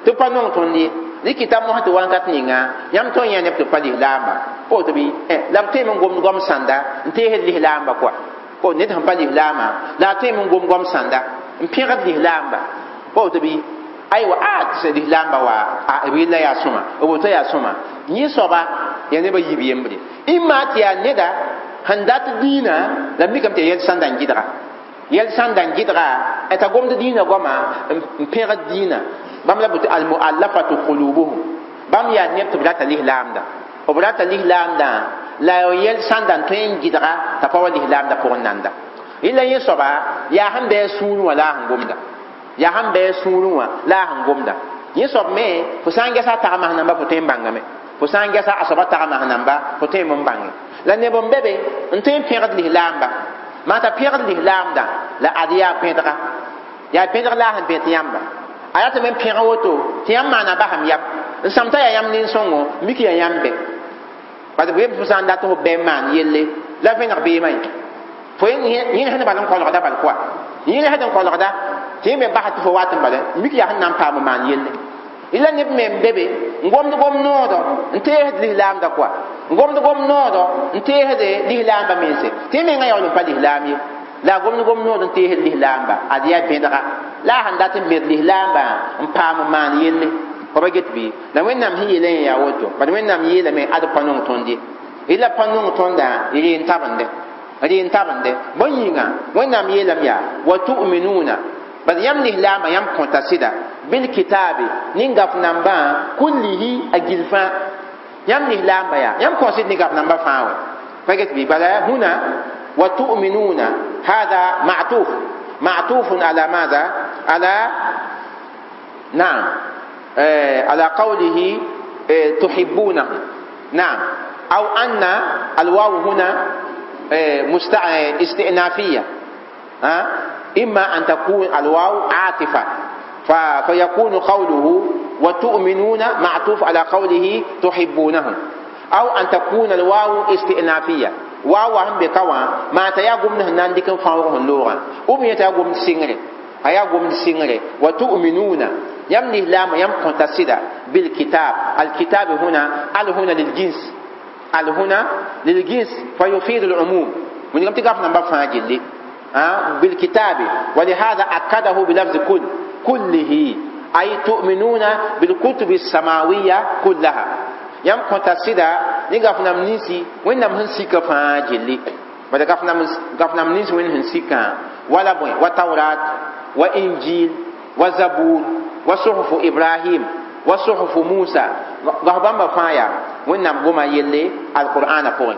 tɩ pa nong tõnd ye rɩkɩta mosã tɩ wãnkat ninga yãmb tõe n yã neb tɩ pa lislaamba woto bɩ la b tõeme n gomd goam sãnda n teesd lislaamba koa o ned sẽn pa lislaamã la a tõeme n gom goam sãnda n pẽgd lislaamba woto bɩ aywa a tɩ lislaamba wa b yella yaa sõma b woto yaa sõma yẽ soaba yaa nebã yiib yembre ĩmma tɩ yaa neda sẽn dat dĩinã la mikame tɩ yaa yɛl sãnda n gɩdga yɛl sãnda n gɩdga t'a gomd dĩinã goama n pẽgd dĩinã bãmb la bʋ tɩ almuallafatu qulubuhum bãmb yaa neb tɩ b rata lislaamda b rata lislaamdã la yɛl sãnda n tõe n gɩdga t'a pa wa lislaamda pʋgẽ nanda rɩla yẽ soaba yaa sẽn bɩ a sũurẽ wã la a sẽn gomda yaa sẽn bɩ a sũurẽ wã la a sẽn gomda yẽ soab me fo sã n gɛsa a tagmas namba fo tõe n bãngame fo sã n gɛsa a soaba tagmas namba fo tõe n bãnge la neb n be be n tõe n pẽgd lislaamba maa t'a pẽgd lislaamdã la ad yaa bẽdga yaa bẽdg la a sẽn bẽt yãmba a yaa tɩ me n pẽg woto tɩ yãmb maana basam yam n sãm t'a yaa yãmb nin-sõngo mik yaa yãmb bɛ parce que fo sã n dat fo bɛ n maan yelle la vẽneg beemã ye fo yẽ sẽn bal n kolgda bal koa yẽ sẽn kolgda tɩ yẽ me basa tɩ fo wat n bala mik yaa sẽn na n paam n maan yelle la neb me n be be n gomd gom noodɔ n teesd lislaamda koa n gomd gom noodɔ n teesd lislaamba mense tɩ yẽ mengã yaool n pa lislaam ye la a gomd gom nood n teesd lislaamba ad yaa bẽdga la a sẽn dat n bẽd lislaambã n paam n maan yelle fa ba get bɩ la wẽnnaam sẽn yeelã yẽ yaa woto bad wẽnnaam yeelame ad pa nong tõnd ye la pa nong tõndã reen tabende reen tabende bõe yĩnga wẽnnaam yeelame yaa wa tu'minuna bad yãmb lislaambã yãmb kõta sɩda bilkitabe nin gaf nambã kullihi a gil fãa yãmb lislaamba yaa yãmb kõ sɩd ne gaf nambã fãa wɛ pa get bɩ bala huna wa tu'minuna hada ma'tuf ma'tufun ala madha ala نعم على قوله تحبونه نعم أو أن الواو هنا استئنافية إما أن تكون الواو عاطفة فيكون قوله وتؤمنون معطوف على قوله تحبونه أو أن تكون الواو استئنافية واو هم بكوا ما تياغم نهنان ديكن فاوغ اللغة أم يتياغم سينغري أياغم سينغري وتؤمنون يم الإسلام يم كنتسدا بالكتاب الكتاب هنا ال هنا للجنس ال هنا للجنس فيفيد العموم من يوم تقف نمبر فاجل بالكتاب ولهذا أكده بلفظ كل كله أي تؤمنون بالكتب السماوية كلها يم كنتسدا نقف نمنسي وين نمنسي كفاجل بعد قف نمنسي وين هنسيكا ولا بوين وتوراة وإنجيل وزبور وصحف إبراهيم وصحف موسى غهبان بفايا وإنم قوما يلي القرآن فوق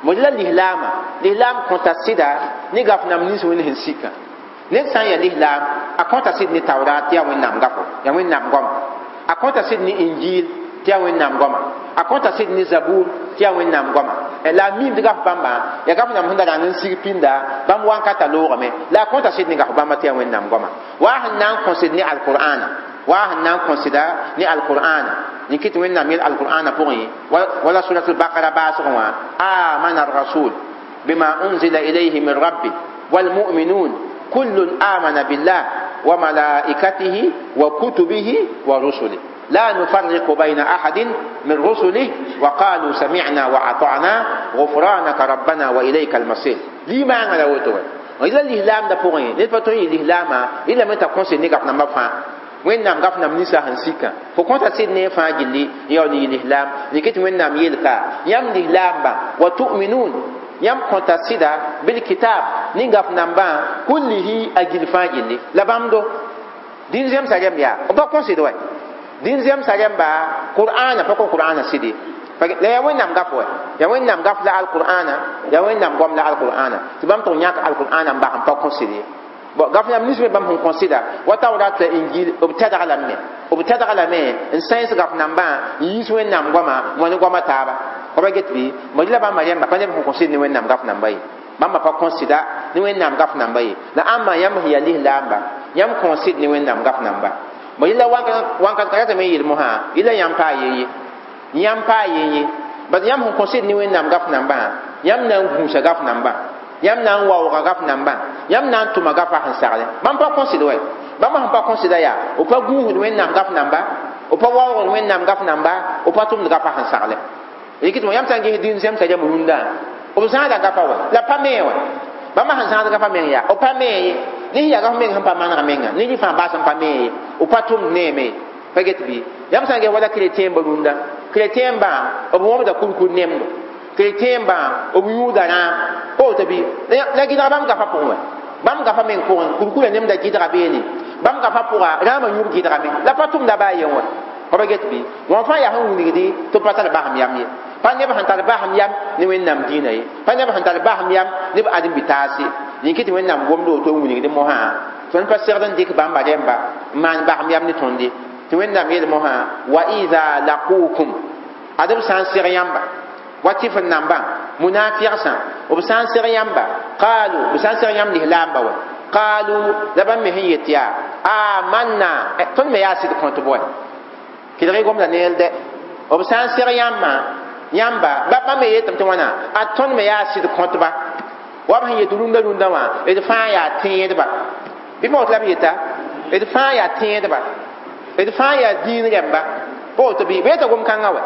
مجلا الإسلام الإسلام كنت سيدا نغف نم نيس وين هنسيكا نيس سان يا الإسلام أكونت سيد ني توراة يا وين نم غفو يا وين نم قوم أكونت سيد ني إنجيل تيا وين نم قوم أكونت سيد ني زبور تيا وين نم قوم la mim tɩ gaf bãmba yaa gaf nam sẽn da rãng n sig pĩnda bãmb wãnkata loogame la a kõta sɩd ne gaf bãmba tɩ yaa wẽnnaam goama wa sẽn na n kõsd ne alqur'ana wa sẽn na n kõsda ne alqur'ana yẽ kɩ tɩ wẽnnaam yel alqur'ana pʋgẽ wala surat albaqara baasgẽ wã amana arrasul bima unzila ilayhi min rabbi walmu'minun kullun amana billah wa malaikatihi wa kutubihi wa rusulihi لا نفرق بين أحد من رسله وقالوا سمعنا وأطعنا غفرانك ربنا وإليك المصير لما أنا وتو إلا الإسلام da pʋgẽ ned pa tõe n yɩ lislaamã yẽla me t'a kõse ne gaf nambã fãa wẽnnaam gaf nam ninsã sẽn sika fo kõta sɩd ne fãa gilli n yaool n yɩ lislaam rɩk tɩ wẽnnaam yelka yãmb lislaambã wa tu'minun yãmb kõta sɩda bilkitab ne gaf nambã kullihi a gill fãa gilli la bãmb do dĩn zemsa rẽmb yaa b pa kõsd wa dĩn zemsa rẽmba qur'ana pa kõ qur'ana sɩde la yaa wẽnnaam gaf wa yaa wẽnnaam gaf la alqur'ana yaa wẽnnaam goam la alqur'ana tɩ bãmb tʋg yãk alqur'ana n bas n pa kõsd ye bon gaf yãmb nins me bãmb sẽn kõsɩda wa tawrat la injil b tɛdg lame b tɛdg lame n sãens gaf nambã n yiis wẽnnaam goama n wa ne goama taaba pa get bɩ mo la bãmba rẽmba pa neb sẽn kõsd ne wẽnnaam gaf namba ye bãmba pa kõsɩda ne wẽnnaam gaf namba ye la ãmba yãmb sẽn yaa lislaamba yãmb kõsd ne wẽnnaam gaf namba mo yẽla wãnkat ka ratame n yeel mosã yẽla yãmb paa yeye yãmb paa yeye bas yãmb sẽn kõsd ne wẽnnaam gaf nambã yãmb na n gũusa gaf nambã yãmb na n waooga gaf nambã yãmb na n tʋma gafa sẽn sagle bãmb pa kõsd wa bãmb sẽn pa kõsda yaa b pa gũusd wẽnnaam gaf namba b pa waoogd wẽnnaam gaf namba b pa tʋmd gafa sẽn sagle rɩk tɩ yãmb sã n ges dĩn zemsa rãmb rũndã b zãada gafa wa la pa mee wa bãmb sẽn zãad gafa meng yaa b pa mee ye ne yaa gaf meng sẽn pa manega menga ne rɩ fãa baas n pa mee ye b pa tʋmd neeme ye pa get bɩ yãmb sã n ges wala chrétien ba rũndã chrétien bã b wõbda kurkur nemdo chrétien bã b yũuda rãam pa woto bɩ la gɩdga bãmb gafa pʋgẽ wa bãmb gafa meng pʋgẽ kurkurã nemda gɩdga beene bãmb gafa pʋga rãamã yũub gɩdgame la pa tʋmda baa yen wa pa get bɩ wã fãa yaa sẽn wilgdi tɩ b pa tar basem yam ye pa neb sẽn tar basem yam ne wẽnnaam dĩinã ye pa neb sẽn tar basem yam ne b ãdem-bi-taas ye yĩn tɩ wẽnnaam gomd woto n wilgd mosã tõnd pa segd n dɩk bãmba rẽmba n maan basem yam ne tõnd ye tɩ wẽnnaam yeel mosã wa ida laqukum ad b sã n seg yãmba wa tɩf n nambã munafigsã b sã n seg yãmba qaalu b sã n seg yãmb lislaamba wa qaalu la bãmb me sẽn yet yaa amanna tõnd me yaa sɩd kõtb wa kelg gomda neel dɛ b sã n seg yãmbã yãmba bãmb me yetame tɩ wãna a tõnd me yaa sɩd kõtba wa b sẽn yet rũndã rũndã wã d fãa yaa tẽedba bɩ pa woto la b yeta d fãa yaa tẽedba d fãa yaa dĩin rẽmba pa woto bɩ b yeta gom-kãngã wa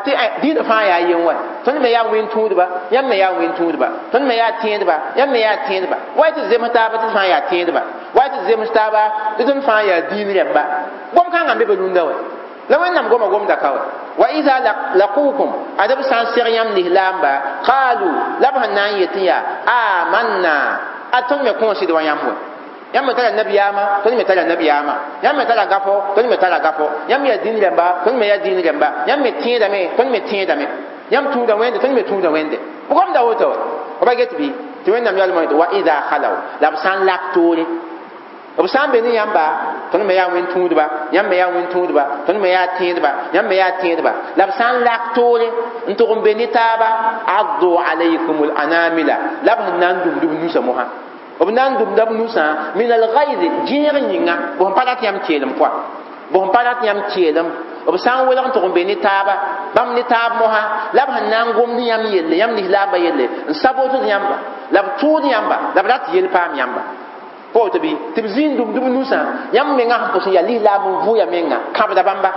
tɩ dĩinã fãa yaa yen wa tõnd me yaa wẽn-tũudba yãmb me yaa wẽn-tũudba tõnd me yaa tẽedba yãmb me yaa tẽedba wa tɩ zems taaba tɩ fãa yaa tẽedba wa tɩ zems taaba tɩ tõnd fãa yaa dĩin rẽmba gom-kãngã n be be rũndã wa la wẽnnaam goma gomda ka wa wa ida laqukum ad b sã n seg yãmb lislaamba qaalu la b sẽn na n yetẽ yaa amanna a tõnd me kõosd wa yãmb wa yãmb me tara nabiyaamã tõnd me tara nabiyaamã yãmb me tara gafo tõnd me tara gafo yãmb yaa dĩin rẽmba tõnd me yaa dĩin rẽmba yãmb me tẽedame tõnd me tẽedame yãmb tũuda wẽnde tõnd me tũuda wẽnde b gomda woto wa ba get bɩ tɩ wẽnnaam yaoolmã yetɩ wa ida khalaw la b sã n lak toore b sã n be ne yãmba tõnd me yaa wẽn-tũudba yãmb me yaa wẽn-tũudba tõnd me yaa tẽedba yãmb me yaa tẽedba la b sã n lak toore n tʋg n be ne taaba addu alaykum anamila la b sẽn na n dũmd b nusã mosã b na n dũmda b nusã min algayz gẽeg yĩnga b sẽn pa rat yãmb keelem pʋa b sẽn pa rat yãmb keelem b sã n welg n tʋg n be ne taaba bãmb ne taab mosã la b sẽn na n gomd yãmb yelle yãmb lislaambã yelle n sabotd yãmba la b tʋʋd yãmba la b rat yel paam yãmba pa woto bɩ tɩ b zĩig n dũmd b nusã yãmb mengã sẽn pʋs n yaa lislaam n vʋʋya menga kãbda bãmba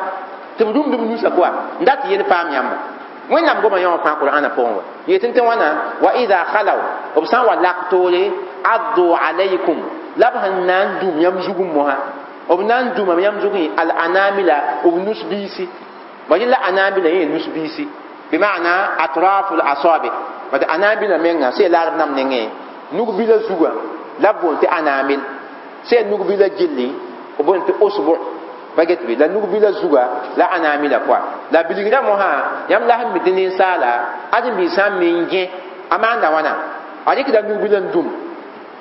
tɩ b rũmd b nusã koa n dat yel paam yãmba wẽnnaam goma yã wã fãa qur'ana pʋgẽ wa yetɩ tɩ wãna wa ida khalaw b sã n wa lak toore addu alaykum la b sẽn na n dũm yãmb zugẽ mosã b na n dũmame yãmb zugẽ al anamila b nus biisi ba yẽla anamila yẽ nus biisi bima'na atrafu l asabi bad anamila menga sẽn laarb nam nengẽ nug bila zugã la b boond tɩ anamil sẽn nug bila gilli b boond tɩ usbu pa get bɩ la nug bila zuga la anamila pʋa la bilgrã mosã yãmb la sẽn mi tɩ ninsaala ãdem-biig sã n me n gẽ a maanda wãna a rɩkda nug bila n dũm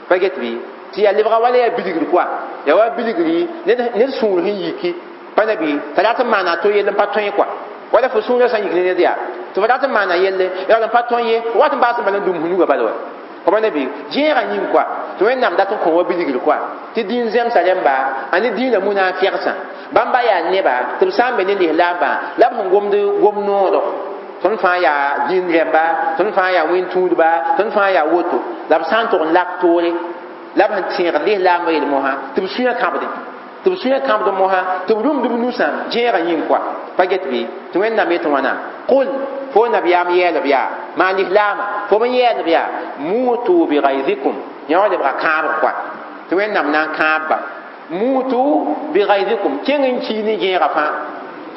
pa get bɩ tɩ yaa lebga wala yaa bilgr koa yaa wa bilgri ned sũur sẽn yiki pa na bɩ t'a rat n maana to yell n pa tõe koa wala fo sũurã sã n yik ne ned yaa tɩ fo rat n maana yelle yaa n pa tõe ye wat n baas n bala n dũm f nugã bala wa pa na bɩ gẽegã yĩng koa tɩ wẽnnaam dat n kõ wa bilgr koa tɩ dĩin zemsa rẽmba a ne dĩinã munaafɛgsã bãmba yaa neba tɩ b sã n be ne lislaambã la b sẽn gomd gom noodo tõnd fãa yaa dĩin rẽmba tõnd fãa yaa wẽn-tũudba tõnd fãa yaa woto la b sã n tʋg n lak toore La b sẽn tẽegd lislaambã yel mosã tɩ b sũyã kãbdẽ tɩ b sũyã kãbd mosã tɩ b rũmd b nusã gẽegã yĩng koa pa get bɩ tɩ Wẽnnaam yetɩ wãna qul fo nabiyaam yɛɛlb yaa maan lislaamã fo b n yɛɛlb yaa mutu bighayzikum yã wã lebga kãabg koa tɩ Wẽnnaam na n kãabba mutu bighayzikum kẽng n kii ne gẽegã fãa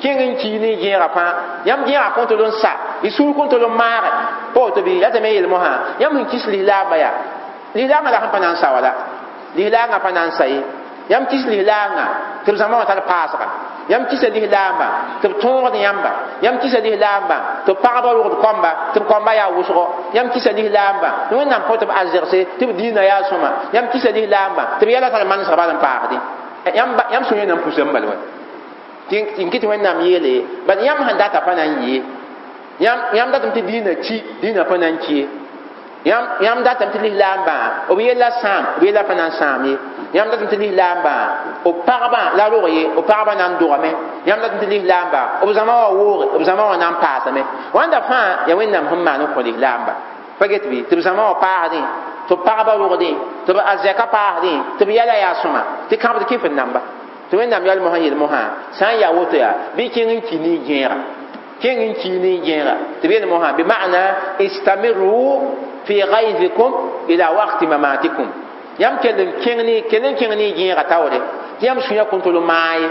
kẽng n kii ne gẽegã fãa yãmb gẽegã kõn tol n sa y sũur kõn tol n maage pa woto bɩ yaa tɩ me yel mosã yãmb sẽn kis lislaambã yaa lislaangã la sẽn pa na n sa wala lislaangã pa na n sa ye yãmb kis lislaangã tɩ b zãma wã tar paasga yãmb kisa lislaambã tɩ b tõogd yãmba yãmb kisa lislaambã tɩ b pagba rogd kõmba tɩ b kõmba yaa wʋsgo yãmb kisa lislaambã tɩ Wẽnnaam kõ tɩ b arzegse tɩ b dĩinã yaa sõma yãmb kisa lislaambã tɩ b yɛla tar manesg bal n paasdẽ yãmb sũyã na n pusame bal wa tɩ n kɩ tɩ Wẽnnaam yeele bad yãmb sẽn data pa na n yɩ yãmb datame tɩ dĩinã ki dĩinã pa na n ki ye yãmb datame tɩ lislaambã b yella sãam b yella pa na n sãam ye yãmb datame tɩ lislaambã b pagbã la rog ye b pagbã na n dogame yãmb datame tɩ lislaambã b zãma wã wooge b zãma wã na n paasame wãnda fãa yaa Wẽnnaam sẽn maan n kõ lislaamba pa get bɩ tɩ b zãma wã paasdẽ tɩ b pagba rogdẽ tɩ b arzɛka paasdẽ tɩ b yɛla yaa sõma tɩ kãbd kɩf n namba tɩ Wẽnnaam yɛl mosã yel mosã sã n yaa woto yaa bɩ kẽng n ki ne gẽega kẽng n kii ne gẽega tɩ b yel mosã bi ma'na istamiru fi ghayzikum ila waqti mamatikum yãmb kell n kẽng ne kell n kẽng ne gẽega taoore tɩ yãmb sũyã kõn tol n maag ye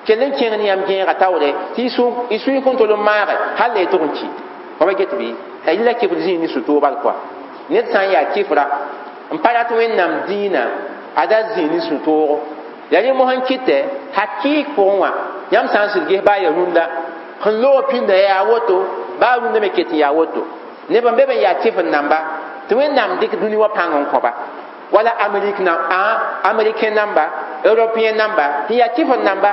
kell n kẽng ne yãmb gẽega taoore tɩ y sũy kõn tol n maage hal la y tʋg n ki pa ba get bɩ la kɩfd zĩig ne sũ-toog bal koa ned sã n yaa kɩfra n pa rat Wẽnnaam dĩinã a da zĩig ne sũ-toogo yaa rẽ mosã n kɩtɛ hakɩɩk pʋgẽ wã yãmb sã n sɩd ges baa yaa rũndã sẽn loog pĩnda yaa woto baa rũndã me ket n yaa woto neb n be b n yaa kɩf n namba tɩ Wẽnnaam dɩk dũni wã pãng n kõba wala Amérique na américain namba européen namba tɩ yaa kɩf n namba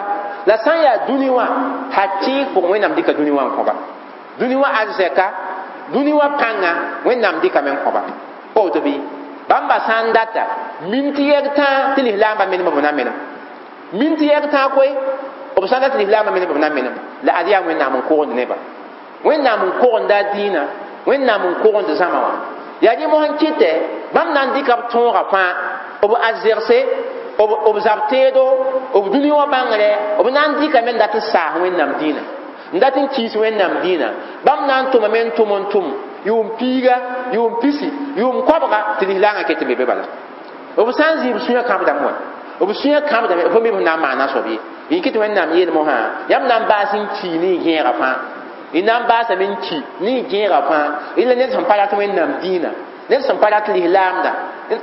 la sã n yaa dũni wã hakɩɩk pʋgẽ Wẽnnaam dɩka dũni wã n kõba dũni wã arzɛka dũni wã pãnga Wẽnnaam dɩkame n kõba pa woto bɩ bãmba sã n data min tɩ yɛg tãa tɩ lislaambã menem b na menem min tɩ yɛg tãa koe b sã n dat lislaambã menem b na menem la ad yaa Wẽnnaam n kogend neba Wẽnnaam n kogenda dĩinã Wẽnnaam n kogend zãma wã yaa rẽ mosã n kɩtɛ bãmb na n dɩka b tõoga fãa b arzegse b zab teedo b dũni wã bãngrɛ b na n dɩkame n dat n saas Wẽnnaam dĩinã n dat n kiis Wẽnnaam dĩinã bãmb na n tʋmame n tʋm n tʋm yʋʋm piiga yʋʋm pisi yʋʋm koabga tɩ lislaangã ket n be be bala b sã n zĩ b sũyã kãbdame wa b sũyã kãbdame fo me b na n maana soab ye n kɩ tɩ Wẽnnaam yeel mosã yãmb na n baas n kii ne y gẽega fãa y na n baasame n ki ne y gẽega fãa y la ned sẽn pa rat Wẽnnaam dĩinã ned sẽn pa rat lislaamda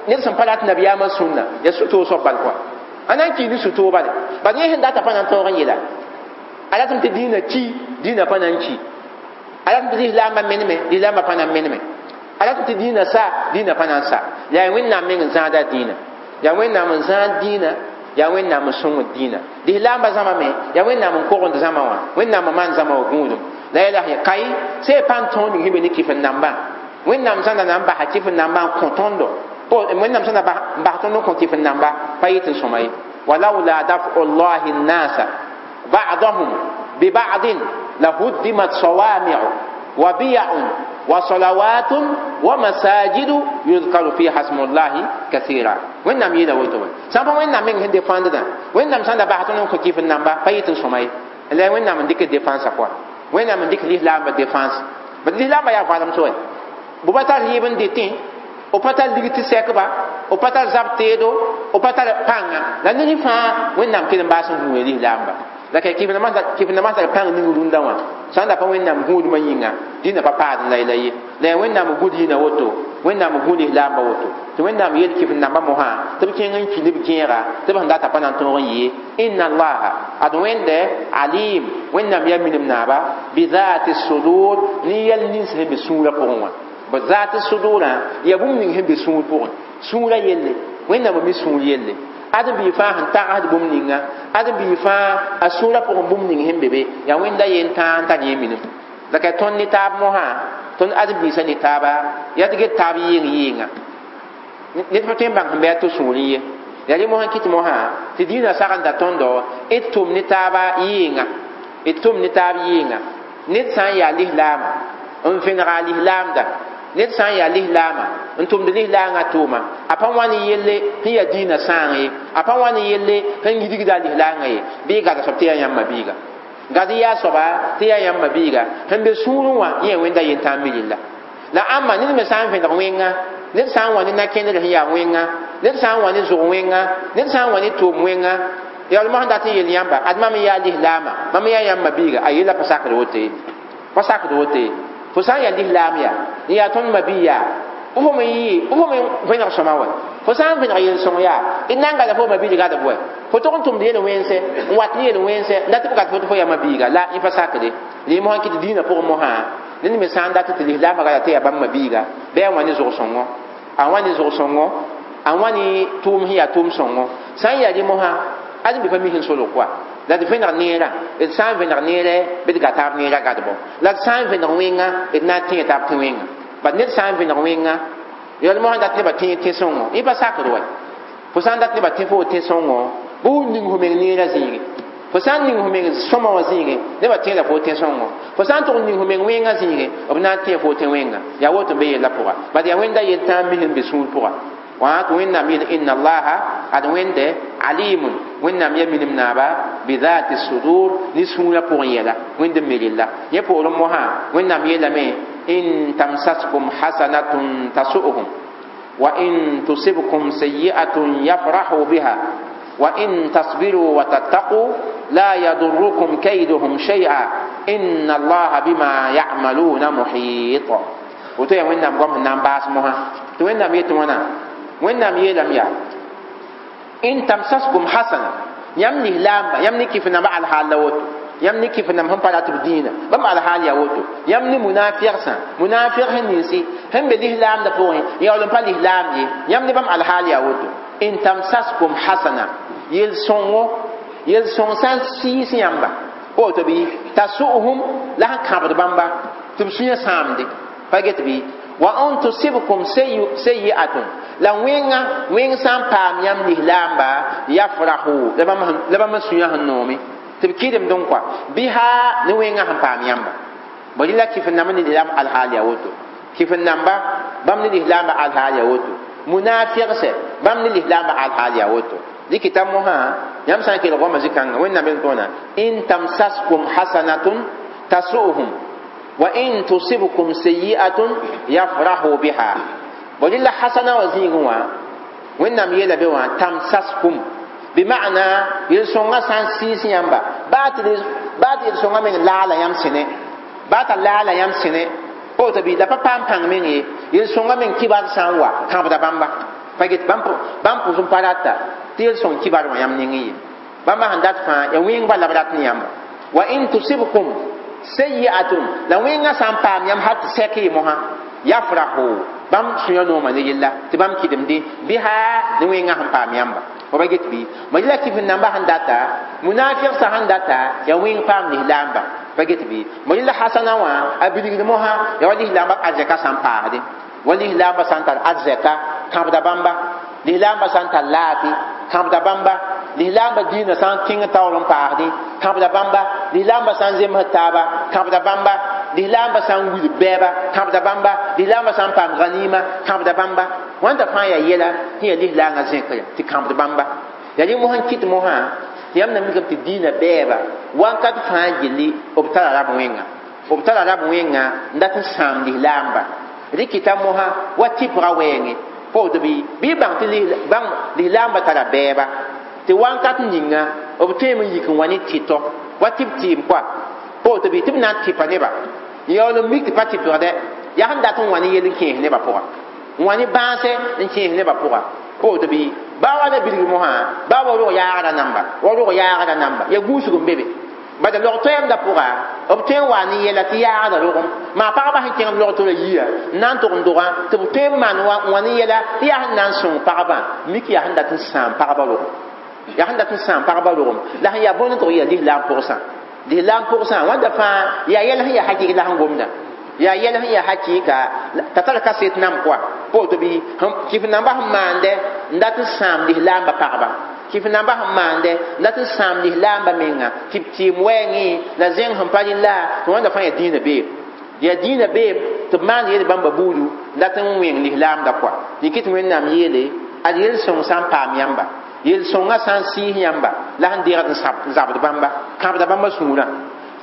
ned sẽn pa rat nabiyaamã sũnna yaa sũ-toog soab bal koa a na n kii ne sũ-toog bale bad yẽ sẽn data pa na n tõog n yeela a ratame tɩ dĩinã ki dĩinã pa na n ki a ratame tɩ lislaambã meneme lislaambã pa na n meneme a ratame tɩ dĩinã sa dĩinã pa na n sa yaa Wẽnnaam meng n zãada dĩinã yaa Wẽnnaam n zãad dĩinã yaa Wẽnnaam n sõngd dĩinã lislaambã zãma me yaa Wẽnnaam n kogend zãma wã Wẽnnaam n maan zãma wã gũudum la yɛla sẽn kai sẽn pa n tõog ning sẽn be ne kɩf n nambã Wẽnnaam zãnda na n basa kɩf n nambã n kõ tõndo Wẽnnaam zãnda n bas tõnd n kõ kɩf n namba pa yɩ tɩ n sõma ye walaula dafu llahi nnasa ba'dahum biba'din lahuddimat sawami'u wa biya'un wa salawatun wa masajidu yuzkaru fiha smullahi kathira Wẽnnaam yeela woto wã sã n pa Wẽnnaam meng sẽn defãndda Wẽnnaam sãn da bas tõnd n kõ kɩf n namba pa yɩ tɩ n sõma ye la Wẽnnaam n dɩk defãnsã pʋga Wẽnnaam n dɩk lislaambã defãns bad lislaambã yaa valem soe b pa tar yɩɩb n dɩtẽ b pa tar lig tɩ sɛkba b pa tar zab teedo b pa tar pãnga la ned fãa Wẽnnaam kell n baas n gũuda lislaamba la ka kɩf nambã tar pãng ning rũndã wã sã n da pa Wẽnnaam gũudmã yĩnga dĩnã pa paad la la ye la yaa Wẽnnaam n gũ dĩinã woto Wẽnnaam n gũ lislaambã woto tɩ Wẽnnaam yeel kɩf n nambã mosã tɩ b kẽng n ki ne b gẽega tɩ b sẽn data pa na n tõog n yɩ inna allaha ad Wẽnde alim Wẽnnaam yaa minim naaba bizati sudur ne yɛl nins sẽn be sũurã pʋgẽ wã b zat sudurã yaa bũmb ning sẽn be sũur pʋgẽ sũurã yelle Wẽnnaam mi sũur yelle ad bii fãa sẽn tagsd bũmb ninga ad bii fãa a sũurã pʋgẽ bũmb ning sẽn be be yaa Wẽnda yen tãa n tar yẽ minim la ka tõnd ne taab mosã tõnd ãdem-biisã ne taaba yaa tɩ get taab yɩɩng yɩɩnga ned pa tõe n bãng sẽn bɩ a to sũurẽ ye yaa rẽ mosã kɩt mosã tɩ dĩinã sagenda tõndo d tʋm ne taaba yɩɩnga d tʋm ne taab yɩɩnga ned sã n yaa lislaama n vẽnega a lislaamda Ned sã n yaa lislaamã n tʋmd lislaangã tʋʋma a pa wa ne yelle sẽn yaa dĩinã sãang ye, a pa wa ne yelle sẽn yidgda a lislaangã ye, bɩ gad soab tɩ yaa yãmb mabiiga. Gad yaa soaba tɩ yaa yãmb mabiiga sẽn be sũurẽ wã yẽ wẽnda yentãag mi rella. La ãmba ned me sã n vẽneg wẽnga, ned sã n wa ne na-kẽndr sẽn yaa wẽnga, ned sã n wa ne zʋg wẽnga, ned sã n wa ne tʋʋm wẽnga, yaool mosã dat n yel yãmba ad mam n yaa lislaamã, mam n yaa yãmb mabiiga, a yella pa sakd woto ye, pa sakd woto ye. Fo sã n yaa lislaam yaa n yaa tõnd mabii yaa fo me yɩ fo me vẽneg sõma wɛ, fo sã n vẽneg yel-sõng yaa d na n gada fo mabiig gadb wɛ, fo tog n tʋmd yel-wẽnse n wat ne yel-wẽnse n dat tɩ b gad fo tɩ fo yaa mabiiga la yẽ pa sakde. Rẽ mosã kɩt dĩinã pʋgẽ mosã ned me sã n dat tɩ lislaamã gada tɩ yaa bãmb mabiiga bɩ a wã ne zʋg-sõngo, a wã ne zʋg-sõngo, a wã ne tʋʋm sẽn yaa tʋʋm-sõngo. Sã n yaa rẽ mosã ad n be pa mi sẽn solg koa la d vẽneg neerã, d sã n vẽneg neerɛ bɩ d ga taab neerã gadbɔ, la d sã n vẽneg wẽnga d na n tẽe taab tẽ wẽnga. Bad ned sã n vẽneg wẽnga yaool mosã dat nebã tẽ tẽ-sõngo yẽ pa sakd wɛ. Fo sã n dat nebã tẽ fo tẽ-sõngo bɩ f ning fo meng neerã zĩige, fo sã n ning fo meng sõma wã zĩige nebã tẽeda fo tẽ-sõngo, fo sã n tʋg n ning fo meng wẽngã zĩige b na n tẽ fo tẽ wẽnga. Yaa woto n be yella pʋga bad yaa wẽnda yel-tãag mis n be sũur pʋga. Wã tɩ Wẽnnaam yeel inna allaha ad wẽnde alimun Wẽnnaam ya minim naaba bidhati sudur ne sũurã pʋgẽ yɛla wẽnd n me rella. Yẽ poorẽ mosã Wẽnnaam yeelame in tamsaskum hasanatun tasu'uhum wa in tusibkum sayyi'atun yafrahu biha wa in tasbiru wa tattaqu la yadurrukum kayduhum shay'a inna allaha bima ya'maluna muhit. Woto yaa Wẽnnaam goam sẽn na n baas mosã tɩ Wẽnnaam yetɩ wãna. Wẽnnaam yeelame yaa in tamsaskum hasana yãmb lislaamba yãmb ne kɩf namba alhaal la woto, yãmb ne kɩf namb sẽn pa rat b dĩinã bãmb alhaal yaa woto, yãmb ne munafigsã munafig sẽn ninsi sẽn be lislaamdã pʋgẽ yaool n pa lislaam ye, yãmb ne bãmb alhaal yaa woto. In tamsaskum hasana yel-sõngo yel-sõng sã n sɩɩs yãmba woto bɩ tasu'uhum la sẽn kãbd bãmba tɩ b sũyã sãamde pa get bɩ wa an tusibkum sayyi'atun la wẽnga wẽng sã n paam yãmb lislaamba yafrahu la bãmb sũyã sẽn noome tɩ b kɩdemd n kɔa biha ne wẽngã sẽn paam yãmba. Bõe la kɩf n namba ne lislaam alhaal yaa woto, kɩf n namba bãmb ne lislaamba alhaal yaa woto, munafigsɛ bãmb ne lislaamba alhaal yaa woto. Dɩkɩta mosã yãmb sã n kelg goamã zĩ-kãngã Wẽnnaam yel tõona in tamsaskum hasanatun tasu'uhum wa in tusibkum sayyi'atun yafrahu biha. Bõe la hasana wã zĩigẽ wã Wẽnnaam yeela be wã tamsaskum bima'na yel-sõngã sã n sɩɩs yãmba baa tɩ yel-sõngã meng laala yãmb sẽne, baa t'a laala yãmb sẽne woto bɩ la pa paam pãng meng ye, yel-sõngã meng kibar sã n wa kãbda bãmba pa get bãmb pʋs n pa rata tɩ yel-sõng kibar wã yãmb nengẽ ye, bãmba sẽn dat fãa yaa wẽng bala b rat ne yãmba. Wa in tusibkum sayyi'atun la wẽngã sã n paam yãmb hal tɩ sɛk ye mosã yafrahu bãmb sũyã nooma ne yella tɩ bãmb kɩdemde biha ne wẽngã sẽn paam yãmba. Fo pa get bɩ ma yela kɩf n namba sẽn data munafigsã sẽn data yaa wẽng paam lislaamba pa get bɩ ma yela hasana wã a bilgd mosã yaa wa lislaamba arzɛka sã n paasde wa lislaamba sã n tar arzɛka kãbda bãmba, lislaamba sã n tar laafɩ kãbda bãmba, lislaamba dĩinã sã n kẽng taoor n paasdẽ kãbda bãmba, lislaamba sã n zemsd taaba kãbda bãmba, lislaamba sã n wil bɛɛba kãbda bãmba, lislaamba sã n paam ganima kãbda bãmba. Wãnda fãa yaa yɛla sẽn yaa lislaangã zẽkre tɩ kãbd bãmba. Yaa rẽ mosã n kɩt mosã tɩ yãmb na mikame tɩ dĩinã bɛɛba wakat fãa gilli b tara rab wẽnga, b tara rab wẽnga n dat n sãam lislaamba. Rɩkɩta mosã wa tɩpga wɛɛngẽ pa woto bɩ bɩ bãng tɩ lislaamba tara bɛɛba tɩ wakat ninga b tõeme n yik n wa ne tɩtɔ wa tɩ b tɩɩm koa pa woto bɩ tɩ b na n tɩpa neba yaool n mik tɩ pa tɩpgdɛ yaa sẽn dat n wa ne yel n kẽes nebã pʋga n wa ne bãase n kẽes nebã pʋga pa woto bɩ baa wa la bilg mosã baa wa rog yaagrã namba wa rog yaagrã namba yaa gũusg n be be bad log toɛɛmdã pʋga b tõe n wa ne yɛla tɩ yaagda rogem maa pagba sẽn kẽng b log tɩ ra yia n na n tʋg n dogã tɩ b tõe n maan wã ne yɛla tɩ yaa sẽn na n sõng pagba mik yaa sẽn dat n sãam pagba rogem, yaa sẽn dat n sãam pagba rogem la sẽn yaa bõnd n tʋg yaa lislaam pʋgsã, lislaam pʋgsã wãnda fãa yaa yɛl sẽn yaa hakɩk la sẽn gomda yaa yɛl sẽn yaa hakɩka t'a tar kaset nam koa pa woto bɩ kɩf namba sẽn maandɛ n dat n sãam lislaamba pagba, kɩf namba sẽn maandɛ n dat n sãam lislaamba menga tɩ b tɩɩm wɛɛngẽ la zẽng sẽn pa rɩla tɩ wãnda fãa yaa dĩinã beeb. Yaa dĩinã beem tɩ b maan yel bãmba buudu la tɩ n wẽng lislaamda kɔa. Dɩk tɩ Wẽnnaam yeele ad yel-sõng sã n paam yãmba, yel-sõngã sã n sɩɩs yãmba la sẽn deegd n zabd bãmba, kãbda bãmba sũurã.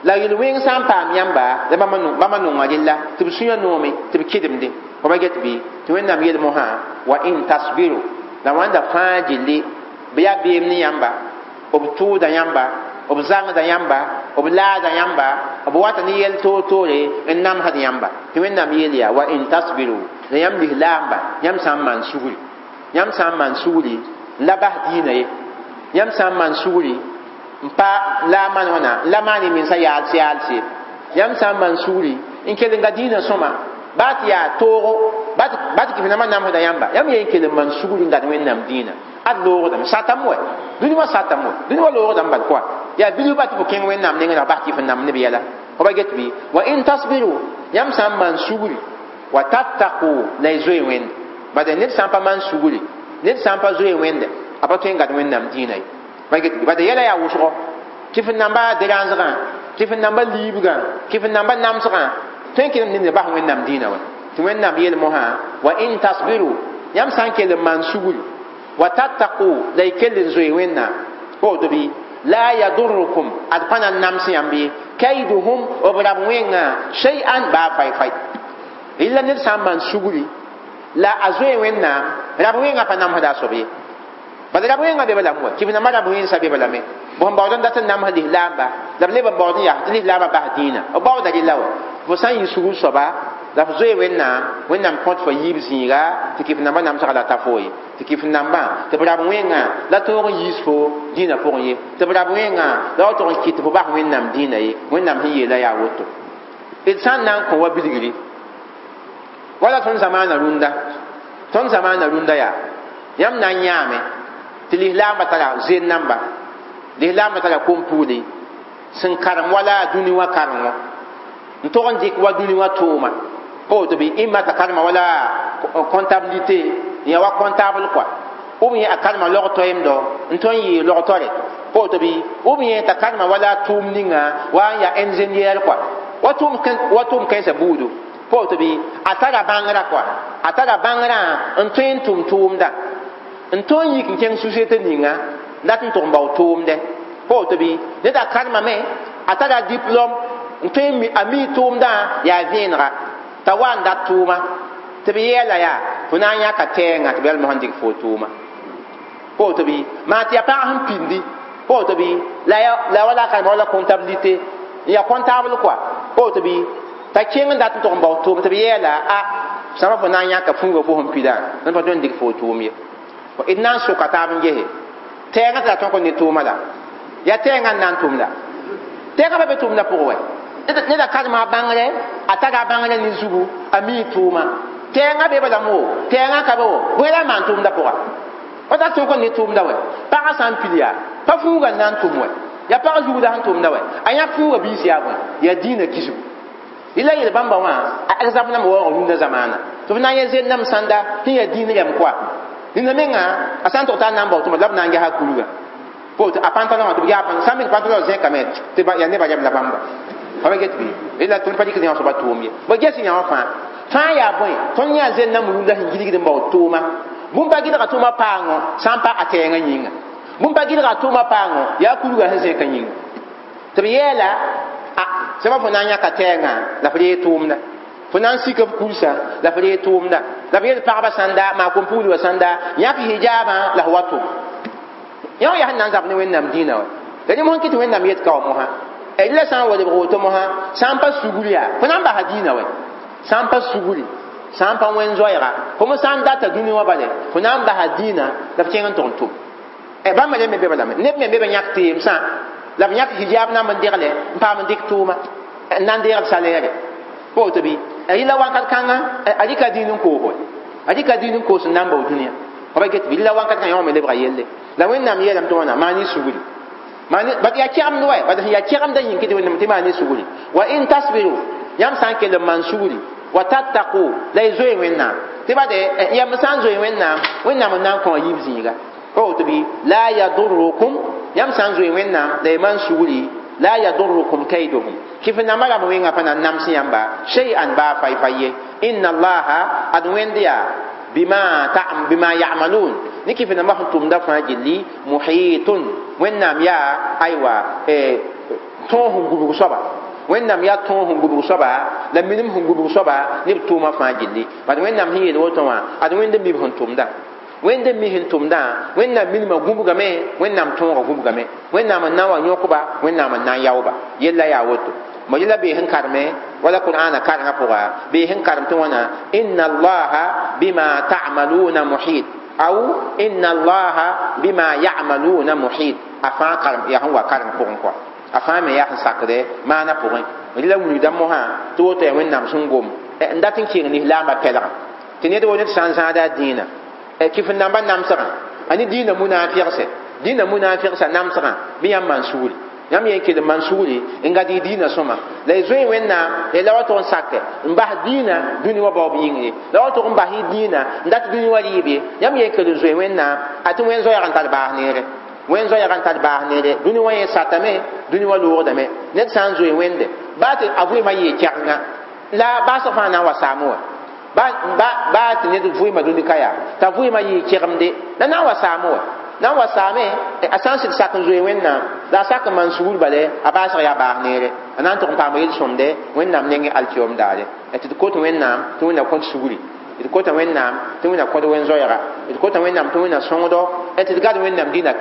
La yel-wẽng sã n paam yãmba la bãmba nonga rella tɩ b sũyã noome tɩ b kɩdemdẽ. Fo ba get bɩ? Tɩ Wẽnnaam yeel mosã wa in tasbiru, la wãnda fãa gilli bɩ yaa beem ne yãmba, b tʋʋda yãmba, b zãngda yãmba, b laada yãmba, b wata ne yɛl toor-toore n namsd yãmba. Tɩ Wẽnnaam yeel yaa wa in tasbiru, la yãmb lislaamba, yãmb sã n maan sugri, yãmb sã n maan sugri n la bas dĩinã ye, yãmb sã n maan sugri n pa la a maan wãna n la maan y mensã yaals yaals ye, yãmb sã n maan sugri n kell n ga dĩinã sõma, baa tɩ yaa toogo, baa tɩ kɩf nambã namsda yãmba, yãmb yen kell n maan sugri n gad Wẽnnaam dĩinã. Ad loogdame satame wɛ, dũni wã satame wɛ, dũni wã loogdame bal kɔa yaa bilf ba tɩ fo kẽng Wẽnnaam nengẽ la bas kɩf n namd neb yɛla. Fo ba get bɩ? Wa in tasbiru, yãmb sã n maan sugri, wa tattaqu, la y zoe Wẽnd. Bad ned sã n pa maan sugri, ned sã n pa zoe Wẽnde, a pa tõe n gad Wẽnnaam dĩinã ye. Ba get bɩ? Bad yɛla yaa wʋsgo, kɩf n namba deransgã, kɩf n namba liibgã, kɩf n namba namsgã, tõe n kelem ned bas Wẽnnaam dĩinã wã. Tɩ Wẽnnaam yeel mosã wa in tasbiru, yãmb sã n kell n maan sugri, wa tattaqu, la y kell n zoe Wẽnnaam. Woto bɩ? La yadurrukum, ad pa na n nams yãmb ye, kaiduhum, b rab wẽngã, shay'an, baa fay-fay. Rɩla ned sã n maan sugri la a zoe Wẽnnaam, rab wẽngã pa namsda a soab ye. Bala rab wẽngã be balame wa, kɩf nambã rab wẽnsã be balame. Bõn baood n dat n namsd lislaamba, la b leb n baood n yaa tɩ lislaambã bas dĩinã. B baooda rɩla wa. Fo sã n yɩ sugr soaba la f zoe Wẽnnaam, Wẽnnaam kõt fo yiib zĩiga tɩ kɩf nambã namsga la ta fo ye. Tɩ kɩf nambã tɩ b rab wẽngã la tõog n yiis fo dĩinã pʋgẽ ye. Tɩ b rab wẽngã la wa tog n kɩt tɩ fo bas Wẽnnaam dĩinã ye. Wẽnnaam sẽn yeela yaa woto. D sã n na n kõ wa bilgri wala tõnd zamaana rũndã, tõnd zamaana rũndã yaa yãmb na n yãame tɩ lislaambã tara zen namba, lislaambã tara kom-pugli sẽn karem wala dũni wã karengo n tog n dɩk wa dũni wã tʋʋma. Woto bɩ? Ɩmma t'a karema wala comptabilité, n yaa wa comptable quoi, ou bien a karema log-toɛɛmdɔ n tõe n yee log-tore. Woto bɩ? Ou bien t'a karema wala tʋʋm ninga wa n yaa ingénieur quoi, wa tʋʋm kãensã buudu. Woto bɩ? A tara bãngrã quoi, a tara bãngrã n tõe n tʋm tʋʋmda, n tõe n yik n kẽng société ninga dat n tʋg n bao tʋʋmdɛ. Woto bɩ? Ned a karemame, a tara diplôme n tõe a mi tʋʋmdã yaa vẽenega t'a wa n dat tʋʋma tɩ b yɛɛla yaa fo na n yãka tɛɛngã tɩ b yɛl mosã n dɩk fo tʋʋma. Woto bɩ? Maa tɩ yaa pãg sẽn pindi. Woto bɩ? La wala a karema wala comptabilité, n yaa comptable quoi. Woto bɩ? T'a kẽng n dat n tʋg n bao tʋʋm tɩ b yɛɛla a sãma fo na n yãka fuuga fo sẽn pidã n pa tõe n dɩk fo tʋʋm ye. D na n soka taab n gese tɛɛngã tɩ la tõk n ne tʋʋma la yaa tɛɛngã n na n tʋm la tɛɛngã pa be tʋʋmdã pʋgẽ wɛ. Ned a karema a bãngrɛ, a tara a bãngrɛ ne zugu, a mii tʋʋma. Tɛɛngã be balame wo, tɛɛngã ka be wo, bõe la n maan tʋʋmdã pʋga? Pa tar tõk n ne tʋʋmda wɛ. Pagã sã n pil yaa pa fuuga n na n tʋm wɛ, yaa pag zugda sẽn tʋmda wɛ, a yãk fuuga biis yaa bõe? Yaa dĩinã kisgu. Rɩla yel bãmba wã a exemple nambã waoog rũndã zamaana tɩ b na n yẽ zen-nam sãnda sẽn yaa dĩin rɛm koa. Rĩnda menga a sã n tog t'a na n bao tʋma la b na n gesa kurga a pantalon wã tɩ b yaa sã n mik pantalon zẽkame tɩ yaa nebã rɛm la bãmba. Fa ba get bɩ? Rɩla tõnd pa dɩk yã soaba tʋʋm ye. Ba ges yã wã fãa fãa yaa bõe? Tõnd yã zen-nam rũndã sẽn gilgd n bao tʋʋma. Bũmb pa gɩdga tʋʋma paango sã n pa a tɛɛngã yĩnga, bũmb pa gɩdga tʋʋma paango yaa kurga sẽn zẽkã yĩnga. Tɩ b yɛɛla a sẽma fo na n yãka tɛɛngã la f ree tʋʋmda, fo na n sika f kursa la f ree tʋʋmda, la b yel pagba sãnda maa kom-pugl wã sãnda yãk hijaabã la f wa tʋm. Yã wã yaa sẽn na n zab ne Wẽnnaam dĩinã wa. La rẽ mosã kɩ tɩ Wẽnnaam yet ka wã mosã rɩla sã n wa lebg woto mosã sã n pa sugr yaa fo na n basa dĩinã wɛ, sã n pa sugri, sã n pa wẽn-zoɛɛga, fo me sã n data dũni wã bale fo na n basa dĩinã la f kẽng n tʋg n tʋm. Bãmba rẽ me be balame neb me be b yãk teemsã la b yãk hijab na n degle n paam n dɩk tʋʋma n na n deegd salɛɛre. Woto bɩ? Rɩla wãnkat kãngã a rɩka dĩin n koos wɛ, a rɩka dĩin n koos n na n bao dũniyã. Fa ba get bɩ? Rɩla wãnkat kãngã yã wã me lebga yelle. La Wẽnnaam yeelame tɩ wãna maan y sugri, bat yaa kɛgemd wɛ, bat sẽn yaa kɛgemdã yĩng kɩ tɩ Wẽnnaam tɩ maan y sugri. Wa in tasbiru, yãmb sã n kell n maan sugri, wa tattaqu, la y zoe Wẽnnaam tɩ bade yãmb sã n zoe Wẽnnaam, Wẽnnaam n na n kõ a yiib zĩiga. Woto bɩ? La yadurrukum, yãmb sã n zoe Wẽnnaam la y maan sugri, La yadurrukum kayduhum kif namba rãmb wẽngã pa na n nams yãmba shay'an baa fay-fay ye. Inna allaha ad wẽnd yaa bima ya'malun ne kif namba sẽn tʋmda fãa gilli muhitun wẽnnaam yaa aywa tõog sẽn gubg soaba wẽnnaam yaa tõog sẽn gubg soaba la minim sẽn gubg soaba ne b tʋʋmã fãa gilli bad wẽnnaam sẽn yeel woto wã ad wẽnd n mi b sẽn tʋmda wẽnd n mi sẽn tʋmdã wẽnnaam minimã gũbgame wẽnnaam tõogã gũbgame wẽnnaam n na n wa yõkba wẽnnaam n na n yaooba yella yaa woto ma yella bee sẽn karme wala qur'ana karengã pʋga bee sẽn karem tɩ wãna inna allaha bima ta'maluna muhit aw inna allaha bima ya'maluna muhit a fãa karem yaa sẽn wa kareng pʋgẽ kɔa a fãa me yaa sẽn sakdɛ maana pʋgẽ rɩla wilgda mosã tɩ woto yaa wẽnnaam sẽn gom n dat n kɩeng lislaambã pɛlgã tɩ ned wo ned sã n zãada a dĩinã kɩf n namba namsgã a ne dĩinã munaafɩgse dĩinã munaafɩgsa namsgã bɩ yãmb maan sugri yãmb yen kell n maan sugri n gad y dĩinã sõma la y zoe wẽnnaam la y la wa tʋg n sake n bas dĩinã dũni wã baoob yĩng ye la wa tʋg n bas y dĩinã n dat dũni wã rɩɩb ye yãmb yen kell n zoe wẽnnaam a tɩ wẽn zoɛɛg n tar baas neere wẽn zoɛɛg n tar baas neere dũni wã yẽ satame dũni wã loogdame ned sã n zoe wẽnde baa tɩ a vɩɩmã yee kɛgenga la baasg fãa na n wa saame wã baa tɩ ned vɩɩmã dũni ka yaa t'a vɩɩmã yɩɩ kɛgemde la na n wa saame wã na n wa saame a sã n sɩd sak n zoe wẽnnaam la a sak n maan sugr bale a baasg yaa baas neere a na n tʋg n paama yel-sõmde wẽnnaam nengẽ alkiyoom daare tɩ d kot wẽnnaam tɩ wẽnna kõt sugri d kota wẽnnaam tɩ wẽnna kõd wẽn-zoɛɛga d kota wẽnnaam tɩ wẽnna sõngdo tɩ d gad wẽnnaam dĩnã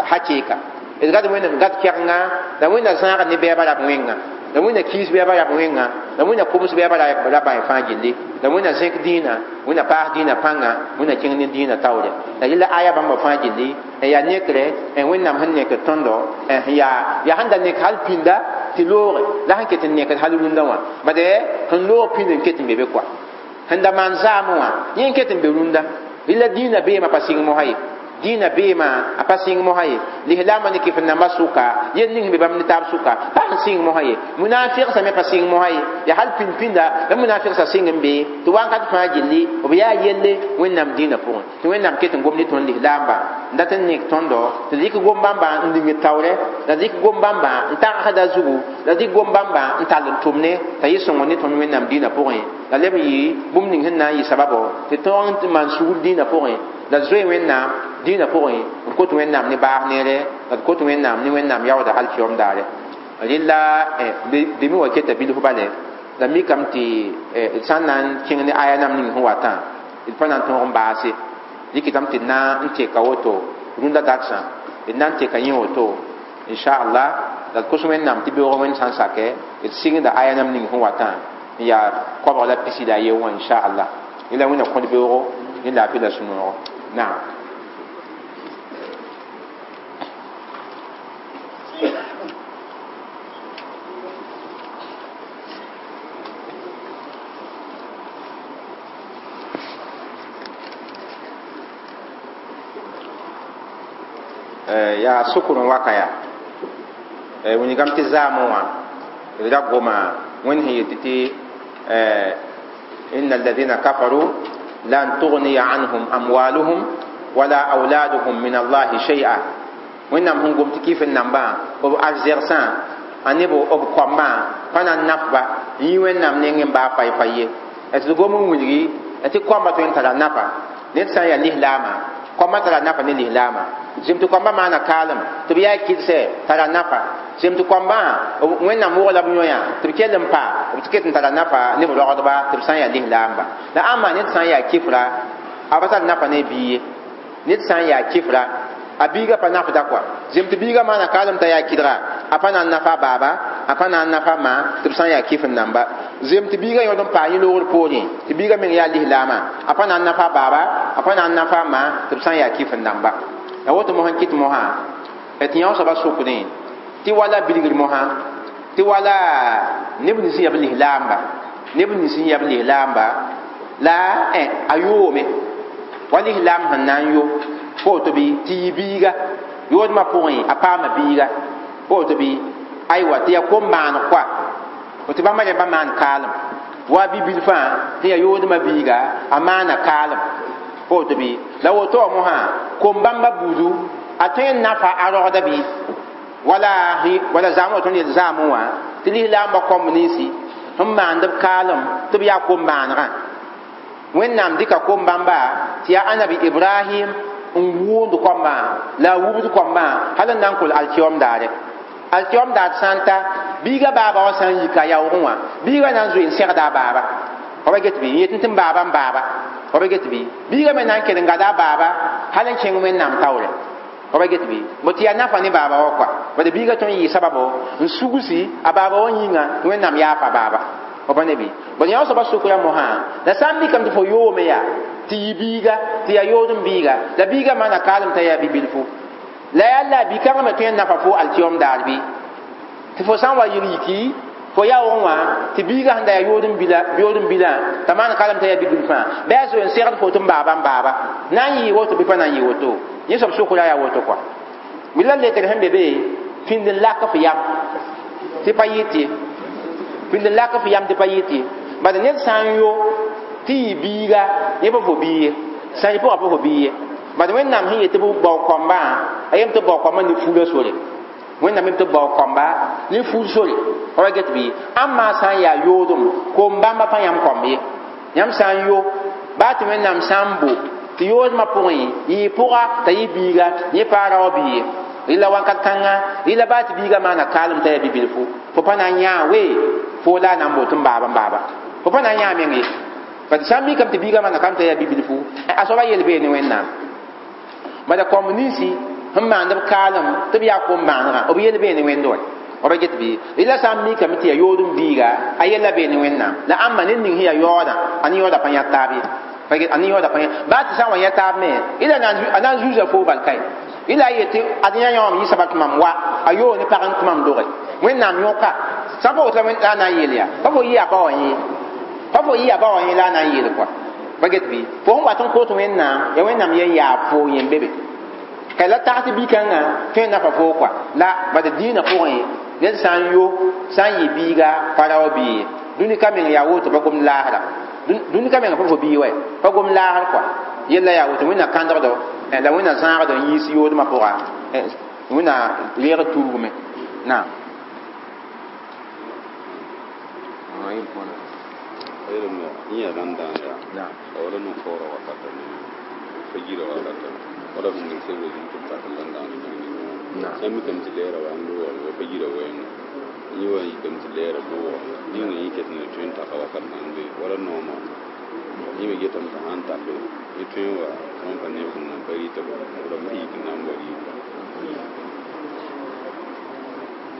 hakɩɩka d gad wẽnnaam gad kɛgenga la wẽnna zãagd ne bɛɛba rab wẽnga la wẽnna kiis bɛɛba rab wẽnga la wẽnna koms bɛɛba raba fãa gilli la wẽnna zẽk dĩinã wẽnna paas dĩinã pãnga wẽnna kẽng ne dĩinã taoore la yella aya bãmba fãa gilli n yaa nekre n wẽnnaam sẽn nekd tõndo yaa sẽn da nek hal pĩnda tɩ looge la sẽn ket n nekd hal rũndã wã bade sẽn loog pĩnd n ket n be be koa sẽn da maan zaamẽ wã yẽ n ket n be rũndã rɩla dĩinã beemã pa sɩng mosã ye dĩinã beemã a pa sɩng mosã ye lislaambã ne kɩf n nambã sʋka yel ning be bãmb ne taab sʋka pa sẽn sɩng mosã ye munaafɩgsã me pa sɩng mosã ye yaa hal pĩnd-pĩnda la munaafɩgsã sɩng n be tɩ wãnkat fãa gilli b yaa yelle wẽnnaam dĩinã pʋgẽ tɩ wẽnnaam ket n gom ne tõnd lislaambã n dat n nek tõndo tɩ dɩk gom bãmba n lingd taoorɛ la dɩk gom bãmba n tagsda zugu la dɩk gom bãmba n tall n tʋmne t'a yɩ sõngr ne tõnd wẽnnaam dĩinã pʋgẽ la leb n yɩ bũmb ning sẽn na n yɩ sababo tɩ tõog n maan sugr dĩinã pʋgẽ la zoe wẽnnaam dĩinã pʋgẽ n kot wẽnnaam ne baas neere la d kot wẽnnaam ne wẽnnaam yaooda alkiyom daare rɩla dẽmẽ wa keta bilf bale la mikame tɩ d sã n na n kẽng ne aya nam ning sẽn watã d pa na n tõog n baase dɩkɩtame tɩ d na n teka woto rũndã dagsã d na n teka yẽ woto inchallah la d kos wẽnnaam tɩ beoog wẽnd sã n sakɛ d sɩngda aya nam ning sẽn watã n yaa koabg la pisi la a ye wã inchallah yẽla wẽnna kõd beoogo ne laafɩ la sũ-noogo naam. Yaa sʋkr n waka yaa wilgame tɩ zaamẽ wã d ra goma wẽnd sẽn yet tɩ inna alladhina kafaru lan tughniya anhum amwaluhum wala auladuhum min allahi shay'a wẽnnaam sẽn gom tɩ kɩf n nambã b arzegsã a ne b koambã pa na n nafba n yɩ wẽnnaam nengẽ baa fay-fay ye tɩ d gom n wilgi tɩ koambã tõe n tara nafa ned sã n yaa lislaamã koambã tara nafa ne lislaamã zem tɩ koambã maana kaalem tɩ b yaa kɩdse tara nafa zem tɩ koambã wẽnnaam wog la b yõ-yã tɩ b kell n pa b tɩ ket n tara nafa ne b rogdba tɩ b sã n yaa lislaamba la ãmba ned sã n yaa kɩfra a pa tar nafa ne bia ye ned sã n yaa kɩfra a biiga pa nafda kɔa zem tɩ biiga maana kaalem t'a yaa kɩdga a pa na n nafa a baaba a pa na n nafa a ma tɩ b sã n yaa kɩf n namba zem tɩ biiga yõd n paa yẽ loogr poorẽ tɩ biiga meng yaa lislaamã a pa na n nafa a baaba a pa na n nafa a ma tɩ b sã n yaa kɩf n namba la woto mosã n kɩt mosã tɩ yã soaba sʋkdẽ tɩ wala bilgr mosã tɩ wala neb nins n yaa b lislaamba neb nins n yaa b lislaamba la a yoome wa lislaam sẽn na n yo pa woto bɩ tɩ yɩ biiga yoodmã pʋgẽ a paama biiga pa woto bɩ aywa tɩ yaa kom-maaneg koa tɩ bãmba rẽmba maan kaalem wa bi-bilfã tɩ yaa yoodmã biiga a maana kaalem pa woto bɩ la woto wã mosã kom bãmba buudu a tõe n nafa a rogda bɩ Wala wala zãam wa tõnd yel zaamẽ wã tɩ lislaambã kõmb ninsi sẽn maand b kaalem tɩ b yaa kom-maanegã Wẽnnaam dɩka kom-bãmba tɩ yaa Anabi Ibrahim n wʋʋnd koambã la a wubd koambã hal n na n kol alkiyoom daare. Alkiyoom daar sã n ta biiga baaba wã sã n yika a yaoogẽ wã biiga na n zoe n segda a baaba fa ba get bɩ n yet tɩ n baaba n baaba fa ba get bɩ biiga me na n kell n gada a baaba hal n kẽng Wẽnnaam taoore fa ba get bɩ bo tɩ yaa nafa ne baaba wã kɔa bad biiga tõe n yɩ sababo n sugsi a baaba wã yĩnga tɩ Wẽnnaam yaafa baaba fa pa ne bɩ bõe yã soaba sʋkra mosã la sã n mikame tɩ fo yoome yaa tɩ yɩ biiga tɩ yaa yood n biiga la biiga maana kaalem t'a yaa bi-bilfu la yaa la bi-kãngã me tõe n nafa fo alkiyom daar bɩ tɩ fo sã n wa yɩl yiki fo yaoogẽ wã tɩ biiga sẽn da yaa yood n bilã t'a maan kaalem t'a yaa bi-bilfã bɩ a zoe n segd fo tɩ n baaba n baaba na n yɩɩ woto bɩ pa na n yɩ woto yẽ soab sʋkra yaa woto kɔa la lekr sẽn be be pĩnd n lak f yam tɩ pa yɩt ye pĩnd n lak f yam tɩ pa yɩt ye bad ned sã n yo tɩ yɩ biiga yẽ pa fo bii ye sã n yɩ pʋgã pa fo bii ye bad Wẽnnaam sẽn yet tɩ b bao kambã a yem tɩ b bao kambã ne fuula sore Wẽnnaam yem tɩ b bao kamba ne fuul sore fa wa get bɩ ãmba sã n yaa yoodem kom-bãmba pa yãmb kõmb ye yãmb sã n yo baa tɩ Wẽnnaam sã n bo tɩ yoodmã pʋgẽ yɩ pʋga t'a yɩ biiga yẽ paa rao bii ye rɩla wakat kãnga rɩla baa tɩ biiga maana kaalem t'a yaa bi-bilfu fo pa na n yãa we fo la a na n boot n baaba n baaba fo pa na n yãa meng ye parce sã n mikame tɩ biiga maana kaalem t'a yaa bi-bilfu a soaba yel bee ne Wẽnnaam bala kõmb ninsi sẽn maand b kaalem tɩ b yaa kom-bãanegã b yel bee ne Wẽnd wa b get bɩ rɩla sã n mikame tɩ yaa yood n biiga a yella bee ne Wẽnnaam la ãmba ned ning sẽn yaa yaoodã a ne yaooda pa yã taab ye a ne yaooda pa yã baa tɩ sã n wa yã taab me ila a na n zuusa foo bal kae ila a yetɩ ad yã yãwame yɩ sabab tɩ mam wa a yoog ne pag n tɩ mam doge Wẽnnaam yõka sã n pa woto la a na n yeel yaa pa fo yɩ a ba wã yẽ pa fo yɩ a ba wã yẽ la a na n yeel kɔa pa get bɩ fo sẽn wat n kot Wẽnnaam ya Wẽnnaam yen yaa fo yẽn be be ka la tag tɩ bi-kãngã tõe n nafa foo kɔa la bad dĩinã pʋgẽ ned sã n yo sã n yɩ biiga pa rao bii ye dũni ka meng yaa woto pa gomd laasra dũni ka meng pa fo bii wa pa gomd laasr kɔa yella yaa woto Wẽnna kãndgdo la Wẽnna zãagdo n yiis yoodmã pʋga Wẽnna leegd tuugme naam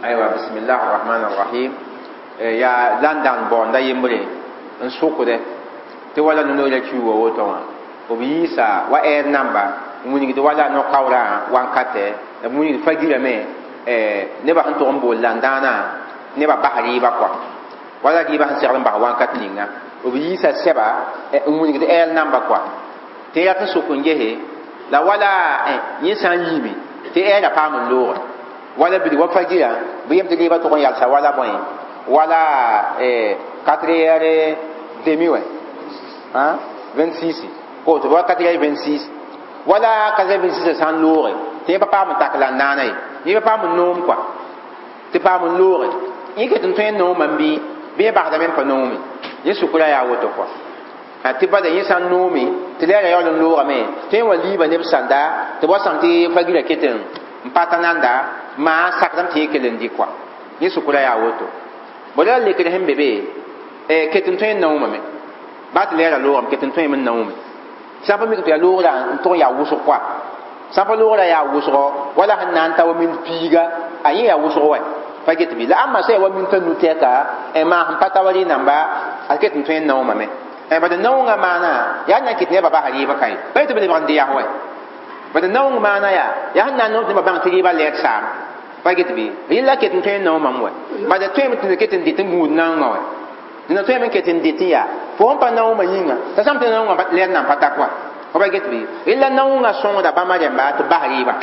Aywa bismillah arrahman arrahim ya landan bõonda yembre n sʋkde tɩ wala no-noorã kiuuga woto wã b yiisa wa ɛɛr namba n wilgd wala no-kaoorã wankatɛ la b wilgd fa-girame nebã sẽn tʋg n bool landãanã nebã bas rɩɩbã kɔa wala rɩɩbã sẽn segd n bas wakat ninga b yiisa sɛba n wilgd ɛɛr namba kɔa tɩ rat n sʋk n gese la wala yẽ sã n yiime tɩ ɛɛrã paam n looge wala bilg wa fa-girã bɩ yem tɩ rɩɩbã tʋg n yalsa wala bõe wala 4h30 wɛ 26 koto wa 4h26 wala 4h26 sã n looge tɩ yẽ pa paam n tak landãanã ye yẽ pa paam n noom kɔa tɩ paam n looge yẽ ket n tõe n noomã n bɩ bɩ yẽ basdame n pa noome yẽ sʋkra yaa woto kɔa tɩ bada yẽ sã n noome tɩ lɛɛra yaool n loogame tɩ yẽ wa liiba neb sãnda tɩ b wa sãm tɩ fa-girã ket n pa ta nanda maa sakdame tɩ yẽ kell n dɩ kɔa yẽ sʋkra yaa woto bõe la lekr sẽn be be ket n tõe n naoomame baa tɩ lɛɛra loogame ket n tõeme n naoome sã n pa mik tɩ yaa loogrã n tʋg n yaa wʋsg kɔa sã n pa loogrã yaa wʋsgɔ wala sẽn na n ta wa mind piiga a yẽ yaa wʋsg wɛ pa get bɩ la ãmba sã yaa wa min t'a nu-tɛka maa sẽn pa ta wa rɩ namba a ket n tõe n naoomame bad naoongã maana yaa na n kɩt nebã bas rɩɩbã ka ye pa yetɩ b lebg n dɩ yaa wɛ bad naoong maana yaa yaa sẽn na n noom tɩ nebã bãng tɩ rɩɩbã lɛɛd saam pa get bɩ rɩla ket n tõe n naoomame wɛ bad tõeme tɩ ket n dɩt n gũud naoongã wɛ dẽna tõeme n ket n dɩt n yaa fo sẽn pa naoomã yĩnga t'a sãm tɩ naoongã lɛɛd nan pa ta kɔa fa pa get bɩ rɩla naoongã sõngda bãmba rẽmba tɩ bas rɩɩbã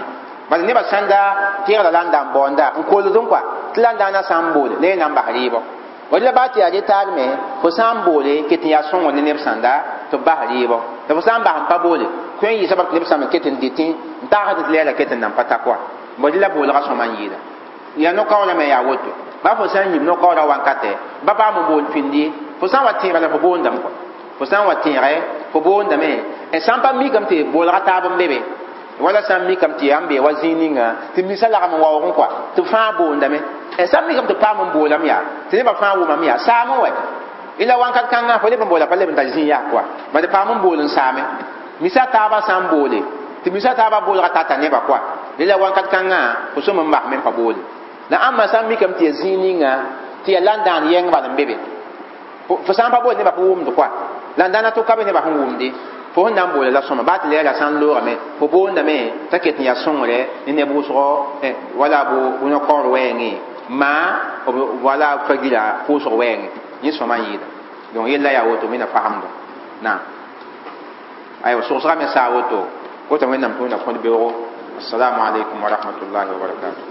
bad nebã sãn da tẽegda la n da n baoonda n kolд n kɔa tɩ la n daana sã n boole la yẽ na n bas rɩɩbɔ wala baa tɩ yaa retaar me fo sã n boole ket n yaa sõngr ne neb sãnda tɩ b bas rɩɩbɔ la fo sã n bas n pa boole tõe n yɩ sabab tɩ neb sãm n ket n dɩtẽ n tagsd tɩ lɛɛra ket n nan pa ta kɔa bõe la boolgã sõma n yɩɩda Yaa no-kaoolã me yaa woto. Ba fo sã n yib no-kaoodã wankatɛ, ba paam n bool pĩnd ye, fo sã n wa tẽega la fo boondame kɔa. Fo sã n wa tẽege, fo boondame. Sã n pa mikame tɩ bolga taab n be be. Wala sã n mikame tɩ yaa n bee wa zĩig ninga tɩ misa lagm n waoogẽ kɔa, tɩ fãa boondame. Sã n mikame tɩ paam n boolame yaa, tɩ nebã fãa wʋmame yaa, saam n wɛ. Ila wakat kãngã fo leb n boola pa leb n tar zĩig yaa kɔa. Bad paam n bool n saame. Misa taabã sã n boole, tɩ misa taabã boolga tata nebã kɔa. Ila wakat kãngã fo sõm n basme n pa boole. La ãmba sã n mikame tɩ yaa zĩig ninga tɩ yaa landãan yɛng bal n be be. Fo sã n pa bool nebã fo wʋmd kɔa. La n dãna tʋka be nebã sẽn wʋmde. Fo sẽn na n boola la sõma baa tɩ lɛɛra sã n loogame, fo boondame t'a ket n yaa sõngre ne neb wʋsgo, wala bo no-kaoor wɛɛngẽ maa wala fa-gila pʋʋsg wɛɛngẽ. Yẽ sõma n yɩɩda. Donc yella yaa woto wẽnna fagemdo. Naam. Aywa sogsga me saa woto. Woto Wẽnnaam tɩ Wẽnna kõt beoogo. Assalamu alaikum wa rahmatullahi wa barakatuh.